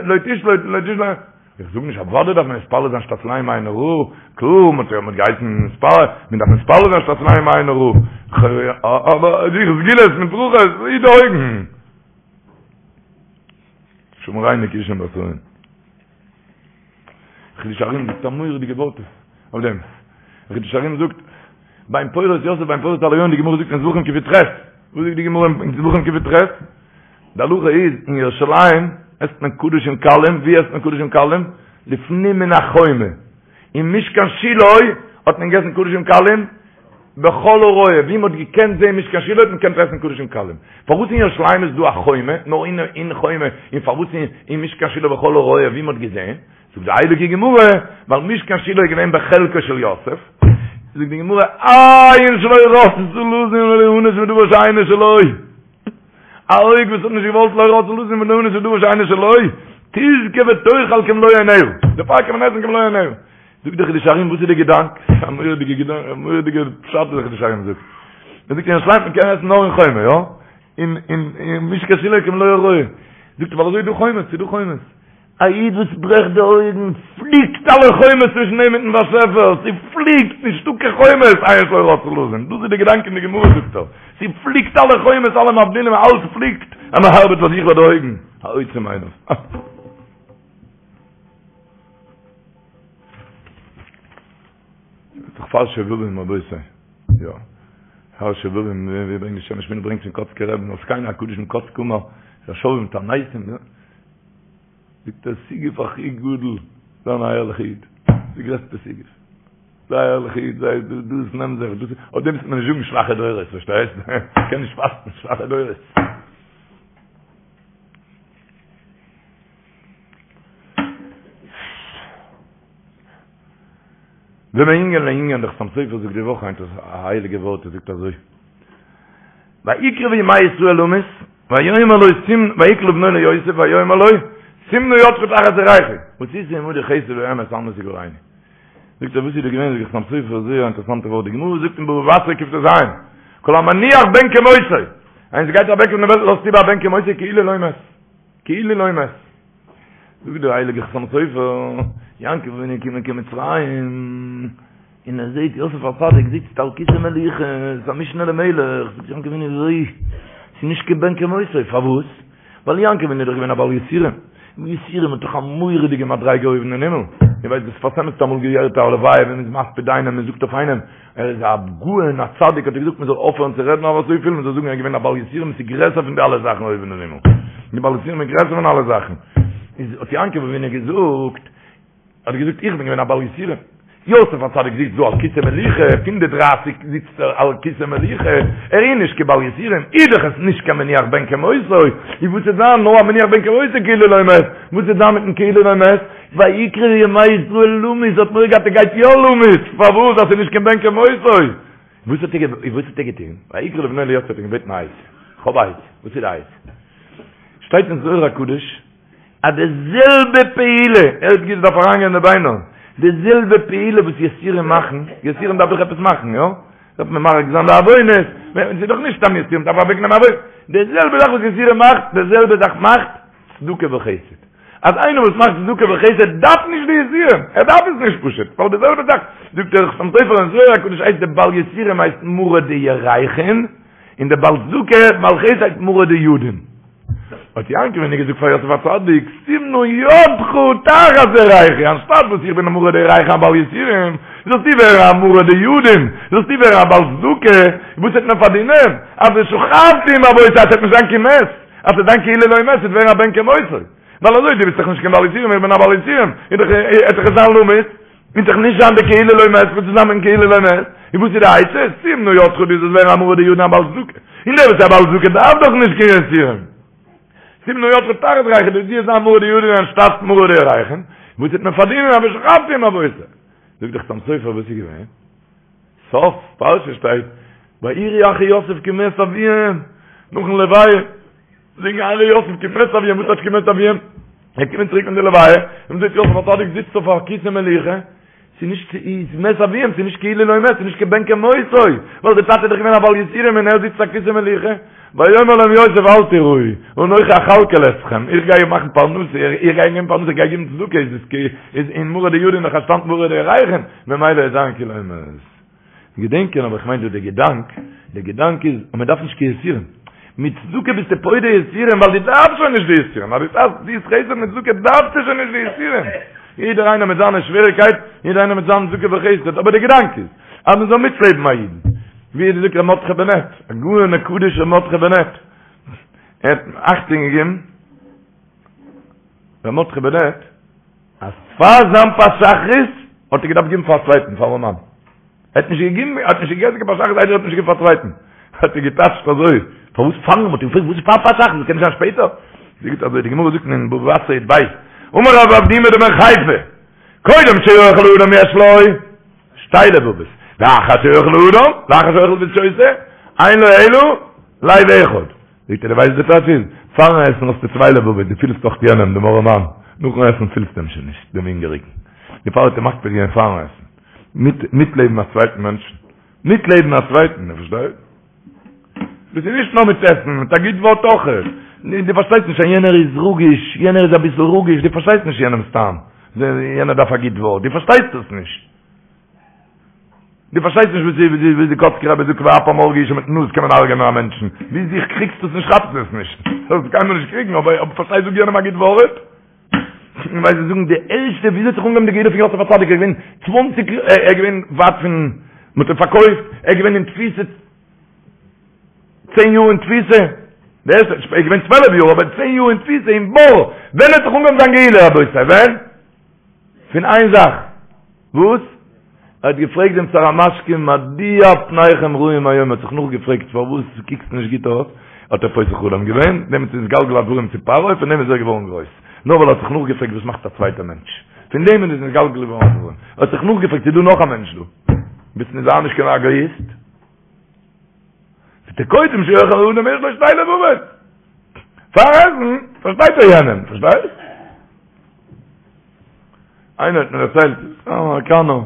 לא תשלוט, לא תשלוט, איך זאג נישט אוודאי דארף מען מתפלל זיין שתצילני מעין הרע, קלאר, מען האט געהייסן מתפלל, מען דארף מתפלל זיין שתצילני מעין הרע, אבער זיך סגולות מיט ברכות, היט די אויגן. שמרינו כי אישים בתרים. חידושי הרי"ם זאגט א מורא'דיגע ווארט אויף דעם. חידושי הרי"ם זאגט, בן פורת יוסף בן פורת עלי עין, די גמרא זאגט אין זבחים קי"ח, וואס זאגט די גמרא אין זבחים קי"ח? די הלכה איז, אין ירושלים עסט מען קדשים קלים, ווי עסט מען קדשים קלים? לפנים מן החומה. אין משכן שילה האט מען געגעסן קדשים קלים בכל הרואה, ווי מען האט געקענט זען משכן שילה האט מען געקענט עסן קדשים קלים. פארוואס אין ירושלים איז דא א חומה, נאר אין אין חומה, און פארוואס אין משכן שילה בכל הרואה ווי מען האט געזען? זאגט די הייליגע גמרא, ווייל משכן שילה איז געווען בחלקו של יוסף, זאגט די גמרא, עין שלא רצתה לזון וליהנות מדבר שאינו שלו. א אויג וואס האט נישט געוואלט לא רצתה לזון וליהנות מדבר שאינו שלו, תזכה ותאכל כמלוא עיניה. דערפאר קען מען עסן כמלוא עיניה. זאגט דער חידושי הרי"ם וואס איז די געדאנק? א מורא'דיגע געדאנק, א מורא'דיגע פשט וואס דער חידושי הרי"ם זאגט. ער זאגט אין ירושלים מען קען עסן נאר אין חומה, יא? אין אין אין משכן שילה כמלוא הרואה. זאגט ער ווייל אזוי איז דא חומות, ס'איז דא חומות. א איד וואס ברעכט די אויגן, פליקט אלע חומות צווישן אים מיטן באשעפער, ס'פליקט, נישטא קיין חומות, עין שלא רצתה לזון, דאס איז די געדאנק אין די גמרא זאגט ער, ס'פליקט אלע חומות, אלע מבדילים, אלעס פליקט, אז מען ארבעט פאר זיך ביי די אויגן, העוצם עיניו. דאך פאר שובבים רבותי. יא. פאר שובבים ווי ברענגט די שמש משנה ברענגט פון קאצקער רבי'ן על זקינו הקדוש מקאצק אמר, שובבים תעניתים, יא. זאגט ער סיגוף הכי גדול זיין א ערליכע איד די גרעסטע סיגוף זיי א ערליכע איד זיי דאס נעם זיך דאס אויף דעם וועט מען נישט זאגן שוואכע דורות פארשטייסט קען נישט פאסטן שוואכע דורות ומענין לענין דער חתם סופר זאגט די וואך היינט א הייליגע ווארט ער זאגט אזוי ויקרבו ימי ישראל למות ויאמר לו שים ויקרא לבנו ליוסף ויאמר לו שים נא ידך תחת ירכי ועשית עמדי חסד ואמת אל נא תגערני זאגט ער וואס איז דא געווען זאגט דער חתם סופר זייער אינטערעסאנטע ווארט די גמרא זאגט אין בבא בתרא קט"ז כל המניח בן כמותו איינער גייט אוועק פון דער וועלט לאזט איבער א בן כמותו כאילו לא מת כאילו לא מת. זאגט דער הייליגער חתם סופר, יעקב אבינו איז געקומען קיין מצרים, און ער זעט יוסף הצדיק זיצט על כסא מלוכה, איז א משנה למלך, זאגט יעקב אבינו אזוי, ס'איז נישט קיין בן כמותו, פארוואס? ווייל יעקב אבינו איז דאך געווען א בעל יסורים, און יסורים האט דאך א מורא'דיגע מדריגה אויבן אין הימל, איר ווייסט דער שפת אמת האט אמאל געהערט א הלוואי ווען מ'איז מספיד איינעם, מ'זאגט אויף איינעם, ער איז א גאון א צדיק האט ער געזאגט מען זאל אויפהערן צו רעדן אויף אזויפיל מען זאל זאגן ער איז געווען א בעל יסורים עס איז גרעסער פון די אלע זאכן אויבן אין הימל די בעל יסורים איז גרעסער פון אלע זאכן איז האט יעקב אבינו געזאגט האט געזאגט איך בין געווען א בעל יסורים. יוסף הצדיק זיצט דא על כסא מלוכה, פון די דרייסיג זיצט ער על כסא מלוכה, ער איז נישט קיין בעל יסורים, איז דאך עס נישט קיין מניח בן כמותו, און וואס וועט זיין נאר א מניח בן כמותו כאילו לא מת, וואס וועט זיין מיטן כאילו לא מת? ויקרבו ימי ישראל למות, האט מורא געהאט ער גייט יא למות, פארוואס? אז ס'איז נישט קיין בן כמותו. וואס האט ער וואס האט ער געטון? ויקרא לבנו ליוסף האט אים געבעטן א עצה, כ'האב א עצה, וואס איז די עצה? שטייט אין זוהר הקדוש, אז די זעלבע פעולה, ער האט געזאגט דארף אריינגיין אין די ביינער, די זעלבע פעולה וואס יסורים מאכן, יסורים דארף דאך עפעס מאכן, יא? דארף מען ממרק זיין די עוונות, ס'איז דאך נישט סתם יסורים, דארף אוועקנעמען עוונות, די זעלבע זאך וואס יסורים מאכט, די זעלבע זאך מאכט צדקה וחסד. אז איינער וואס מאכט צדקה וחסד דארף נישט די יסורים, ער דארף עס נישט פשוט, ווייל די זעלבע זאך, זאגט דער חתם סופר אין זוהר הקדוש הייסט די בעל יסורים הייסט מרא דירכין, און די בעל צדקה, בעל חסד הייסט מרא דידין. האט יעקב אבינו געזאגט פאר יוסף הצדיק, שים נא ידך תחת ירכי, אנשטאט וואס איך בין א מרא דירכין א בעל יסורים, זאלסטו ווערן א מרא דידין, זאלסטו ווערן א בעל צדקה, וואס וועט מען פארדינען? אז ושכבתי עם אבותי, אז ס'וועט נישט זיין קיין מת, אז ס'וועט זיין כאילו לא מת, ס'וועט ווערן א בן כמותו. ווייל אזוי, דו ביסט דאך נישט קיין בעל יסורים, איך בין א בעל יסורים, איז דאך, וועט דאך עס זיין למות, וועט דאך נישט זיין די כאילו לא מת, וואס איז זיין מיטן כאילו לא מת? און וואס איז די עצה? שים נא ידך דו זאלסט ווערן א מרא דידין א בעל צדקה. און דער וואס איז א בעל צדקה דארף דאך נישט קיין יסורים. שים נא ידך תחת ירכי, דו זאלסט זיין מרא דידין אנשטאט מרא דירכין, וואס וועט מען פארדינען א ושכבתי עם אבותי. זאגט דער חתם סופר וואס איז געווען? סוף פרשה שטייט ויראו אחי יוסף כי מת אביהם נאכן לוויה זאגן אחי יוסף כי מת אביהם וואס טייטש כי מת אביהם זיי קומען צוריק פון די לוויה און מ'זעט יוסף הצדיק זיצט אויף א כסא מלוכה ס'איז נישט איז מת אביהם ס'איז נישט כאילו לא מת ס'איז נישט כבן כמותו ווייל די טאטע איז דאך געווען א בעל יסורים און ער זיצט אויף א כסא מלוכה ויאמר להם יוסף אל תיראו אנכי אכלכל אתכם איך גיי מאכן פרנסה איך גיי געבן פרנסה איך גיי געבן צדקה איז עס איז אין מרא דידין נאך אנשטאט מרא דירכין ממילא איז זיין כאילו מת געדענקען אבער איך מיין דא די געדאנק, די געדאנק איז אז מען דארף נישט קיין יסורים, מיט צדקה ביסטו פודה יסורים ווייל דו דארפסט שוין נישט די יסורים, אז דו טוסט חסד מיט צדקה דארפסטו שוין נישט די יסורים, יעדער איינער מיט זיינע שוועריקייט, יעדער איינער מיט זיין צדקה וחסד, אבער די געדאנק איז אז מען זאל מיטלעבן א אידן, ווי עס זאגט ר' מרדכי בנעט, הגאון הקדוש ר' מרדכי בנעט, ער האט אכטונג געגעבן, ר' מרדכי בנעט, אז פאר זיין פת שחרית האט ער געדארפט געבן פאר א צווייטן, פאר ארעמאן. ער האט נישט געגעבן, ער האט נישט געגעסן קיין פת שחרית איידער ער האט נישט געגעבן פאר א צווייטן. האט ער געטייטשט אזוי, פארוואס פארן? מ'האט אים געפרעגט וואס איז פאר פת שחרית, קען נישט זיין שפעטער? זאגט אזוי, די גמרא זאגט אין בבא בתרא י"ב, אמר רב אבדימי דבן חיפא, קודם שאוכל האדם יש לו שתי לבבות, ואחר שאוכל האדם, לאחר שאוכל ושותה, אין לו אלא לב אחד. זאגט ער, דו ווייסט די טייטש איז, פארן עסן האסטו צוויי לבבות, דו פילסט דאך יענעם, דעם ארעמאן, נאכן עסן פילסטו אים שוין נישט, דעם הונגעריגן. דערפאר האט ער מקפיד געווען פארן עסן. מיט, מיטלעבן א צווייטן מענטשן. מיטלעבן א צווייטן, דו פארשטייסט? דאס איז נישט נאר מיט עסן, מיט א גוט ווארט אויך. דו פארשטייסט נישט אז יענער איז רגיש, יענער איז אביסל רגיש, דו פארשטייסט נישט יענעמ'ס טעם. יענער דארף א גוט ווארט, דו פארשטייסט עס נישט. דו פארשטייסט נישט וואס די וואס די קאצקער רבי זאגט ואפם הרגו איש מיטן נאז קען מען הרג'ענען א מענטשן. ווי זיך קריגסט עס נישט כאפסט עס נישט. זאלסט קיינמאל נישט קריגן אבער אבער פארשטיי זאג יענעם א גוט ווארט. און ווייל זיי זאגן די ערשטע וויאזוי האט זיך אנגעהויבן די גאולה פון יוסף הצדיק ער איז געווען צוואנציג ער איז געווען ווייט פון מ'האט אים פארקויפט ער איז געווען אין תפיסה צען יאר אין תפיסה די ערשטע ער איז געווען צוועלף יאר אבער צען יאר אין תפיסה אין בור ווען האט זיך אנגעהויבן זיין גאולה רבותי ווען? פון איין זאך, וואס? ער האט געפרעגט דעם שר המשקים מדוע פניכם רעים היום, ער האט זיך נאכגעפרעגט פארוואס קוקסט נישט גוט אויס, האט ער פותר חלום געווען, דעמאלטס איז נתגלגל הדברים צו פרעה, פון דעם איז ער געווארן גרויס, נאר ווייל ער האט זיך נאכגעפרעגט וואס מאכט א צווייטער מענטש, פון דעם איז נתגלגל געווארן הדברים, ער האט זיך נאכגעפרעגט ס'איז דא נאך א מענטש דא, ביסט נישט זיי נישט קיין עגאיסט. קודם שאוכל האדם יש לו שתי לבבות. פאר עסן פארשטייט ער יענעם, פארשטייסט? איינער האט מיר דערציילט, א אמעריקאנער,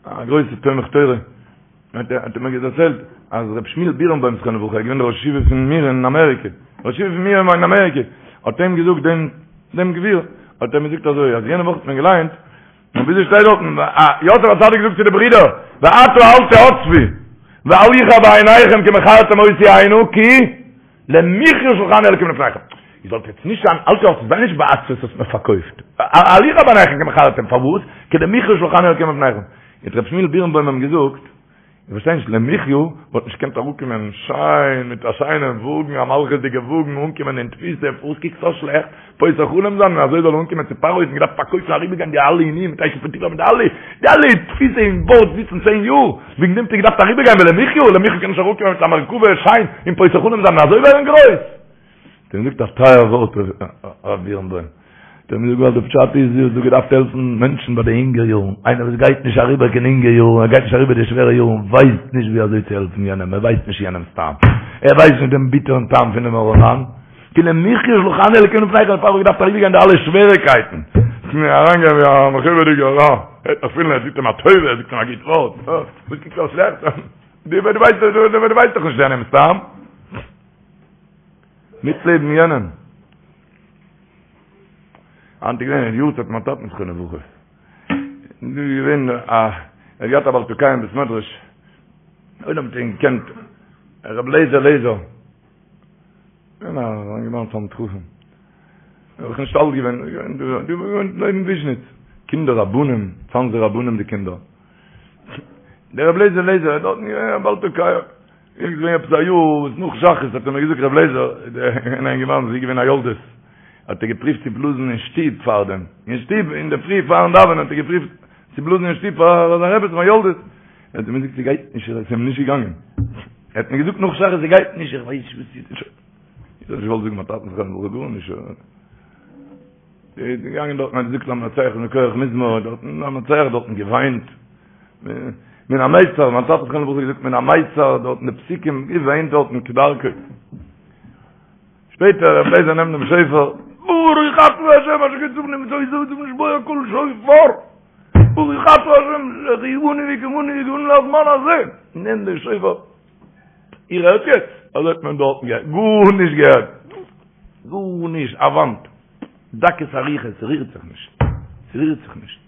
א גרויסע תומך תורה, האט ער מיר דערציילט אז רב שמואל בירנבוים זכרונו לברכה, איז געווען דער ראש ישיבה פון מיר אין אמעריקע, ראש ישיבה פון מיר אין אמעריקע, האט אים געזאגט דעם דעם גביר, האט ער מיר געזאגט אזוי, אז יענע וואך האט מען געליינט, און וויאזוי שטייט דארטן, יוסף הצדיק זאגט צו די ברידער, ועתה אל תעצבו, ואל יחר בעיניכם כי מכרתם אותי הנה, כי למחיה שלחני אלקים לפניכם. איר זאלט יעצט נישט זיין, אל תעצבו, זיי נישט בעצבות האסט מיר פארקויפט. אל יחר בעיניכם כי מכרתם, פארוואס? כי למחיה שלחני אלקים לפניכם. האט ר' שמואל בירנבוים אים געזאגט, איך פארשטיי נישט, למחיה וואלט נישט געקענט אראפקומען שיין מיט א שיינעם וואגן, א מלכות'דיגע וואגן, אנקומען אין תפיסה, פארוואס קוקסטו אזוי שלעכט, פותר חלום זיין און אזוי זאל ער אנקומען צו פרעה, האט מען געדארפט פארקויפן אריבערגיין די אלע עינויים מיט אשת פוטיפר מיט די אלע די אלע תפיסה אין בארד זיצן צען יאר, וועגן דעם האט ער געדארפט אריבערגיין ולמחיה, למחיה קען נישט אראפקומען מיט א מרכבה שיין און פותר חלום זיין און אזוי ווערן גרויס. האט אים געזאגט א טייער ווארט הרב בירנבוים, האט אים געזאגט ווייל די פשט איז דו האסט דא געדארפט העלפן מענטשן ביי די אינגע יארן, איינער וואס גייט נישט אריבער קיין אינגע יארן, ער גייט נישט אריבער די שווערע יארן, ווייסט נישט ווי אזוי צו העלפן יענעם, ער ווייסט נישט יענעמ'ס טעם, ער ווייסט נישט דעם ביטערן טעם פונעם ארעמאן, כי למחיה שלחני אלוקים לפניכם, דערפאר האב איך געדארפט אריבערגיין די אלע שוועריקייטן, אריינגיין ווי א מכובד'יגער, ער וועט נאך פילן ער טוט אים א טובה, ער זאגט אים א גוט ווארט, וואס קוקסטו אזוי שלעכט, דו ווייסט דאך נישט יענעמ'ס טעם. מיטלעבן יענעם. היינט איז געווען יארצייט מיין טאטן זכרונו לברכה. דא איז געווען א ער האט געהאט א בעל תוקע אין בית מדרש. עולם האט אים געקענט רב לייזער לייזער. געווען א אינגערמאן תלמיד חכם. ער איז נישט אלט געווען, געווען דא געווען לעבן וויזשניץ. קינדער רבנים, צאנזער רבנים די קינדער. דער רב לייזער לייזער איז דארטן געווען א בעל תוקע. איז געווען עפעס א יאר וואס נאך שחרית האט ער מיר געזאגט רב לייזער אן אינגערמאן ס'איז געווען א יולדת האט ער געפריווט צו בלאזן אין שטוב פארדעם אין שטוב אין די פרי פארן דאווענען האט ער געפריווט צו בלאזן אין שטוב פאר זיין רעבעצן א יולדת האט ער מיר געזאגט ס'גייט נישט עס איז אים נישט געגאנגען ער האט מיר געזאגט נאך שחרית ס'גייט נישט איך ווייס נישט וואס איז איך האב נישט געוואלט זאגן מיין טאטן זכרונו לברכה גארנישט איז געגאנגען דארטן האט געזאגט למנצח מכח מזמור דארטן למנצח דארטן געוויינט מן המיצר מיין טאטע זכרונו לברכה געזאגט מן המיצר דארטן די פסוקים געוויינט דארטן כדרכו שפעטער רב לייזער נעמט דעם שופר ברוך אתה השם אשר קדשנו במצותיו וצונו לשמוע קול שופר ברוך אתה השם שהחיינו וקיימנו והגיענו לזמן הזה נעמט דעם שופר איר הערט יעצט? אזוי האט מען דארטן געהערט, גארנישט געהערט, גארנישט, א וואנט, דקות אריכות, ס'רירט זיך נישט, ס'רירט זיך נישט.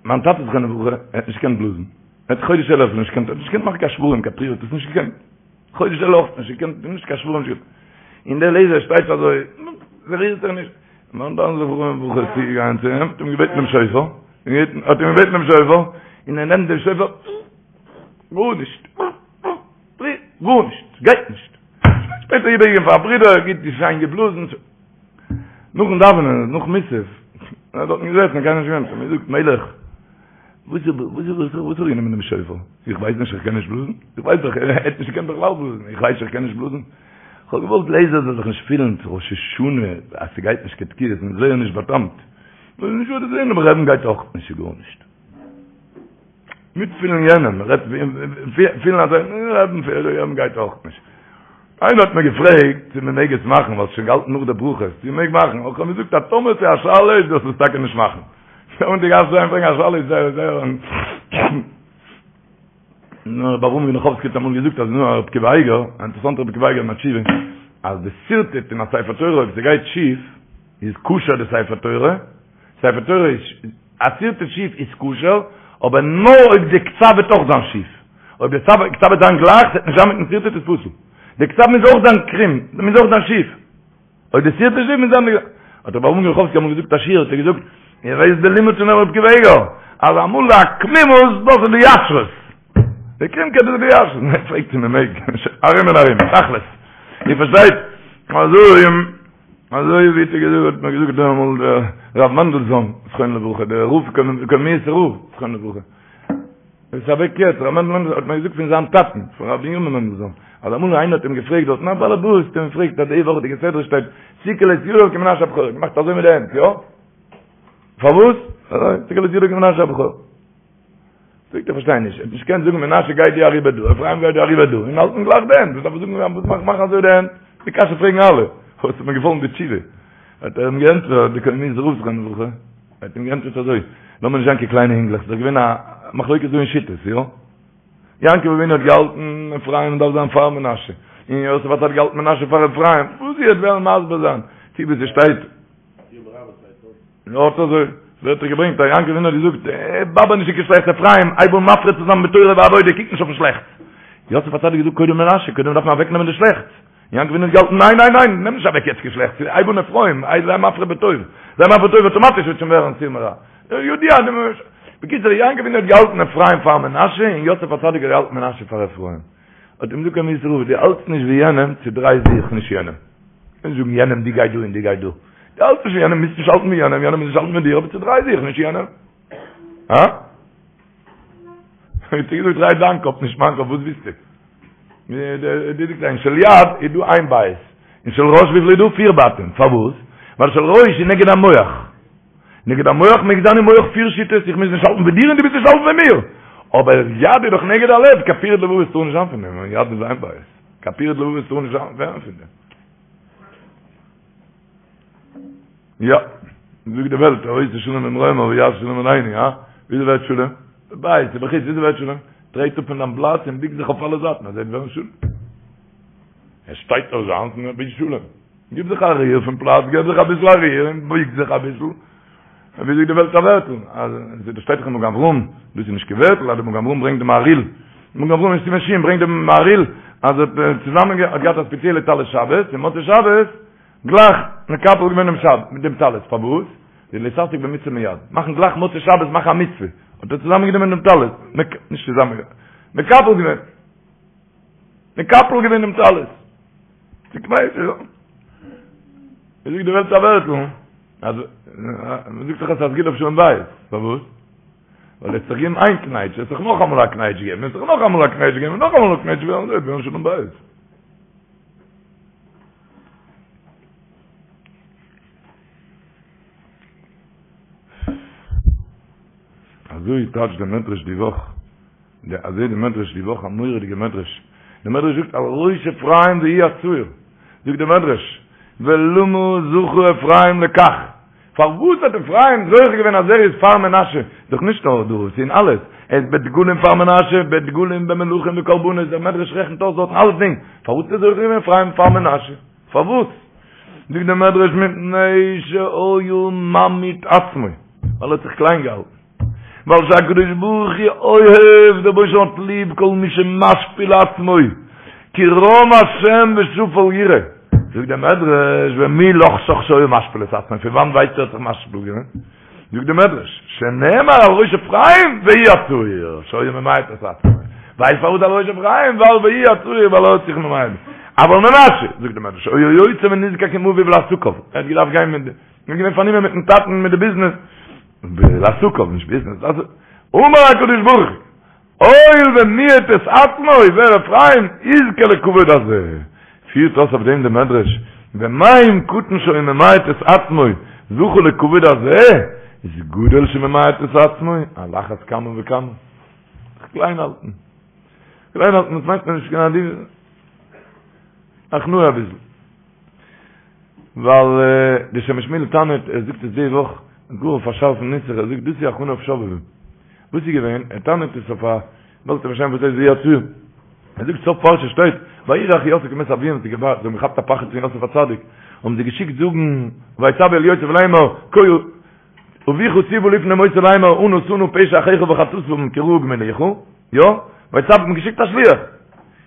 מיין טאטע זכרונו לברכה, ער האט נישט געקענט בלאזן, ער האט חודש אלול אפילו נישט געקענט, ער האט נישט געקענט מאכן קיין שברים, קיין תרועה, האט עס נישט געקענט, חודש אלול אויך נישט געקענט, נישט קיין שברים, נישט געקענט. און דער לייזער שטייט אזוי, ס'רירט זיך נישט. מיין טאטע זכרונו לברכה איז צוגעגאנגען צו אים, האט אים געבעטן דעם שופר, האט אים געבעטן דעם שופר, און ער נעמט דעם שופר, גארנישט, גארנישט, ס'גייט נישט. שפעטער איבערגעגעבן פאר א ברודער, גוט שיין געבלאזן. נאכן דאווענען, נאך מוסף, ער האט דארטן געזעסן, קיינער נישט געווען, האט ער מיר געזאגט, מלך, וואס איז, וואס איז, וואס האב איך גענומען דעם שופר? איך ווייס נישט, איך קען נישט בלאזן? איך ווייס דאך, ער האט נישט געקענט בכלל בלאזן, איך ווייס איך קען נישט בלאזן. איך האב געוואלט לייזער זאל זיך נישט פילן צו ראש השנה, אז ס'גייט נישט קיין תקיעות, און זייער נישט באטאמט. נישט וואס זעהן, אבער רעדן גייט אויך נישט גארנישט. מיטפילן יענעם, רעדט פילן אז רעדן רעדן גייט אויך נישט. איינער האט מיר געפרעגט צו מען מעג עס מאכן, ווייל ס'איז שוין געהאלטן נאך די ברכות, צו מען מעג מאכן, איך האב געזאגט אז טאמער ס'איז א שאלה איז דארפסטו עס טאקע נישט מאכן. און די גאס זיין פרעגן א שאלה איז זייער זייער נו, ר' אברהם גענאכאווסקי האט אמאל געזאגט אז נו, ר' עקיבא אייגער, א אינטערעסאנטער ר' עקיבא אייגער אין א תשובה, אז די שרטוט אין א ספר תורה אויב ס'גייט שיף, איז כשר די ספר תורה, ספר תורה איז, א שרטוט שיף איז כשר, אבער נאר אויב די כתב וועט אויך זיין שיף. אויב די כתב וועט זיין גלייך, ס'וועט נישט זיין מיטן שרטוט איז פסול. די כתב מוז אויך זיין קרום, מוז אויך זיין שיף. אויב די שרטוט שיף מוז זיין די. האט רבי אברהם גענאכאווסקי אמאל געזאגט א שיעור, האט ער געזאגט, איר ווייסט די לימוד פון רבי עקיבא אייגער, אז אמאל די עקמימות דאס איז די ישרות. די קרומקייט איז די ישרות. מען פרעגט צו מען מעג, ארום און ארום, תכלית. איר פארשטייט? אזוי אזוי ווי האט ער געזאגט, האט מיר געזאגט אמאל דער רב מענדלזאהן, זכרונו לברכה, דער רב קוממיות'ער רב, זכרונו לברכה. ער איז אוועק יעצט, רב מענדל מענדלזאהן האט מיר געזאגט פון זיין טאטן, פון רבי בנימין מענדלזאהן, אז אמאל איינער האט אים געפרעגט דארט, א באלעבאס האט אים געפרעגט אז די וואכעדיגע סדרה שטייט, שכל את ידיו כמנשה הבכור, געמאכט אזוי מיט די הענט, יא? פארוואס? שכל את ידיו כמנשה הבכור. זאגט ער פארשטיי נישט, ער האט נישט געקענט זאגן מנשה גיי דו אריבער דא, אפרים גיי דו אריבער דא, און האלטן גלייך די הענט, וואס דארף ער זאגן וואס מאך מאכן אזוי די הענט? די קשיא פרעגן אלע, וואס האט מיר געפאלן די תשובה? האט ער אים געענטפערט, די קוממיות'ער רב זכרונו לברכה, ער האט אים געענטפערט אזוי, לאמיר נישט זיין קיין קליינע אינגלעך, ס'איז דאך געווען א מחלוקת דא אין שיטות, יא? יעקב אבינו האט געהאלטן אפרים דארף זיין פאר מנשה, און יוסף הצדיק האט געהאלטן מנשה פאר אפרים, וואס איר וועט וועלן מסביר זיין, צו ווי ס'שטייט יא אט אזוי ווערט ער געברענגט אז יעקב אבינו האט געזאגט, באבער נישט קיין שלעכטס אפרים, הייב אן מפרה צו זיין בתורה ועבודה, קוק נישט אויפן שלעכטס. יוסף הצדיק האט געזאגט קודם מנשה, קודם דארף מען אוועק נעמען די שלעכטס. יעקב אבינו האט געהאלטן ניין ניין ניין, נעם נישט אוועק יעצט קיין שלעכטס, הייב אן אפרים, זיי מפרה בטוב, זיי מפרה בטוב אויטאמאטיש וועט שוין ווערן סור מרע. יודיע. בקיצור, יעקב אבינו האט געהאלטן אפרים פאר מנשה, און יוסף הצדיק האט געהאלטן מנשה פאר אפרים. האט אים געזאגט קאמינצער רב, דו האלטסט נישט ווי יענעם, צודריי זיך נישט יענעם. קענסט זאגן יענעם דו גיי דא און דו גיי דא. דו האלטסט נישט ווי יענעם, מוזט נישט האלטן ווי יענעם, יענער מוז נישט האלטן ווי דיר, אבער צודריי זיך נישט יענעם. הא? האט ער געזאגט דריי דיין קאפ נישט מיין קאפ, וואס ווילסטו? די זאגט אין של יד איז דא איין בית, אין של ראש וויפיל איז דא? פיר בתים, פארוואס? ווייל של ראש איז נגד המוח. נגד המוח מעג זיין אין מוח פיר שיטות, איך מוז נישט האלטן ווי דיר און דו מוזט נישט האלטן ווי מיר. אבער יד איז דאך נגד הלב, קיין פירוד לבבות טאר נישט זיין פון דעם, יד איז איין בית. קיין פירוד לבבות טאר נישט זיין פון דעם. יא, זאגט די וועלט, העושה שלום במרומיו הוא יעשה שלום עלינו, הא? וויאזוי ווערט שלום? בבית, ובחוץ, וויאזוי ווערט שלום? טרעט אפ פון דיין פלאץ און ביג זיך אויף אלע זייטן, אזוי וועט ווערן שלום. ער שטייט אויף זיינס און ער וויל שלום. גיב זיך א ריר פון פלאץ, געב זיך אביסל א ריר און בויג זיך אביסל. ווי זאגט די וועלט א ווערטל, אז דאס שטייט דאך אין מגן אברהם, דאס איז נישט קיין ווערטל, אז דער מגן אברהם ברענגט דעם מהריל, מגן אברהם אין סימן שין ברענגט דעם מהריל, אז ער האט צוזאמען האט געהאט א ספעציעלע טלית שבת, און מוצאי שבת גלייך מקפל געווען דעם שבת מיט דעם טלית, פארוואס? די להתעסק במצוה מיד, מאכן גלייך מוצאי שבת מאכן א מצוה, האט ער צוזאמען גענומען דעם טלית, נישט צוזאמען, מקפל געווען. מקפל געווען דעם טלית. צוקנייטשט יא. ווי זאגט די וועלט א ווערטל, אז מען זאגט דאך אז ס'איז א סגולה אויף שלום בית. פארוואס? ווייל עס זיך געבן איין קנייטש, עס זיך נאך אמאל א קנייטש געבן, עס זיך נאך אמאל א קנייטש געבן, נאך אמאל א קנייטש געבן, אזוי ווערן שלום בית. אזוי טייטשט דער מדרש די וואך. די אזוי די מדרש די וואך א מורא'דיגע מדרש, די מדרש זאגט על ראש אפרים והוא הצעיר, זאגט די מדרש, ולמה זכה אפרים לכך, פארוואס האט אפרים זוכה געווען אז ער איז פאר מנשה, דאך נישט נאר דא, ס'איז אין אלעס, ער איז בדגלים פאר מנשה, בדגלים במלכים בקרבנות, דער מדרש רעכנט אויס דארטן אלסדינג, פארוואס האט ער זוכה געווען אפרים פאר מנשה? פארוואס? זאגט דער מדרש מפני שהיה ממעיט עצמו, ווייל ער האט זיך קליין געהאלטן. ווייל שהקדוש ברוך הוא אוהב, דער רבונו של עולם האט ליב כל מי שמשפיל עצמו, כי רם השם ושפל יראה. זאגט דער מדרש, ומי לחשך שהיה משפיל את עצמו, פון וואנט ווייסטו ער האט זיך משפיל געווען? זאגט דער מדרש, שנאמר על ראש אפרים והוא הצעיר, שהיה ממעט את עצמו. ווייסט פארוואס על ראש אפרים? ווייל והוא הצעיר, ווייל ער האט זיך ממעט. אבל מנשה, זאגט דער מדרש, היה יוצא ונזקק עם אביו לעסקיו, ער האט געדארפט גיין מיט, ער איז געווען פארנומען מיטן טאטן מיט די ביזנעס, לעסקיו, נישט ביזנעס, אז אמר הקדוש ברוך הוא, הואיל ומיעט את עצמו, ווער אפרים, יזכה לכבוד הזה. פירט אויס אויף דעם די מדרש, ומה אם קטן שהיה ממעט את עצמו, זכה לכבוד הזה, איז גדול שממעט את עצמו, על אחת כמה וכמה. זיך קליין האלטן. קליין האלטן, דאס מיינט מען נישט קיין עדינות. הכנעה אביסל. ווייל די שם משמואל טענה'ט, ער זאגט עס די וואך, גאר אויף א שארפן נוסח, ער זאגט דאס איז הכנה אויף שובבים. וואס איז געווען? ער טענה'ט עס אויף א, וועלט פארשטיין וואס הייסט והוא הצעיר. ער זאגט סוף פרשה שטייט, וירא אחי יוסף כי מת אביהם, זיי האבן געכאפט א פחד פון יוסף הצדיק, האבן זיי געשיקט זאגן, ויצוו אל יוסף לאמר, כה אביך ציוה לפני מותו לאמר אנא שא נא פשע אחיך וחטאתם כי רעה גמילוך, יא, ויצוו האט מען געשיקט א שליח.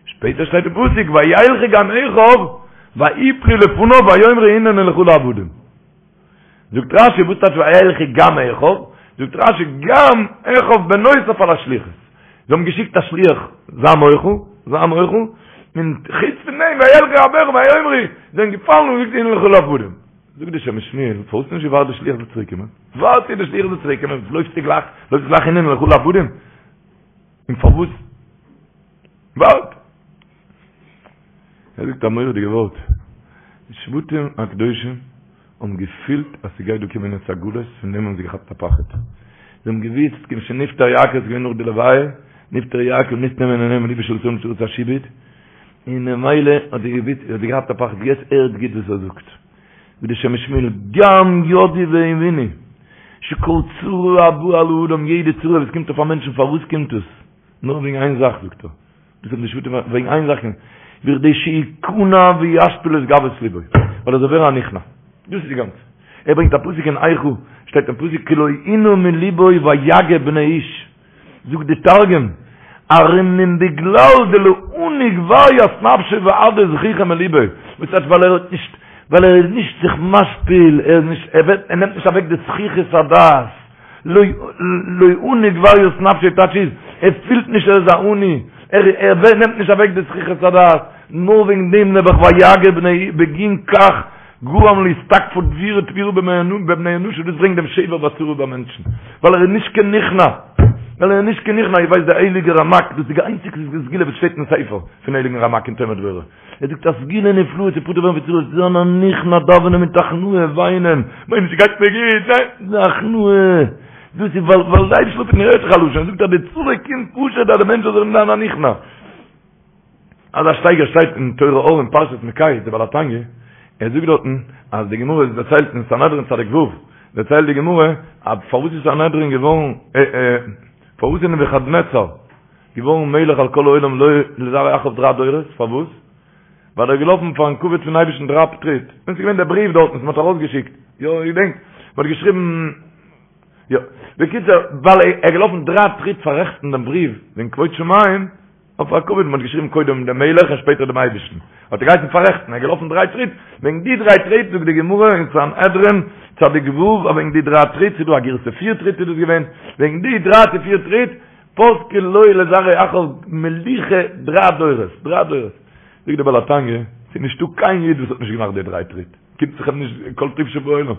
שפעטער שטייט אין פסוק וילכו גם אחיו ויפלו לפניו ויאמרו הננו לך לעבדים. זאגט רשי וואס טייטש וילכו גם אחיו? זאגט רשי גם אחיו בנוסף על השליחות. זיי האבן געשיקט א שליח זיי מוחל, זיי מוחל, און חוץ פון דעם וילכו גם אחיו ויאמרו זיי זענען געפאלן און געזאגט הננו לך לעבדים. זאגט די שם משמואל, פארוואס האסטו נישט געווארט די שליח זאל צוריק קומען? ווארט ביז די שליח זאל צוריק קומען, לויפסטו גלייך, לויפסט גלייך הננו לך לעבדים? און פארוואס? ווארט! ער זאגט א מורא'דיגע ווארט, די שבטים הקדושים האבן געפילט אז ס'גייט דא קומען יעצט א גלות, פון דעם האבן זיי געכאפט א פחד. זיי האבן געוואוסט, כיוון שנפטר יעקב, ס'איז געווען נאך די לוויה, נפטר יעקב נסתם עיניהם ולבן של ישראל מצרת השעבוד, און ממילא האט זי געוואוסט, האט זי געהאט א פחד, יעצט הערט גוט וואס ער זאגט, ווי די שם משמואל, גם ידעו והבינו, שכל צרה הבאה על האדם, יעדע צרה וואס קומט אויף א מענטשן, פארוואס קומט עס? נאר וועגן איין זאך, זאגט ער, דאס האבן די שבטים, וועגן איין זאך, בכדי שיכנע וישפיל את גאוות לבו, ווייל ער זאל ווערן א נכנע, דאס איז די גאנצע. ער ברענגט א פסוק אין איכה, שטייט אין פסוק, כי לא ענה מלבו ויגה בני איש. זאגט די תרגום, ארום מן בגלל דלא עני גבר ית נפשיה ואהדר זחוחא מליביה, וואס טייטש ווייל ער האט נישט, ווייל ער איז נישט זיך משפיל, ער איז נישט, ער ווערט, ער נעמט נישט אוועק די זחיחות הדעת. לא עני גבר ית נפשיה טייטש איז, ער פילט נישט ער איז א עני, ער נעמט נישט אוועק די זחיחות הדעת, נאר וועגן דעם נעבעך ויגר בני בגין כך גרם לאתתקפא דביר תבירא בבני אנשא דאס ברענגט דעם שבר בצרה ביי מענטשן, ווייל ער איז נישט קיין נכנע, ווייל ער איז נישט קיין נכנע, איר ווייסט דער הייליגער רמק, דאס איז די איינציגסטע סגולה וואס שטייט אין ספר פון הייליגן רמק אין תומר דבורה. ער זאגט א סגולה נפלאה צו פטור ווערן פון צרות, זיין א נכנע, דאווענען מיט הכנעה, וויינען, מיין נישט ס'גייט מיר גוט, ניין, די הכנעה, דאס איז ווייל ווייל די אייבערשטער האט מיר הערט זיך א לשון, ער זאגט אז די צרה קומט פשוט אז די מענטש זאל זיך זיין א נכנע. אזא שטייגער שטייט אין תורה אור אין פרשת מקץ, די בעל התניא, ער זאגט דארטן אז די גמרא איז דערציילט אין סנהדרין צדיק ו', דערציילט די גמרא אז פארוואס איז סנהדרין געווארן, פארוואס איז נבוכדנצר געווארן מלך על כל העולם לו לזרעו אחריו דריי דורות, פארוואס? ווייל ער איז געלאפן פארן כבוד פון אייבערשטן דריי טריט, און ס'איז געווען דער בריוו דארטן וואס מ'האט ארויסגעשיקט, יא איר געדענקט, מ'האט געשריבן, יא, בקיצור, ווייל ער איז געלאפן דריי טריט פאררעכטן דעם בריוו וועגן כבוד שמים, אויף א כבוד, מ'האט געשריבן קודם דעם מלך און שפעטער דעם אייבערשטן, האט ער געהייסן פאררעכטן, ער איז געלאפן דריי טריט, וועגן די דריי טריט זאגט די גמרא אין סנהדרין צדיק ו', אז וועגן די דריי טריט, ס'איז דא א גירסא פיר טריט איז דאס געווען, וועגן די דריי צו פיר טריט, פסקה לו לזרעו אחריו מלוכה דריי דורות, דריי דורות. זאגט דער בעל התניא, ס'איז נישטא קיין איד וואס האט נישט געמאכט די דריי טריט, קומט זיך אים נישט כל טוב שבעולם.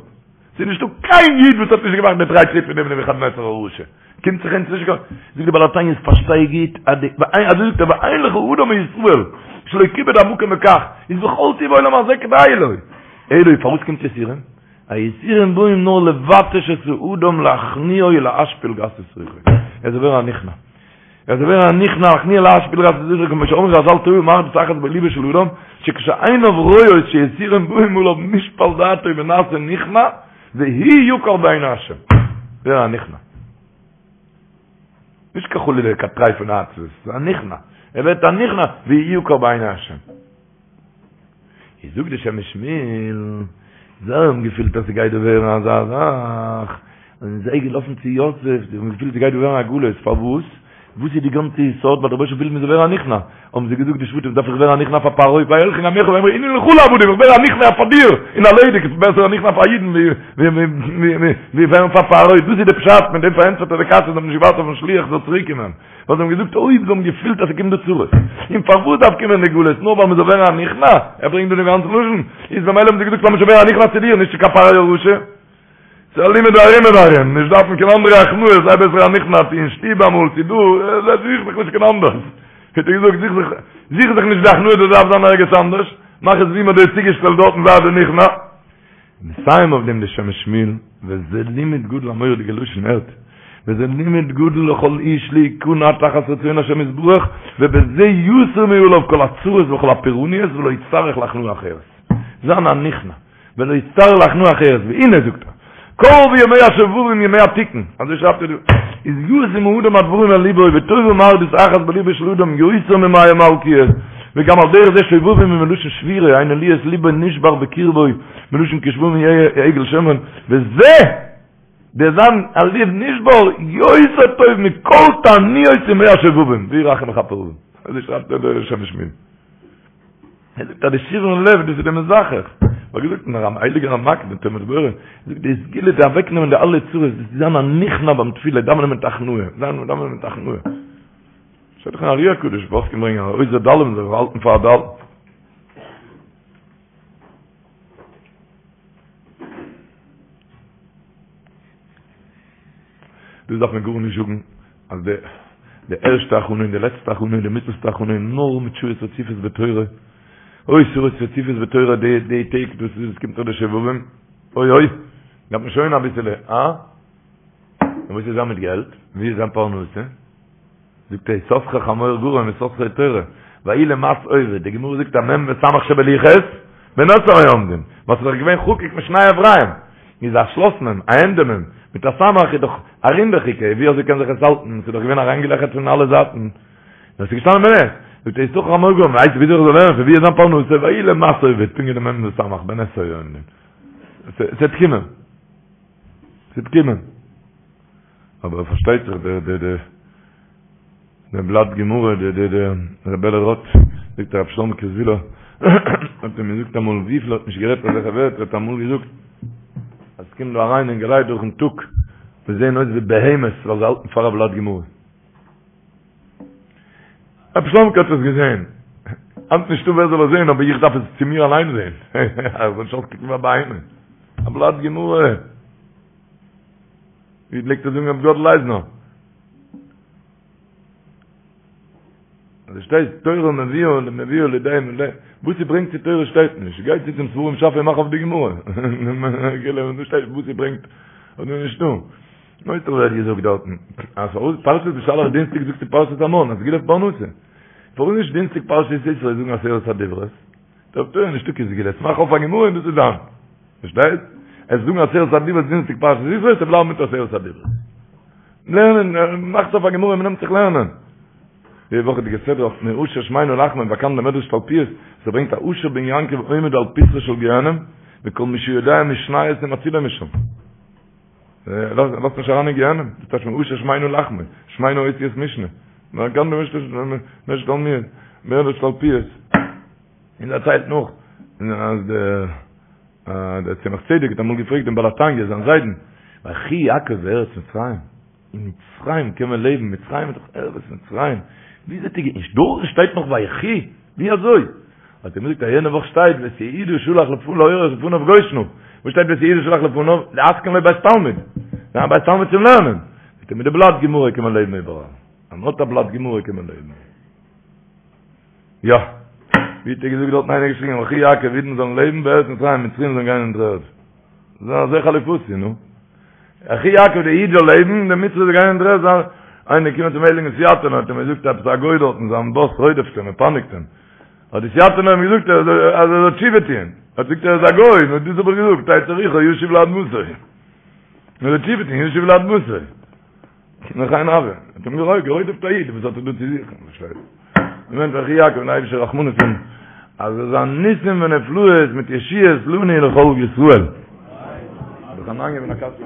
ס'איז נישטא קיין איד וואס האט נישט געמאכט די דריי טריט פון דעם נבוכדנצר הרשע. קומט זיך אונז נישט קיין. זאגט דער בעל התניא, פארשטיי גוט אז די, אזוי זאגט ער, ואין לך אדם מישראל שלא כיבד המקום בכך, איז וכל טוב העולם הזה כדאי לו. אלא פארוואס קומט יסורים? היסורים באים נאר לבטש את האדם להכניעו ולהשפיל גסות רוחו. ער זאל ווערן א נכנע. ער זאל ווערן א נכנע להכניעו ולהשפיל גסות רוחו כמו שאמרו חזל טובה מרדות אחת בליבו של אדם שכשעיניו רואות שיסורים באים עליו נשפל דעתו ונעשה נכנע והוא יקר בעיני השם. ווערן א נכנע. נישט קיין חלילה קיין טרייפענע עצבות, ס'איז א נכנע. ער ווערט א נכנע והוא יקר בעיני השם. איז זאגט די שם משמואל, זיי האבן געפילט אז ס'גייט דא ווערן אזא זאך, זענען זיי געלאפן צו יוסף, זיי האבן געפילט ס'גייט דא ווערן א גלות, פארוואס? וואס איז די גאנצע יסוד? ווייל דער רבוש"ע וויל מ'זאל ווערן א נכנע, האבן זיי געזאגט די שבטים, דארף איך ווערן א נכנע פאר פרעה, וילכו גם אחיו ויאמרו הננו לך לעבדים, איך ווער א נכנע פאר דיר, און ערלעדיג, עס איז בעסער א נכנע פאר אידן ווי ווערן פאר פרעה, דאס איז די פשט, מיט דעם פארענטפערט ער די קשיא, זיי האבן נישט געווארט אויפן שליח זאל צוריק קומען. ווייל זיי האבן געזאגט אויב זיי האבן געפילט אז ס'קומט דא צרות, און פארוואס דארף קומען די גלות, נאר ווייל מ'זאל ווערן א נכנע, ער ברענגט דא דעם גאנצן לשון, איז במילא האבן זיי געזאגט לאמיר שוין ווערן א נכנע צו דיר, נישט צו קיין פרעה הרשע. ס'איז א לימוד ארום און ארום, נישט דארפן קיין אנדערע הכנעות, זיי בעסער א נכנע צו אין שטוב אמאל, צו דא, זוך זיך נישט קיין אנדערס. האט ער געזאגט, זוך זיך, זוך זיך נישט די הכנעה, דאס דארף זיין ערגעץ אנדערש, מאך עס ווי מ'האט דיר צוגעשטעלט דארטן זיי די נכנע. מסיים אויף דעם די שם משמואל, וזה לימוד גדול א מורא'דיגע לשון הערט, וזה לימוד גדול לכל איש להיכנע תחת רצון השם יתברך, ובזה יסיר מעליו כל הצרות וכל הפורעניות ולא יצטרך להכנעה אחרת. זיין א נכנע, ולא יצטרך להכנעה אחרת, והנה זאגט ער, קרבו ימי השובבים ימי התיקון, אזוי שרייבט ער דא, איז ישים האדם הדברים אל ליבו וטובה מרדות אחת בליבו של אדם יותר ממאה מלקיות, וגם על דרך זה שובבים הוא מלשון שבירה, היינו להיות ליבו נשבר בקרבו, מלשון כשבובים יהיה עגל שומרון, וזה, דער זיין א לב נשבר, יותר טוב מכל תעניות ימי השובבים, והוא רחום יכפר עון. אזוי שרייבט דער שם משמואל. ער זאגט אז די שברון לב דאס איז די מזכך. האט געזאגט אין רמ הייליגער רמק דער תומר דבורה, זאגט די סגולה צו אוועקנעמען די אלע צרות, דאס איז זיין א נכנע ביים תפילה, דאווענען מיט הכנעה, זיין דאווענען מיט הכנעה. שטייט דאך אין ארי הקדוש, פוסקים ברענגען אז עוזר דלים זאל זיך האלטן פאר א דל. דאס דארף מען גארנישט זאגן אז די די ערשטע הכנה און די לעצטע הכנה און די מיטלסטע הכנה איז נאר מיט שעות רציפות בתורה, אוי שעות רציפות בתורה די די טעג דאס איז עס קומט דאך די שובבים, אוי אוי, דארף מען שוין אביסעלע, אה? און וואס איז זיין מיט געלט? ווי איז זיין פרנסה? זאגט ער יששכר חמור גרם יששכר תורה, ויהי למס עובד, די גמרא זאגט א מ' וסמך שבלוחות, בנס היו עומדין, וואס איז דאך געווען חקוק משני עבריהם, איז א שלאס מ', א ענדע מ', מיט א סמך איז דאך א רינדעכיגע, ווי אזוי קען זיך עס האלטן, ס'איז דאך געווען אריינגעלעכערט פון אלע זייטן, נאר ס'איז געשטאנען בנס, זאגט ער יששכר חמור גרם, ווייסט וויאזוי איך זאל לערנען, פון ווי איז זיין פרנסה, ויהי למס עובד, פונקט ווי די מ' וסמך, בנס היו עומדין. ס'וועט קומען. ס'וועט קומען. אבער פארשטייט זיך די די די די בלאט גמרא די די די ר' בערל רוט זאגט הרב שלמ'קע זוויהלער האט אים געזאגט אמאל וויפיל האט נישט גערעדט אזעלכע ווערטער האט אמאל געזאגט אז ס'קומט דא אריין אינגעלייט דורכן טאג. וואס זעען אויס ווי בהמות ווייל זיי האלטן פאר א בלאט גמרא. רבי שלומ'קע האט עס געזען. היינט נישטא ווער זאל עס זען, אבער איך דארף עס צו מיר אליין זען. איך זאל נישט אויסקוקן ווי א בהמה. א בלאט גמרא. ווי פלעגט ער זאגן רבי גאדל אייזנער? אז שטייט תורה מביאה מביאה לידי מלא וואס ס'ברענגט צו תורה שטייט נישט גיי צו צום ספרים שאפע און מאך אויף די גמרא געלע און דא שטייט וואס ס'ברענגט און נישט דא נויט ער האט געזאגט דארטן אז פארוואס פרשת בשלח דינסטיק זאגט די פרשת המן א סגולה אויף פרנסה פארוואס נישט דינסטיק פרשת יתרו זאגן עשרת הדברות דער תורה נישטא קיין סגולות מאך אויף א גמרא און דאס איז דיין פארשטייט עס זאגן עשרת הדברות דינסטיק פרשת יתרו עס בלייבן מיט עשרת הדברות לערנען, מאכט אויף א גמרא, מ'נעמט זיך לערנען. די וואכעדיגע סדרה אויף מעושר שמינו לחמו, באקאנט דער מדרש תלפיות, ס'ברענגט א אשר בן יעקב עומד על פתחו של גיהנם, וכל מי שיודע משניות מצילו משם. לאזט נישט אריין אין גיהנם, דאס טייטש מעושר שמינו לחמו, שמינו אותיות משנה. באקאנט דער מדרש תלפיות, מדרש תלפיות. און דערציילט נאך, אז דער דער צמח צדק האט אמאל געפרעגט דעם בעל התניא, זיין זיידן, ויחי יעקב בארץ מצרים, אין מצרים קען מען לעבן, מצרים איז דאך ארץ מצרים, ווי זעט איר, און דארטן שטייט נאך ויחי, ווי אזוי? האט ער אים געזאגט אז יענע וואך שטייט ואת יהודה שלח להורות לפניו גושנה, וואס שטייט ואת יהודה שלח לפניו? להתקין לו בית תלמוד, זיין בית תלמוד צום לערנען, זאגט ער מיט די בלאט גמרא קען מען לעבן איבעראל, אז מען האט א בלאט גמרא קען מען לעבן. יא. ווי האט ער געזאגט דארטן איינער געשריגן ויחי יעקב אידן זאלן לעבן בארץ מצרים מצרים זאלן גיין אין דר'ערד. זיי אזוי חליפותי נו. ויחי יעקב די איד זאל לעבן די מצרי זאל גיין אין דר'ערד זיין איינער קומען צום הייליגן סיאטינער האט אים געזאגט עפעס א גוי דארטן זיין באס רודפ'ט אים און פייניגט אים. האט די סיאטינער אים געזאגט אז ער זאל תשובה טוען. האט געזאגט ער איז א גוי נו דאס האב איך געזאגט תצא רוחו ישוב לאדמתו. נו זאל תשובה טוען ישוב לאדמתו. נאך איין אבער, האט אים גערוי גערודפ'ט א איד, וואס האט ער דא צו זוכן, פארשטייט? מען וועט ויחי יעקב און אייבישטער רחמנות האבן, אז עס זיין ניסים ונפלאות מיט ישועות לנו ולכל ישראל. דאך אן איינגעבן א קאסע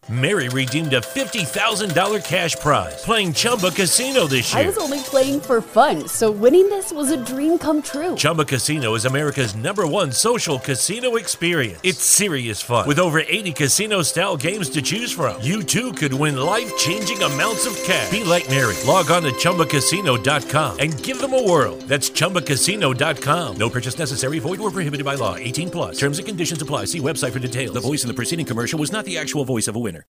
Mary redeemed a $50,000 cash prize playing Chumba Casino this year. I was only playing for fun, so winning this was a dream come true. Chumba Casino is America's number one social casino experience. It's serious fun. With over 80 casino style games to choose from, you too could win life changing amounts of cash. Be like Mary. Log on to chumbacasino.com and give them a whirl. That's chumbacasino.com. No purchase necessary, void or prohibited by law. 18 plus. Terms and conditions apply. See website for details. The voice in the preceding commercial was not the actual voice of a winner.